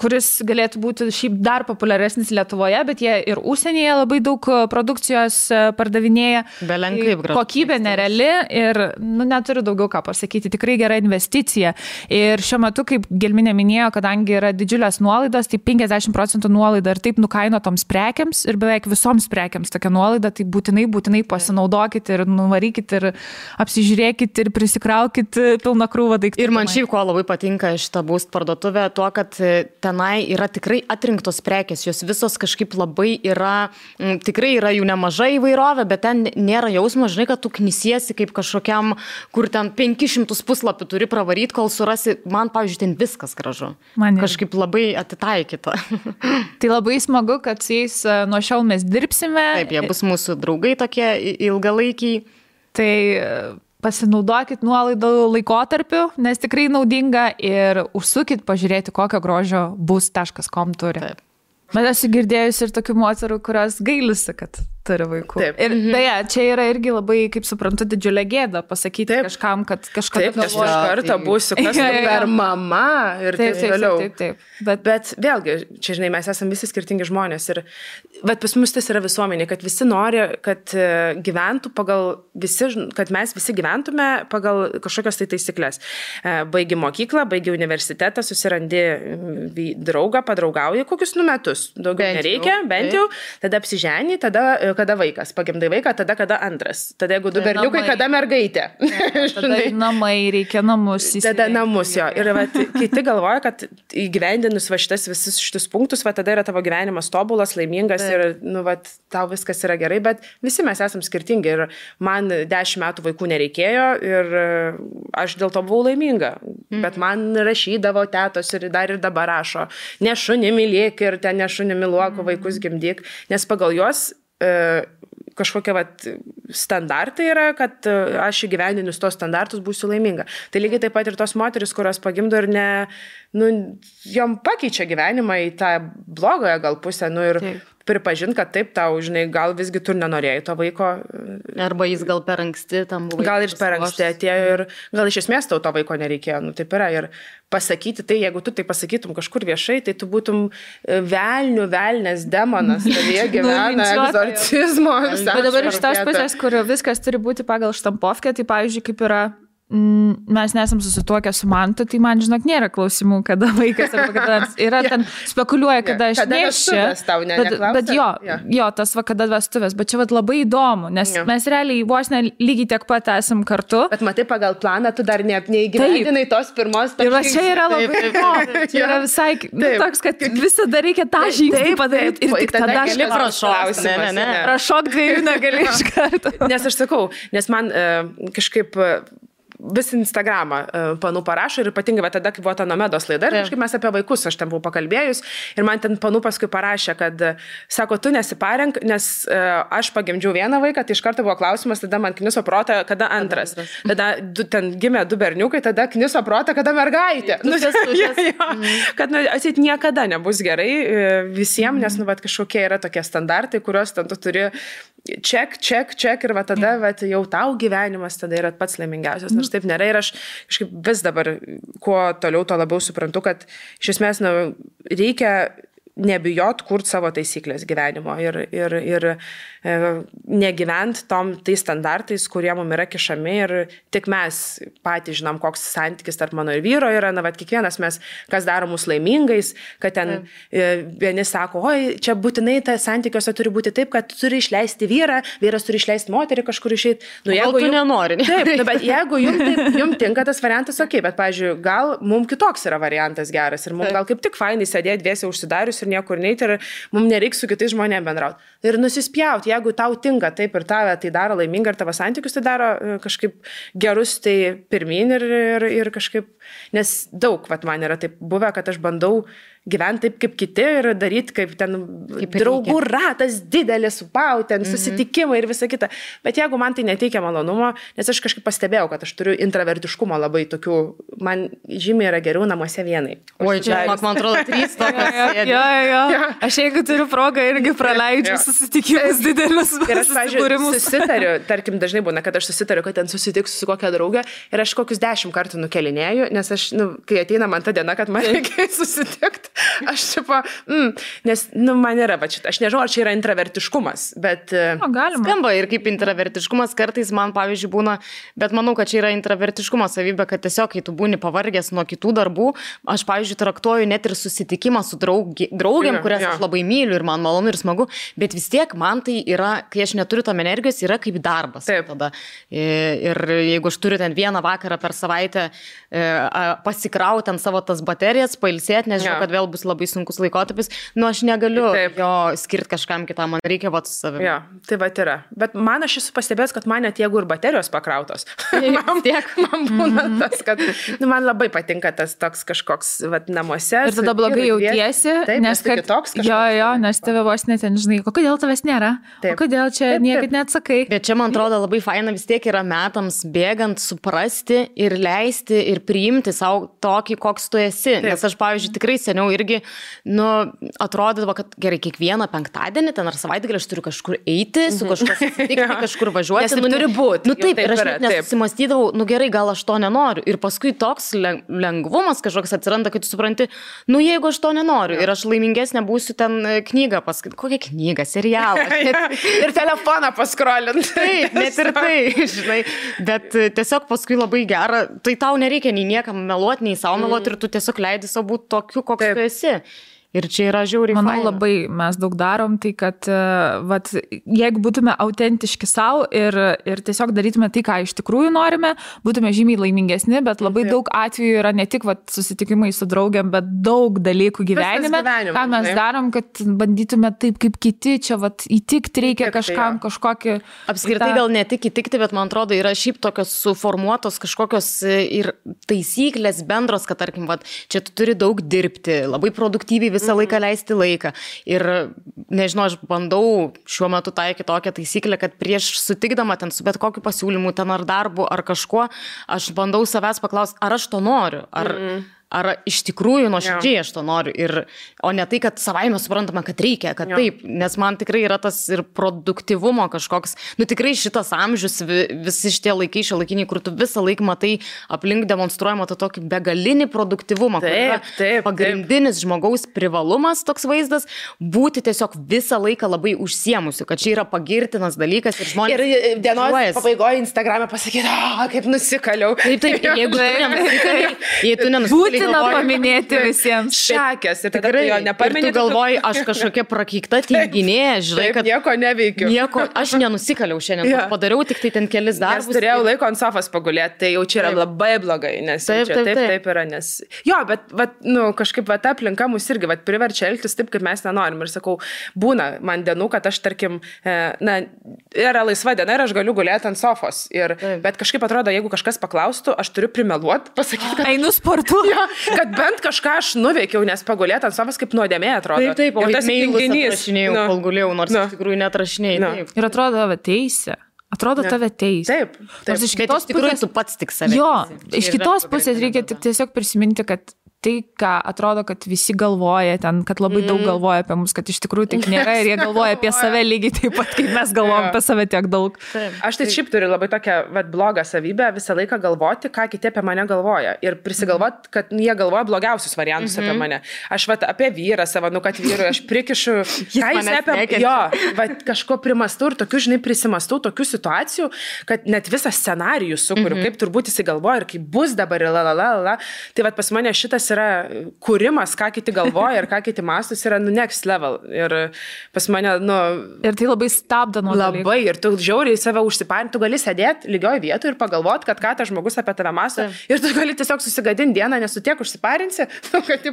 kuris galėtų būti šiaip dar populiaresnis Lietuvoje, bet jie ir užsienyje labai daug produkcijos pardavinėja. Belenkaip gražu. Kokybė nereali ir neturiu daugiau ką pasakyti. Tikrai gera investicija. Ir šiuo metu, kaip Gelminė minėjo, kadangi yra didžiulės nuolaidos, tai 50% nuolaida ir taip nukainotoms prekiams ir beveik visoms prekiams tokia nuolaida, tai būtinai pasinaudokit ir nuvarykit ir apsižiūrėkit ir prisikraukit pilną krūvą daiktų. Ir man šiaip ko labai patinka šitą Boost parduotuvę, tuo, kad tenai yra tikrai atrinktos prekės, jos visos kažkaip labai yra, tikrai yra jų nemažai įvairovė, bet ten nėra jausmo, žinai, kad tu knisiesi kaip kažkokiam, kur ten 500 puslapį turi pravaryti, kol surasi, man, pavyzdžiui, ten viskas gražu. Kažkaip labai atitaikyta. Tai labai smagu, kad su jais nuo šiol mes dirbsime. Taip, jie bus mūsų draugai tokie ilgalaikiai. Tai pasinaudokit nuolaidų laikotarpiu, nes tikrai naudinga ir užsukit pažiūrėti, kokio grožio boost.com turi. Taip. Bet esu girdėjus ir tokių moterų, kurios gailisi, kad turi vaikų. Taip. Ir beje, čia yra irgi labai, kaip suprantu, didžiulė gėda pasakyti kažkam, kad kažką taip, nes iš karto būsiu kas per mama ir taip toliau. Taip. Bet vėlgi, čia žinai, mes esame visi skirtingi žmonės ir pas mus tas yra visuomenė, kad visi nori, kad gyventų pagal visi, kad mes visi gyventume pagal kažkokios tai taisyklės. Baigi mokyklą, baigi universitetą, susirandi draugą, padraugauji kokius metus. Daugiau nereikia, bent jau, tada apsiženi, tada kada vaikas, pagimdai vaiką, tada kada antras. Tada jeigu du berniukai, kada mergaitė. Tada namai, reikia namus įsirengti. Tada namus jo. Ir kiti galvoja, kad įgyvendinus visus šitus punktus, tada yra tavo gyvenimas tobulas, laimingas ir tau viskas yra gerai, bet visi mes esam skirtingi ir man 10 metų vaikų nereikėjo ir aš dėl to buvau laiminga. Bet man rašydavo tetos ir dar ir dabar rašo, ne šunį mylėk ir ten ne šunį myluok, vaikus gimdyk, nes pagal juos kažkokie standartai yra, kad aš įgyvendinus tos standartus būsiu laiminga. Tai lygiai taip pat ir tos moteris, kurios pagimdo ir jom pakeičia gyvenimą į tą blogąją gal pusę, ir pripažint, kad taip tau, žinai, gal visgi tu nenorėjai to vaiko. Arba jis gal per anksti tam buvo. Gal ir per anksti atėjo ir gal iš esmės tau to vaiko nereikėjo. Taip yra. Ir pasakyti tai, jeigu tu tai pasakytum kažkur viešai, tai tu būtum velnės demonas, tavyje gyvena egzorcizmo. Bet dabar iš tos pusės, kur viskas turi būti pagal štampovkę, tai pavyzdžiui, kaip yra mes nesam susituokę su Mantu, tai man, žinok, nėra klausimų, kada vaikas arba kada yra ten spekuliuoja, kada aš neščiu. Bet jo, tas kada vestuvės, bet čia labai įdomu, nes mes realiai vos lygiai tiek pat esam kartu. Bet matai, pagal planą tu dar neįgyvendinai tos pirmos. Ir va čia yra labai įdomu. Čia yra visai toks, kad visada reikia tą žingsnį padaryti ir tik tada gali prašokti. Prašok 2 negali iš karto. Nes aš sakau, nes man kažkaip vis Instagramą panų parašo ir ypatingai tada, kai buvo ta Nomedos laida ir kažkaip mes apie vaikus, aš ten buvau pakalbėjus ir man ten panų paskui parašė, kad sako, tu nesiparenk, nes aš pagimdžiau vieną vaiką, tai iš karto buvo klausimas, tada man kniso protą, kada antras. Tada ten gimė 2 berniukai, tada kniso protą, kada mergaitė. Kad atsit niekada nebus gerai visiems, nes kažkokie yra tokie standartai, kuriuos ten tu turi ček ir tada jau tau gyvenimas tada yra pats laimingiausias. Nors taip nėra ir aš kažkaip vis dabar, kuo toliau, to labiau suprantu, kad iš esmės reikia nebijot kurti savo taisyklės gyvenimo ir negyvent tais standartais, kurie mums yra kišami ir tik mes patys žinom, koks santykis tarp mano ir vyro yra, kiekvienas mes, kas daro mus laimingais, kad ten vieni sako, oi, čia būtinai tas santykiuose turi būti taip, kad turi išleisti vyrą, vyras turi išleisti moterį kažkur išeiti. Jeigu tu nenori. Taip, bet jeigu jums tinka tas variantas, okei, bet, pavyzdžiui, gal mums kitoks yra variantas geras ir mums gal kaip tik fainai sėdėti dviese užsidarius ir niekur neiti ir mums nereiks su kitais žmonėmis bendrauti. Ir nusispjauti, jeigu tau tinka taip ir tave tai daro laimingą ir tavo santykius tai daro kažkaip gerus, tai pirmin ir kažkaip, nes daug, man yra taip buvę, kad aš bandau gyventi taip kaip kiti ir daryti kaip ten draugų ratas didelis, ten susitikimai ir visa kita. Bet jeigu man tai neteikia malonumo, nes aš kažkaip pastebėjau, kad aš turiu intravertiškumo labai tokių, man žymiai yra geriau namuose vienai. Oi, čia, man atrodo, 3 tokios sėdė. Jo. Aš jeigu turiu progą irgi praleidžiu susitikimus didelius. Ir aš, pavyzdžiui, susitariu, tarkim, dažnai būna, kad aš susitariu, kad ten susitiksiu su kokia draugė ir aš kokius 10 kartų nukelinėju, nes aš, kai ateina man ta diena, kad man reikia susitikti, aš nes, man yra, aš nežinau, ar čia yra intravertiškumas, bet... Galima. Skamba ir kaip intravertiškumas kartais man, pavyzdžiui, būna, bet manau, kad čia yra intravertiškumo savybė, kad tiesiog, kai tu būni pavargęs nuo kitų darbų, aš, pavyzdžiui, traktuoju net ir susitikimą su draugėm, kurias aš labai myliu ir man malonu ir smagu, bet vis tiek man tai yra, kai aš neturiu tam energijos, yra kaip darbas. Taip. Tada. Ir jeigu aš turiu ten vieną vakarą per savaitę pasikrauti ant savo tas baterijas, pailsėti, nes žinau, kad vėl bus labai sunkus laikotarpis, aš negaliu jo skirti kažkam kitam, man reikia su savimi. Jo, tai yra. Bet man aš esu pastebėjęs, kad man net jeigu ir baterijos pakrautos, man būna tas, kad man labai patinka tas toks kažkoks namuose. Ir tada blogai jautiesi, nes kitoks kažkoks. Jo, nes tave vos net ten žinai, kodėl tavęs nėra, kodėl čia niekad neatsakai. Bet čia, man atrodo, labai faina vis tiek yra metams bėgant suprasti ir leisti ir priimti savo tokį, koks tu esi. Nes aš, pavyzdžiui, tikrai seniau irgi, atrodydavo, kad gerai, kiekvieną penktadienį ten ar savaitgalį aš turiu kažkur eiti, su kažkas susitikti, kažkur važiuoti. Nes turi būti. Taip, ir aš nesusimastydavau, gerai, gal aš to nenoriu. Ir paskui toks lengvumas kažkoks atsiranda, kai tu supranti, jeigu aš to nenoriu ir aš laimingesnė būsiu ten knygą paskaityti. Kokią knygą, serialą. Ir telefoną paskrolint. Taip, net ir tai, žinai. Bet tiesiog paskui labai gera, tai tau nereikia nei niekam meluoti, nei savo meluoti ir tu tiesiog leidi savo būti tokiu, koks tu esi. Ir čia yra žiauriai faina. Manau, labai mes daug darom, tai kad jeigu būtume autentiški savo ir tiesiog darytume tai, ką iš tikrųjų norime, būtume žymiai laimingesni, bet labai daug atvejų yra ne tik susitikimai su draugiam, bet daug dalykų gyvenime, ką mes darom, kad bandytume taip kaip kiti, čia įtikti reikia kažkam, kažkokį... Apskritai gal ne tik įtikti, bet man atrodo yra šiaip tokios suformuotos kažkokios ir taisyklės bendros, kad tarkim, čia tu turi daug dirbti, labai produktyviai visą laiką leisti laiką. Ir nežinau, aš bandau šiuo metu taikyti tokią taisyklę, kad prieš sutikdama ten su bet kokiu pasiūlymu, ten ar darbu, ar kažkuo, aš bandau savęs paklausti, ar aš to noriu, ar iš tikrųjų nuoširdžiai aš to noriu, o ne tai, kad savaime suprantama, kad reikia, kad taip, nes man tikrai yra tas ir produktyvumo kažkoks, tikrai šitas amžius, visi šitie laikai šiuolaikiniai, kur tu visą laiką matai aplink demonstruojama tą tokį begalinį produktyvumą, kur yra pagrindinis žmogaus privalumas toks vaizdas, būti tiesiog visą laiką labai užsiemusiu, kad čia yra pagirtinas dalykas ir žmonės... Ir dienos pabaigoje Instagram'e pasakyti, kaip nusikaliau. Taip, jeigu tu nenusikaliai, būtina paminėti visiems. Šakės. Ir tada jo nepaminėti. Ir tu galvoji, aš kažkokia prakeikta tinginė, žinai, kad... Nieko neveikiu. Aš nenusikaliau šiandien, padariau tik tai ten kelis darbus. Nes turėjau laiko ant sofos pagulėti, tai jau čia yra labai blogai, nes taip yra, nes... Jo, bet kažkaip ta aplinka mus irgi priverčia elgtis taip, kaip mes nenorim. Ir sakau, būna man dienų, kad aš, tarkim, yra laisva diena ir aš galiu gulėti ant sofos. Bet kažkaip atrodo, jeigu kažkas paklaustų, aš turiu primeluoti, pasakyti, kad einu sportuoti. Kad bent kažką aš nuveikiau, nes pagulėti ant sofos kaip nuodėmė atrodo. Taip, o tas tinginys atrašinėjau, kol gulėjau, nors iš tikrųjų neatrašinėjau. Ir atrodo tave teisė. Atrodo tave teisė. Taip. Iš kitos pusės tu pats tik save. Jo, iš kitos pusės reikia tiesiog prisiminti, kad tai, ką atrodo, kad visi galvoja ten, kad labai daug galvoja apie mus, kad iš tikrųjų taip nėra ir jie galvoja apie save lygiai taip pat, kaip mes galvojam apie save tiek daug. Aš tai šiaip turiu labai tokią blogą savybę visą laiką galvoti, ką kiti apie mane galvoja. Ir prisigalvoti, kad jie galvoja blogiausius variantus apie mane. Aš apie vyrą savo, kad vyrui aš prikišu, ką jis apie... Jo, kažko primastau ir tokių, žinai, prisimastau tokių situacijų, kad net visą scenarijų sukuriu, kaip turbūt jis galvoja ir kaip bus dabar ir Tai pas mane šitas yra kūrimas, ką kiti galvoja ir ką kiti mastus yra next level. Ir pas mane, Ir tai labai stabdo nuo labai. Dalykų. Ir tu žiauriai save užsiparinti, tu gali sėdėti lygioj vietoje ir pagalvoti, kad ką tas žmogus apie tave masto. Ir tu gali tiesiog susigadinti dieną, nes tu tiek užsiparinsi, kad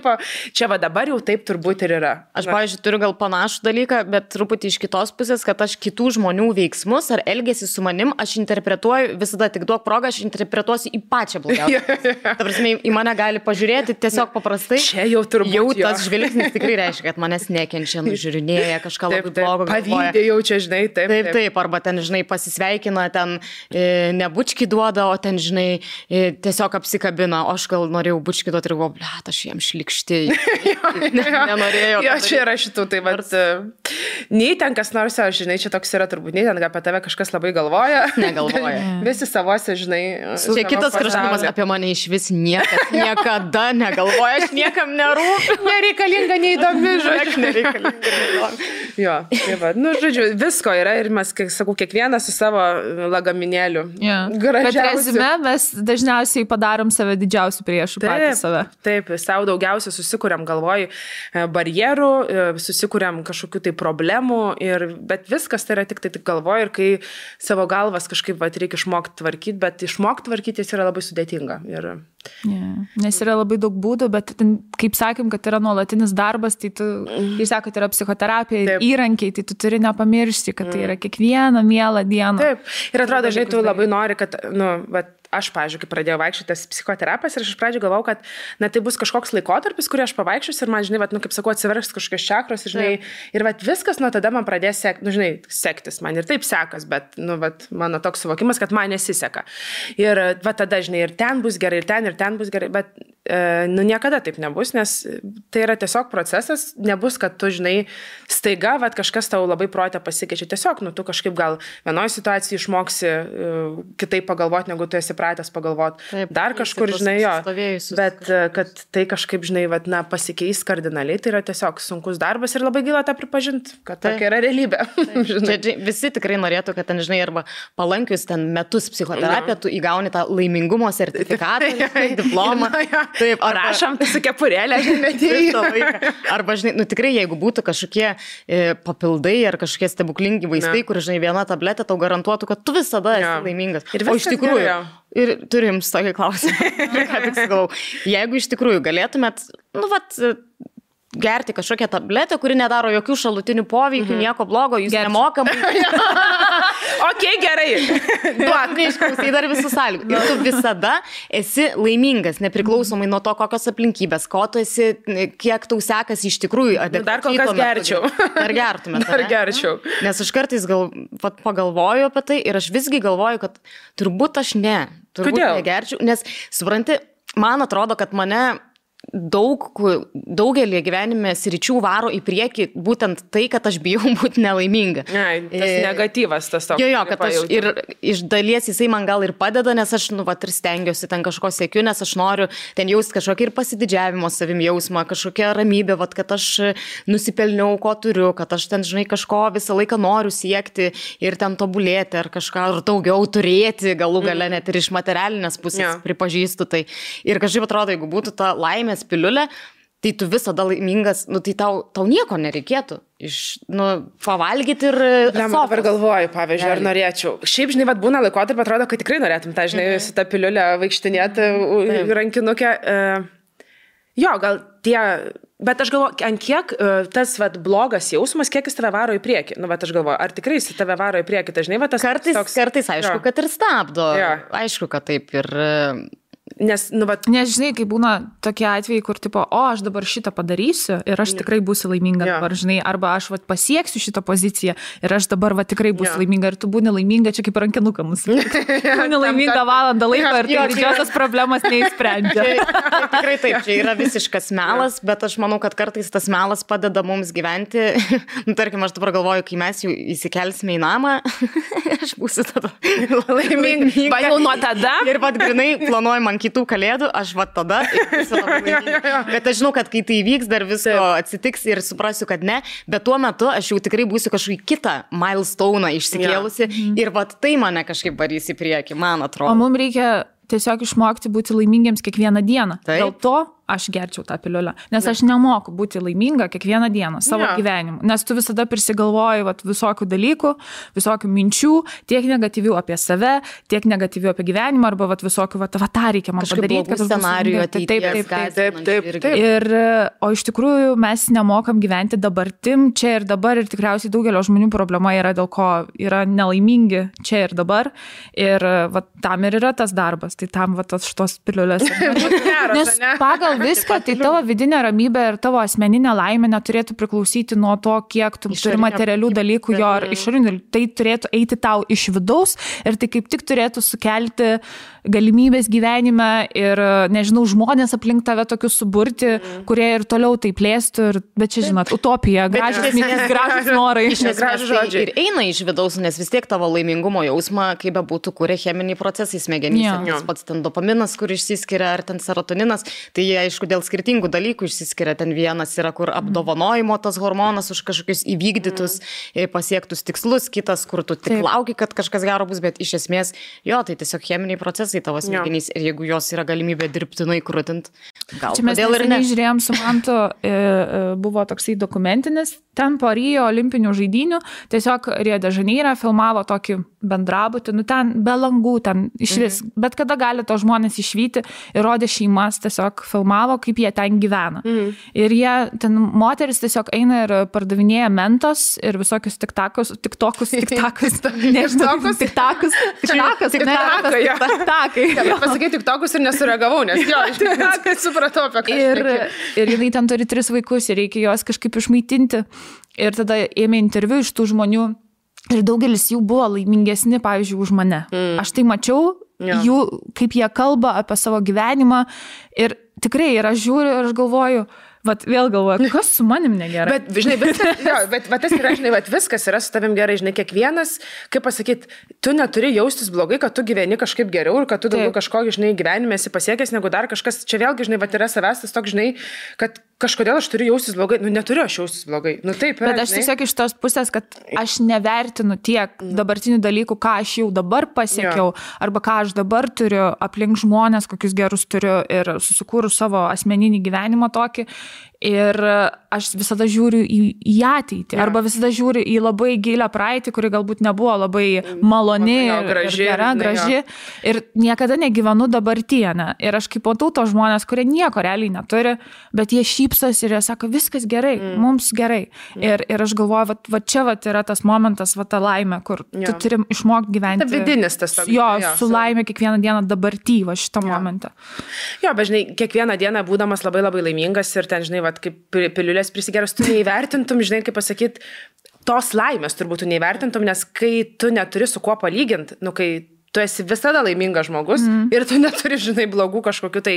čia dabar jau taip turbūt ir yra. Aš, pavyzdžiui, turiu gal panašų dalyką, bet truputį iš kitos pusės, kad aš kitų žmonių veiksmus ar elgesį su manim, aš interpretuoju, visada tik duok progą, aš interpretuosiu į pačią blogiausią. Ta prasme, į mane gali pažiūrėti tiesiog paprastai. Čia jau turbūt. Jau tas žvilgsnis tikrai reiškia, kad manęs nekenčia, nužiūrinėja, kažką labai blogo galvoja. Pavydė jau čia, žinai, taip. Arba ten, žinai, pasisveikina, ten ne bučkį duoda, o ten, žinai, tiesiog apsikabina. O aš gal norėjau bučkį duoti ir galvoju, blet, aš jam šlikšti. Nenorėjau. Jo, čia yra šitų, tai nei ten kas nors, žinai, čia toks yra turbūt, nei ten apie tave kažkas labai galvoja. Negalvoja. Visi savose, žinai. Čia kitas kraštutinumas apie mane iš vis niekas niekada negalvoja, aš niekam nerūpiu. Nereikalinga, neįdomi, žodžiu. Nereikalinga, neįdomi. Jo, tai žodžiu, visko yra ir mes, kaip sakau, kiekvienas su savo lagaminėliu. Bet rezime mes dažniausiai padarom save didžiausių priešų patys save. Taip, savo daugiausia susikuriam galvoj barjerų, susikuriam kažkokių tai problemų, bet viskas tai yra tik galvoj ir kai savo galvas kažkaip reikia išmokti tvarkyti, bet išmokti tvarkyti jis yra labai sudėtinga. Nes yra labai daug būdų, bet kaip sakėm, kad yra nuolatinis darbas, tai tu, jūs sakote, yra psichoterapija ir įrankiai, tai tu turi nepamiršti, kad tai yra kiekvieną mielą dieną. Taip, ir atrodo, žinai, tu labai nori, kad, aš, pavyzdžiui, kai pradėjau vaikščioti psichoterapijas ir aš iš pradžių galvau, kad tai bus kažkoks laikotarpis, kurį aš pavaikščiosiu ir man, žinai, kaip sakau, atsivers kažkokios čakros, žinai, ir viskas nuo tada man pradės sektis. Man ir taip sekas, bet, mano toks suvokimas, kad man nesiseka. Ir tada, žinai, ir ten bus gerai, ir ten bus gerai, bet niekada taip nebus, nes tai yra tiesiog procesas, nebus, kad tu, žinai, staiga, kažkas tau labai protė pasikeičia. Tiesiog, tu kažkaip gal vienoje situacijoje išmoksi kitaip pagalvoti, negu tu esi pratęs pagalvoti. Taip, dar kažkur, žinai, jo. Bet kad tai kažkaip, žinai, pasikeis kardinaliai, tai yra tiesiog sunkus darbas ir labai gaila tą pripažinti, kad tokia yra realybė. Visi tikrai norėtų, kad ten, žinai, arba palankius ten metus psichoterapiją, tu įgauni tą laimingumo sertifikatą, diplomą. Taip, rašom, tu su kepurėlė, žinai, arba, žinai, tikrai, jeigu būtų kažkokie papildai ar kažkokie stebuklingi vaistai, kur, žinai, viena tabletė tau garantuotų, kad tu visada esi laimingas. O iš tikrųjų, ir turim tokį klausimą, ką tik sakau, jeigu iš tikrųjų galėtumėt, gerti kažkokią tabletę, kuri nedaro jokių šalutinių poveikių, nieko blogo, jūs nemokamai. Gerai. Duok, neišklausai dar visų sąlygų. Ir tu visada esi laimingas, nepriklausomai nuo to, kokios aplinkybės, ko tu esi, kiek tau sekas iš tikrųjų. Dar kol kas gerčiau. Dar gertumėt. Dar gerčiau. Nes aš kartais pagalvoju apie tai ir aš visgi galvoju, kad turbūt aš negerčiau. Nes, supranti, man atrodo, kad mane daugelį gyvenime sričių varo į priekį būtent tai, kad aš bijau būti nelaiminga. Tas negatyvas tas toks. Jo, kad aš ir iš dalies jisai man gal ir padeda, nes aš, ir stengiuosi ten kažko siekiu, nes aš noriu ten jausti kažkokį ir pasididžiavimo savim jausmą, kažkokią ramybę, kad aš nusipelniau, ko turiu, kad aš ten, žinai, kažko visą laiką noriu siekti ir ten tobulėti ar kažką ar daugiau turėti, galų gale net ir iš materialinės pusės pripažįstu tai. Ir kažkaip atrodo, jeigu būtų ta laimės piliulė, tai tu visada laimingas, tai tau nieko nereikėtų. Pavalgyti ir... Dabar galvoju, pavyzdžiui, ar norėčiau. Šiaip, žinai, būna laikotarpį, atrodo, kad tikrai norėtum tą, žinai, su tą piliulę vaikštinėti rankinukę. Jo, gal tie... Bet aš galvoju, ant kiek tas blogas jausmas, kiek jis tave varo į priekį. Aš galvoju, ar tikrai jis tave varo į priekį. Tai, žinai, tas kartais aišku, kad ir stabdo. Aišku, kad taip ir... Nes, žinai, kai būna tokie atvejai, kur aš dabar šitą padarysiu ir aš tikrai būsiu laiminga dabar, žinai, arba aš pasieksiu šitą poziciją ir aš dabar tikrai būsiu laiminga ir tu būni laiminga čia kaip rankinuką mūsų. Būni laiminga valandą laiko ir tai didžiosios problemas neįsprendžia. Tikrai taip, čia yra visiškas melas, bet aš manau, kad kartais tas melas padeda mums gyventi. Tarkim, aš dabar galvoju, kai mes jau įsikelsime į namą, aš būsiu tada laiminga. Jau nuo tada? Ir grinai planuoju man kitų kalėdų, aš tada esu labai laiminga. Bet aš žinau, kad kai tai įvyks, dar visko atsitiks ir suprasiu, kad ne, bet tuo metu aš jau tikrai būsiu kažkokį kitą milestone išsikėlusi ir tai mane kažkaip varys į priekį, man atrodo. O mums reikia tiesiog išmokti būti laimingiems kiekvieną dieną. Dėl to aš gerčiau tą piliulę, nes aš nemoku būti laiminga kiekvieną dieną savo gyvenimu, nes tu visada prisigalvoji visokių dalykų, visokių minčių, tiek negatyvių apie save, tiek negatyvių apie gyvenimą, arba visokių, tą reikia man padaryti, kad scenarijų ateities. Taip. Ir, o iš tikrųjų mes nemokam gyventi dabartim, čia ir dabar, ir tikriausiai daugelio žmonių problema yra, dėl ko yra nelaimingi čia ir dabar, ir tam ir yra tas darbas, tai tam šitos piliulės. Nes pagal viską, tai tavo vidinė ramybė ir tavo asmeninė laimė neturėtų priklausyti nuo to, kiek tu turi materialių dalykų jo ar išorinių. Tai turėtų eiti tau iš vidaus ir tai kaip tik turėtų sukelti galimybės gyvenime ir, nežinau, žmonės aplink tave tokius suburti, kurie ir toliau tai plėstų. Bet čia, žinot, utopija, gražios minės, gražios norai. Gražios žodžiai. Ir eina iš vidaus, nes vis tiek tavo laimingumo jausmą, kaip bebūtų, kuria cheminiai procesai smegenyse. Tas pats ten dopaminas, kur išsiskiria, ar ten serotoninas, tai jie, aišku, dėl skirtingų dalykų išsiskiria. Ten vienas yra, kur apdovanojimo tas hormonas už kažkokius įvykdytus, pasiektus tikslus, kitas, kur tu tik lauki, kad kažkas gero bus, bet iš esmės, tai tiesiog cheminiai procesai tavo smegenys ir jeigu jos yra galimybė dirbtinai krūtint, gal čia mes žiūrėjom su Mantu, buvo toksai dokumentinis, ten po Rio olimpinių žaidynių, tiesiog Rio de Žaneire filmavo tokį bendrabutį, ten be langų, ten išvis, bet kada gali to žmonės išvyti ir rodė šeimas, tiesiog filmavo, kaip jie ten gyvena. Ir jie, ten moteris tiesiog eina ir pardavinėja mentos ir visokius tiktakus, Pasakai tiktokus ir nesureagavau, nes tai supratau apie ką. Ir jinai ten turi 3 vaikus ir reikia juos kažkaip išmaitinti. Ir tada ėmė interviu iš tų žmonių ir daugelis jų buvo laimingesni, pavyzdžiui, už mane. Aš tai mačiau, jų, kaip jie kalba apie savo gyvenimą ir tikrai, ir aš žiūriu ir aš galvoju, vėl galvoju, kas su manim negerai. Bet, žinai, tas yra, žinai, viskas yra su tavim gerai, žinai, kiekvienas, kaip pasakyti, tu neturi jaustis blogai, kad tu gyveni kažkaip geriau ir kad tu daugiau kažko, žinai, gyvenime esi pasiekęs negu dar kažkas. Čia vėlgi, žinai, yra savęs tas toks, žinai, kad kažkodėl aš turiu jaustis blogai. Neturiu aš jaustis blogai. Taip, bet aš tiesiog iš tos pusės, kad aš nevertinu tiek dabartinių dalykų, ką aš jau dabar pasiekiau, arba ką aš dabar turiu aplink žmonės, kokius gerus turiu ir susikūrus savo asmeninį gyvenimą tokį. Ir aš visada žiūriu į ateitį, arba visada žiūriu į labai gilę praeitį, kuri galbūt nebuvo labai maloni ir graži. Ir niekada negyvenu dabartyje. Ir aš kaip matau tos žmonės, kurie nieko realiai neturi, bet jie šypsos ir jie sako, viskas gerai, mums gerai. Ir aš galvoju, va čia yra tas momentas, ta laimė, kur tu turi išmokti gyventi. Ta vidinis tas toks. Su laimė kiekvieną dieną dabartyje, šitą momentą. Jo, bet žinai, kiekvieną dieną būdamas labai labai laimingas ir ten, žinai, kaip piliulės prisigeros, tu neįvertintum, žinai, kaip pasakyti, tos laimės turbūt tu neįvertintum, nes kai tu neturi su kuo palyginti, kai tu esi visada laimingas žmogus ir tu neturi, žinai, blogų kažkokių tai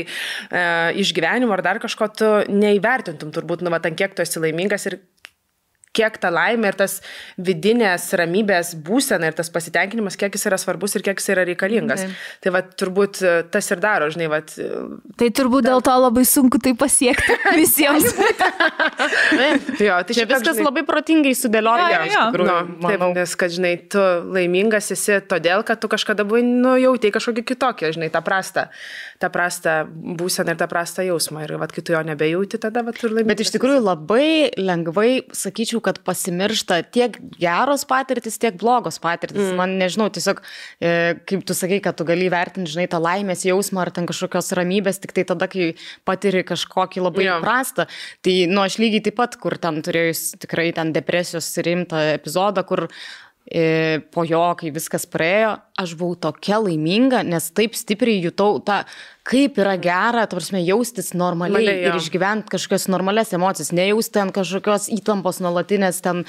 išgyvenimų ar dar kažko, tu neįvertintum turbūt, ant kiek tu esi laimingas ir kiek ta laimė ir tas vidinės ramybės būsena ir tas pasitenkinimas, kiek jis yra svarbus ir kiek jis yra reikalingas. Tai turbūt tas ir daro, žinai, Tai turbūt dėl to labai sunku tai pasiekti visiems. Jo, tai čia viskas labai protingai sudėlioja, iš tikrųjų. Taip, nes, kad, žinai, tu laimingas esi todėl, kad tu kažkada buvai, jautei kažkokį kitokį, žinai, tą prastą būseną ir tą prastą jausmą. Ir kai tu jo nebejauti, tada tu ir laimingas. Bet iš tikrųjų labai lengvai, sakyčiau, kad pasimiršta tiek geros patirtis, tiek blogos patirtis. Man nežinau, tiesiog, kaip tu sakai, kad tu gali vertinti, žinai, tą laimės jausmą ar ten kažkokios ramybės, tik tai tada, kai patiri kažkokį labai prastą. Tai, aš lygiai taip pat, kur ten turėjus tikrai ten depresijos rimtą epizodą, kur po jo, kai viskas praėjo, aš buvau tokia laiminga, nes taip stipriai jutau tą, kaip yra gera, jaustis normaliai ir išgyventi kažkokios normalias emocijas, nejausti ten kažkokios įtampos nuolatinės, ten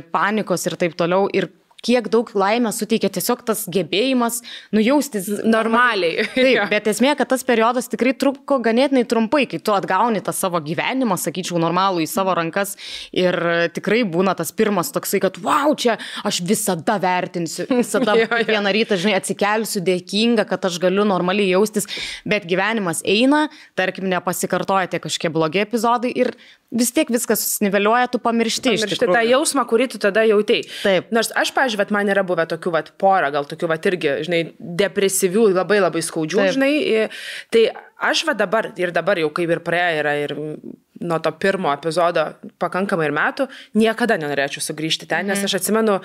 panikos ir taip toliau. Ir kiek daug laimės suteikia tiesiog tas gebėjimas nujaustis normaliai. Taip, bet esmė, kad tas periodas tikrai truko ganėtinai trumpai, kai tu atgauni tą savo gyvenimą, sakyčiau, normalų į savo rankas ir tikrai būna tas pirmas toksai, kad wow, čia aš visada vertinsiu, visada vieną rytą, žinai, atsikelsiu dėkinga, kad aš galiu normaliai jaustis, bet gyvenimas eina, tarkim, nepasikartoja tie kažkokie blogi epizodai ir vis tiek viskas susiniveliuoja, tu pamiršti iš tikrųjų. Tą jausmą, kurį tu tada jautei. Taip. Nors aš, pavyzdžiui, man yra buvę tokių porą, gal tokių irgi, žinai, depresyvių, labai labai skaudžių, taip, žinai. Tai aš dabar jau kaip ir praėjo yra ir nuo to pirmo epizodo pakankamai ir metų, niekada nenorėčiau sugrįžti ten, nes aš atsimenu,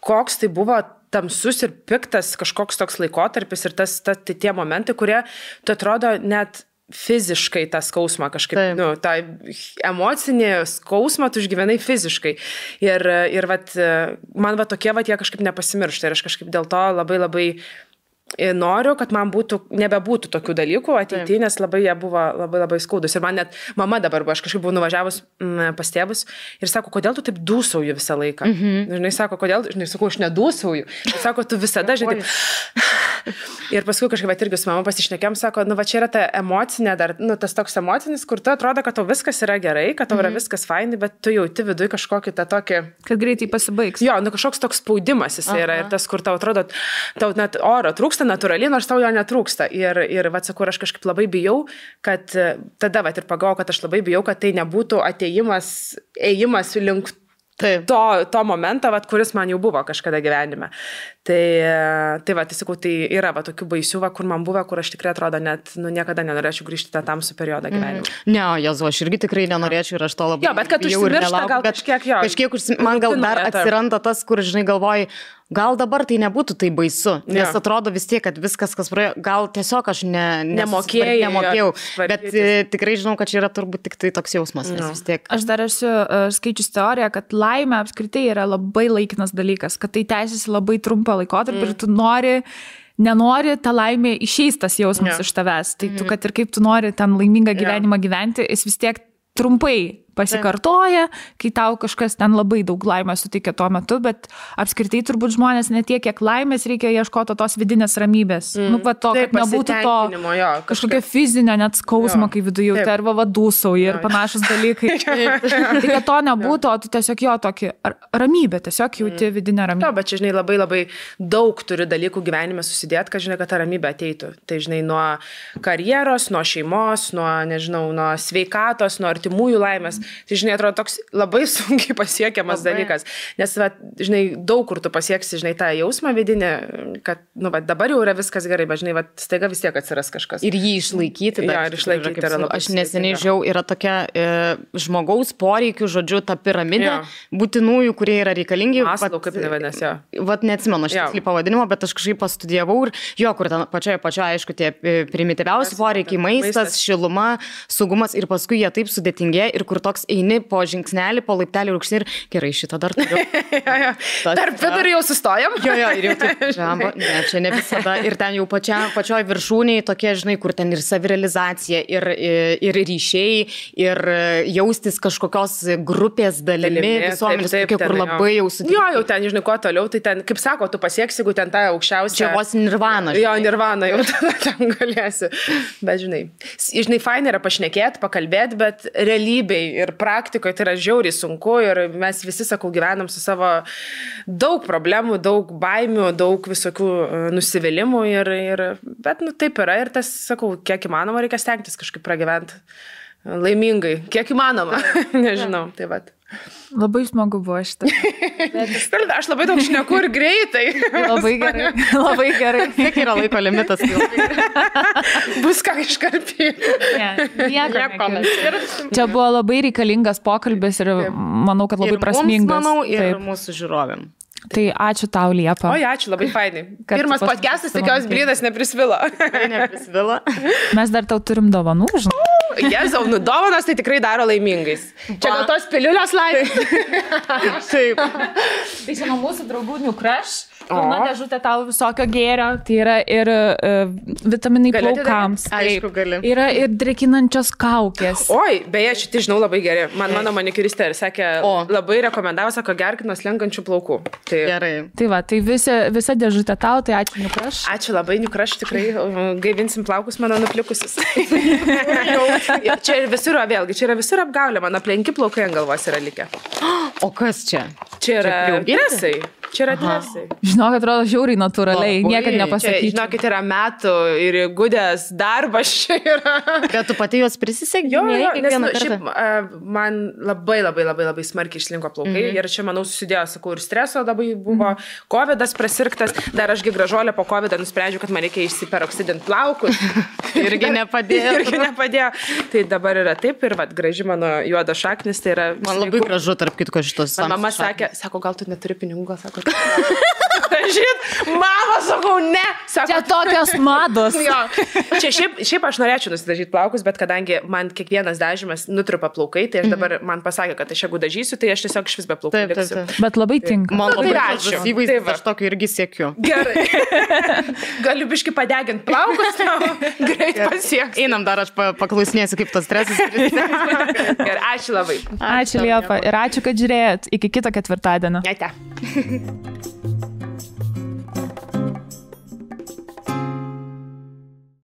koks tai buvo tamsus ir piktas kažkoks toks laikotarpis ir tie momentai, kurie, tu atrodo, net fiziškai tą skausmą kažkaip, tą emocinį skausmą tu išgyvenai fiziškai. Ir man tokie jie kažkaip nepasimiršta ir aš kažkaip dėl to labai labai noriu, kad man nebebūtų tokių dalykų ateityje, nes labai jie buvo labai labai skaudus. Ir man net mama dabar buvo, aš kažkaip buvau nuvažiavus pas tėvus ir sako, kodėl tu taip dūsauji visą laiką? Žinai, sako, kodėl, žinai, sakau, aš nedūsauju. Sako, tu visada, žinai, ir paskui kažkaip irgi su mama pasišnekėm, sako, čia yra ta emocinė, dar, tas toks emocinis, kur tu atrodo, kad tau viskas yra gerai, kad tau yra viskas fainai, bet tu jauti viduje kažkokį tą tokį... Kad greitai pasibaigs. Jo, kažkoks toks spaudimas jis yra ir tas, kur tau atrodo, tau net oro trūksta natūraliai, nors tau jo netrūksta. Ir sakau, aš kažkaip labai bijau, kad tada ir pagalvojau, kad aš labai bijau, kad tai nebūtų ėjimas link to momento, kuris man jau buvo kažkada gyvenime. Tai sakau, tai yra tokių baisių, kur man buvo, kur aš tikrai atrodo net niekada nenorėčiau grįžti tą tamsų periodą gyvenime. Ne, Jezu, aš irgi tikrai nenorėčiau ir aš to labai... Jo, bet kad užsimiršta gal kažkiek jo. Kažkiek man gal dar atsiranda tas, kur, žinai, galvoji, gal dabar tai nebūtų tai baisu, nes atrodo vis tiek, kad viskas, kas praėjo, gal tiesiog aš nemokėjau, bet tikrai žinau, kad čia yra turbūt tik tai toks jausmas, nes vis tiek. Aš dar esu skaičius teoriją, kad laimė apskritai yra labai laikinas dalykas, kad tai tęsiasi labai trumpą laikotarpį ir tu nenori tą laimę išeis tas jausmas iš tavęs. Tai tu, kad ir kaip tu nori ten laimingą gyvenimą gyventi, jis vis tiek trumpai pasikartoja, kai tau kažkas ten labai daug laimės suteikia tuo metu, bet apskritai turbūt žmonės ne tiek, kiek laimės reikia ieškoti tos vidinės ramybės. Va to, kad nebūtų to kažkokio fizinio net skausmo, kai viduje jauti, arba vadūsauji ir panašus dalykai. Tai kad to nebūtų, o tu tiesiog jo tokį ramybę, tiesiog jauti vidinę ramybę. Jo, bet čia, žinai, labai labai daug turi dalykų gyvenime susidėti, kad, žinai, kad ta ramybė ateitų. Tai, žinai, nuo karjeros, nuo šeimos, nuo, nežinau, nuo sveikatos, nuo artimųjų laimės. Tai, žinai, atrodo toks labai sunkiai pasiekiamas dalykas, nes, va, žinai, daug kur tu pasieksi, žinai, tą jausmą vidinį, kad, nu, va, dabar jau yra viskas gerai, bet, žinai, va, staiga vis tiek atsiras kažkas. Ir jį išlaikyti. Jo, ir išlaikyti yra labai. Aš neseniai žiau, yra tokia žmogaus poreikių, žodžiu, ta piramidė būtinųjų, kurie yra reikalingi. Maslau, kaip nevadinasi, jo. Vat neatsimenu šitą pavadinimą, bet aš kažkaip pastudijavau ir jo, kur ten pačioje, aišku, tie primityviausi poreikiai, maistas, šiluma, saugumas ir paskui jie taip sudėtingėja ir kur toks eini po žingsnelį, po laiptelį rūkšnį ir gerai, šitą dar turiu. Tarp vidurį jau sustojam. Jo, ir jau taip, ne, čia ne visada. Ir ten jau pačioj viršūniai tokie, žinai, kur ten ir savirealizacija, ir ryšiai, ir jaustis kažkokios grupės dalimi visuomenės, kur labai jau sudėtinga. Jo, jau ten, žinai, kuo toliau, tai ten, kaip sako, tu pasieksi, jeigu ten tą aukščiausią. Čia vos nirvana. Jo, nirvana, jau ten galėsi. Bet, žinai, fainai yra pašnekėti, pakalbėti, bet realybėj ir praktikoje tai yra žiauriai sunku ir mes visi, sakau, gyvenam su savo daug problemų, daug baimių, daug visokių nusivylimų bet, nu, taip yra ir tas, sakau, kiek įmanoma reikia stengtis kažkaip pragyventi laimingai, kiek įmanoma, nežinau, tai vat. Labai smagu buvo šitą. Aš labai daug šneku ir greitai. Labai gerai, labai gerai. Kiek yra laiko limitas? Bus ką iškarpyti. Nieko. Čia buvo labai reikalingas pokalbis ir manau, kad labai prasmingas. Ir mums, manau, ir mūsų žiūrovėm. Tai ačiū tau, Liepa. Oi, ačiū, labai fainai. Pirmas podcastas, tikiuosi, blydas neprisvilo. Neprisvilo. Mes dar tau turim dovanų, žinau. Jezau, nu dovanas tai tikrai daro laimingais. Čia gal tos piliulės laimės. Taip. Tai čia nuo mūsų draugų New Crush. Pilna dėžutė tau visokio gėrio. Tai yra ir vitaminai plaukams. Aišku, gali. Yra ir drekinančios kaukės. Oi, beje, šitai žinau labai gerai. Mano manikiristė ir sakė, labai rekomendavo, sako, gerk nuo slenkančių plaukų. Tai gerai. Tai va, tai visa dėžutė tau, tai ačiū New Crush. Ačiū labai New Crush, tikrai gaivinsim plaukus mano nuplikusius. Čia ir visur, vėlgi, čia yra visur apgaulė, mano aplenki plaukai ant galvos yra likę. O kas čia? Čia yra dresai. Čia yra dresai. Žinok, atrodo žiauriai natūraliai, niekad nepasakyčiau. Žinokit, yra metų ir gudės darbas čia yra. Bet tu pati juos prisisegi? Jo, nes šiaip man labai smarkiai išlinko plaukai ir čia, manau, susidėjo, sakau, ir streso labai buvo, covidas prasirgtas, dar ašgi gražuolė po covidą nusprendžiau, kad man reikia išsiperoksidinti plaukus. Irgi nepadėjo. Tai dabar yra taip ir graži mano juoda šaknis, tai yra... Man labai gražu, tarp kitko, šitos. Mama sakė, sako, gal tu neturi pinigų, gal sako, Žinot, mama, sakau, ne. Sako, čia tokios mados. Jo. Čia šiaip aš norėčiau nusidažyti plaukus, bet kadangi man kiekvienas dažymas nutrupa plaukai, tai aš dabar man pasakė, kad aš jeigu dažysiu, tai aš tiesiog iš vis be plaukų liksiu. Bet labai tinka. Man labai gražus įvaizdis, aš tokio irgi siekiu. Gerai. Galiu biški padeginti plaukus, greit pasieks. Einam dar, aš paklausinėsiu, kaip tas stresas. Gerai, ačiū labai. Ačiū, Liepa. Ir ačiū, kad žiūrėjot. Iki kito ketvirtadienio. Ate.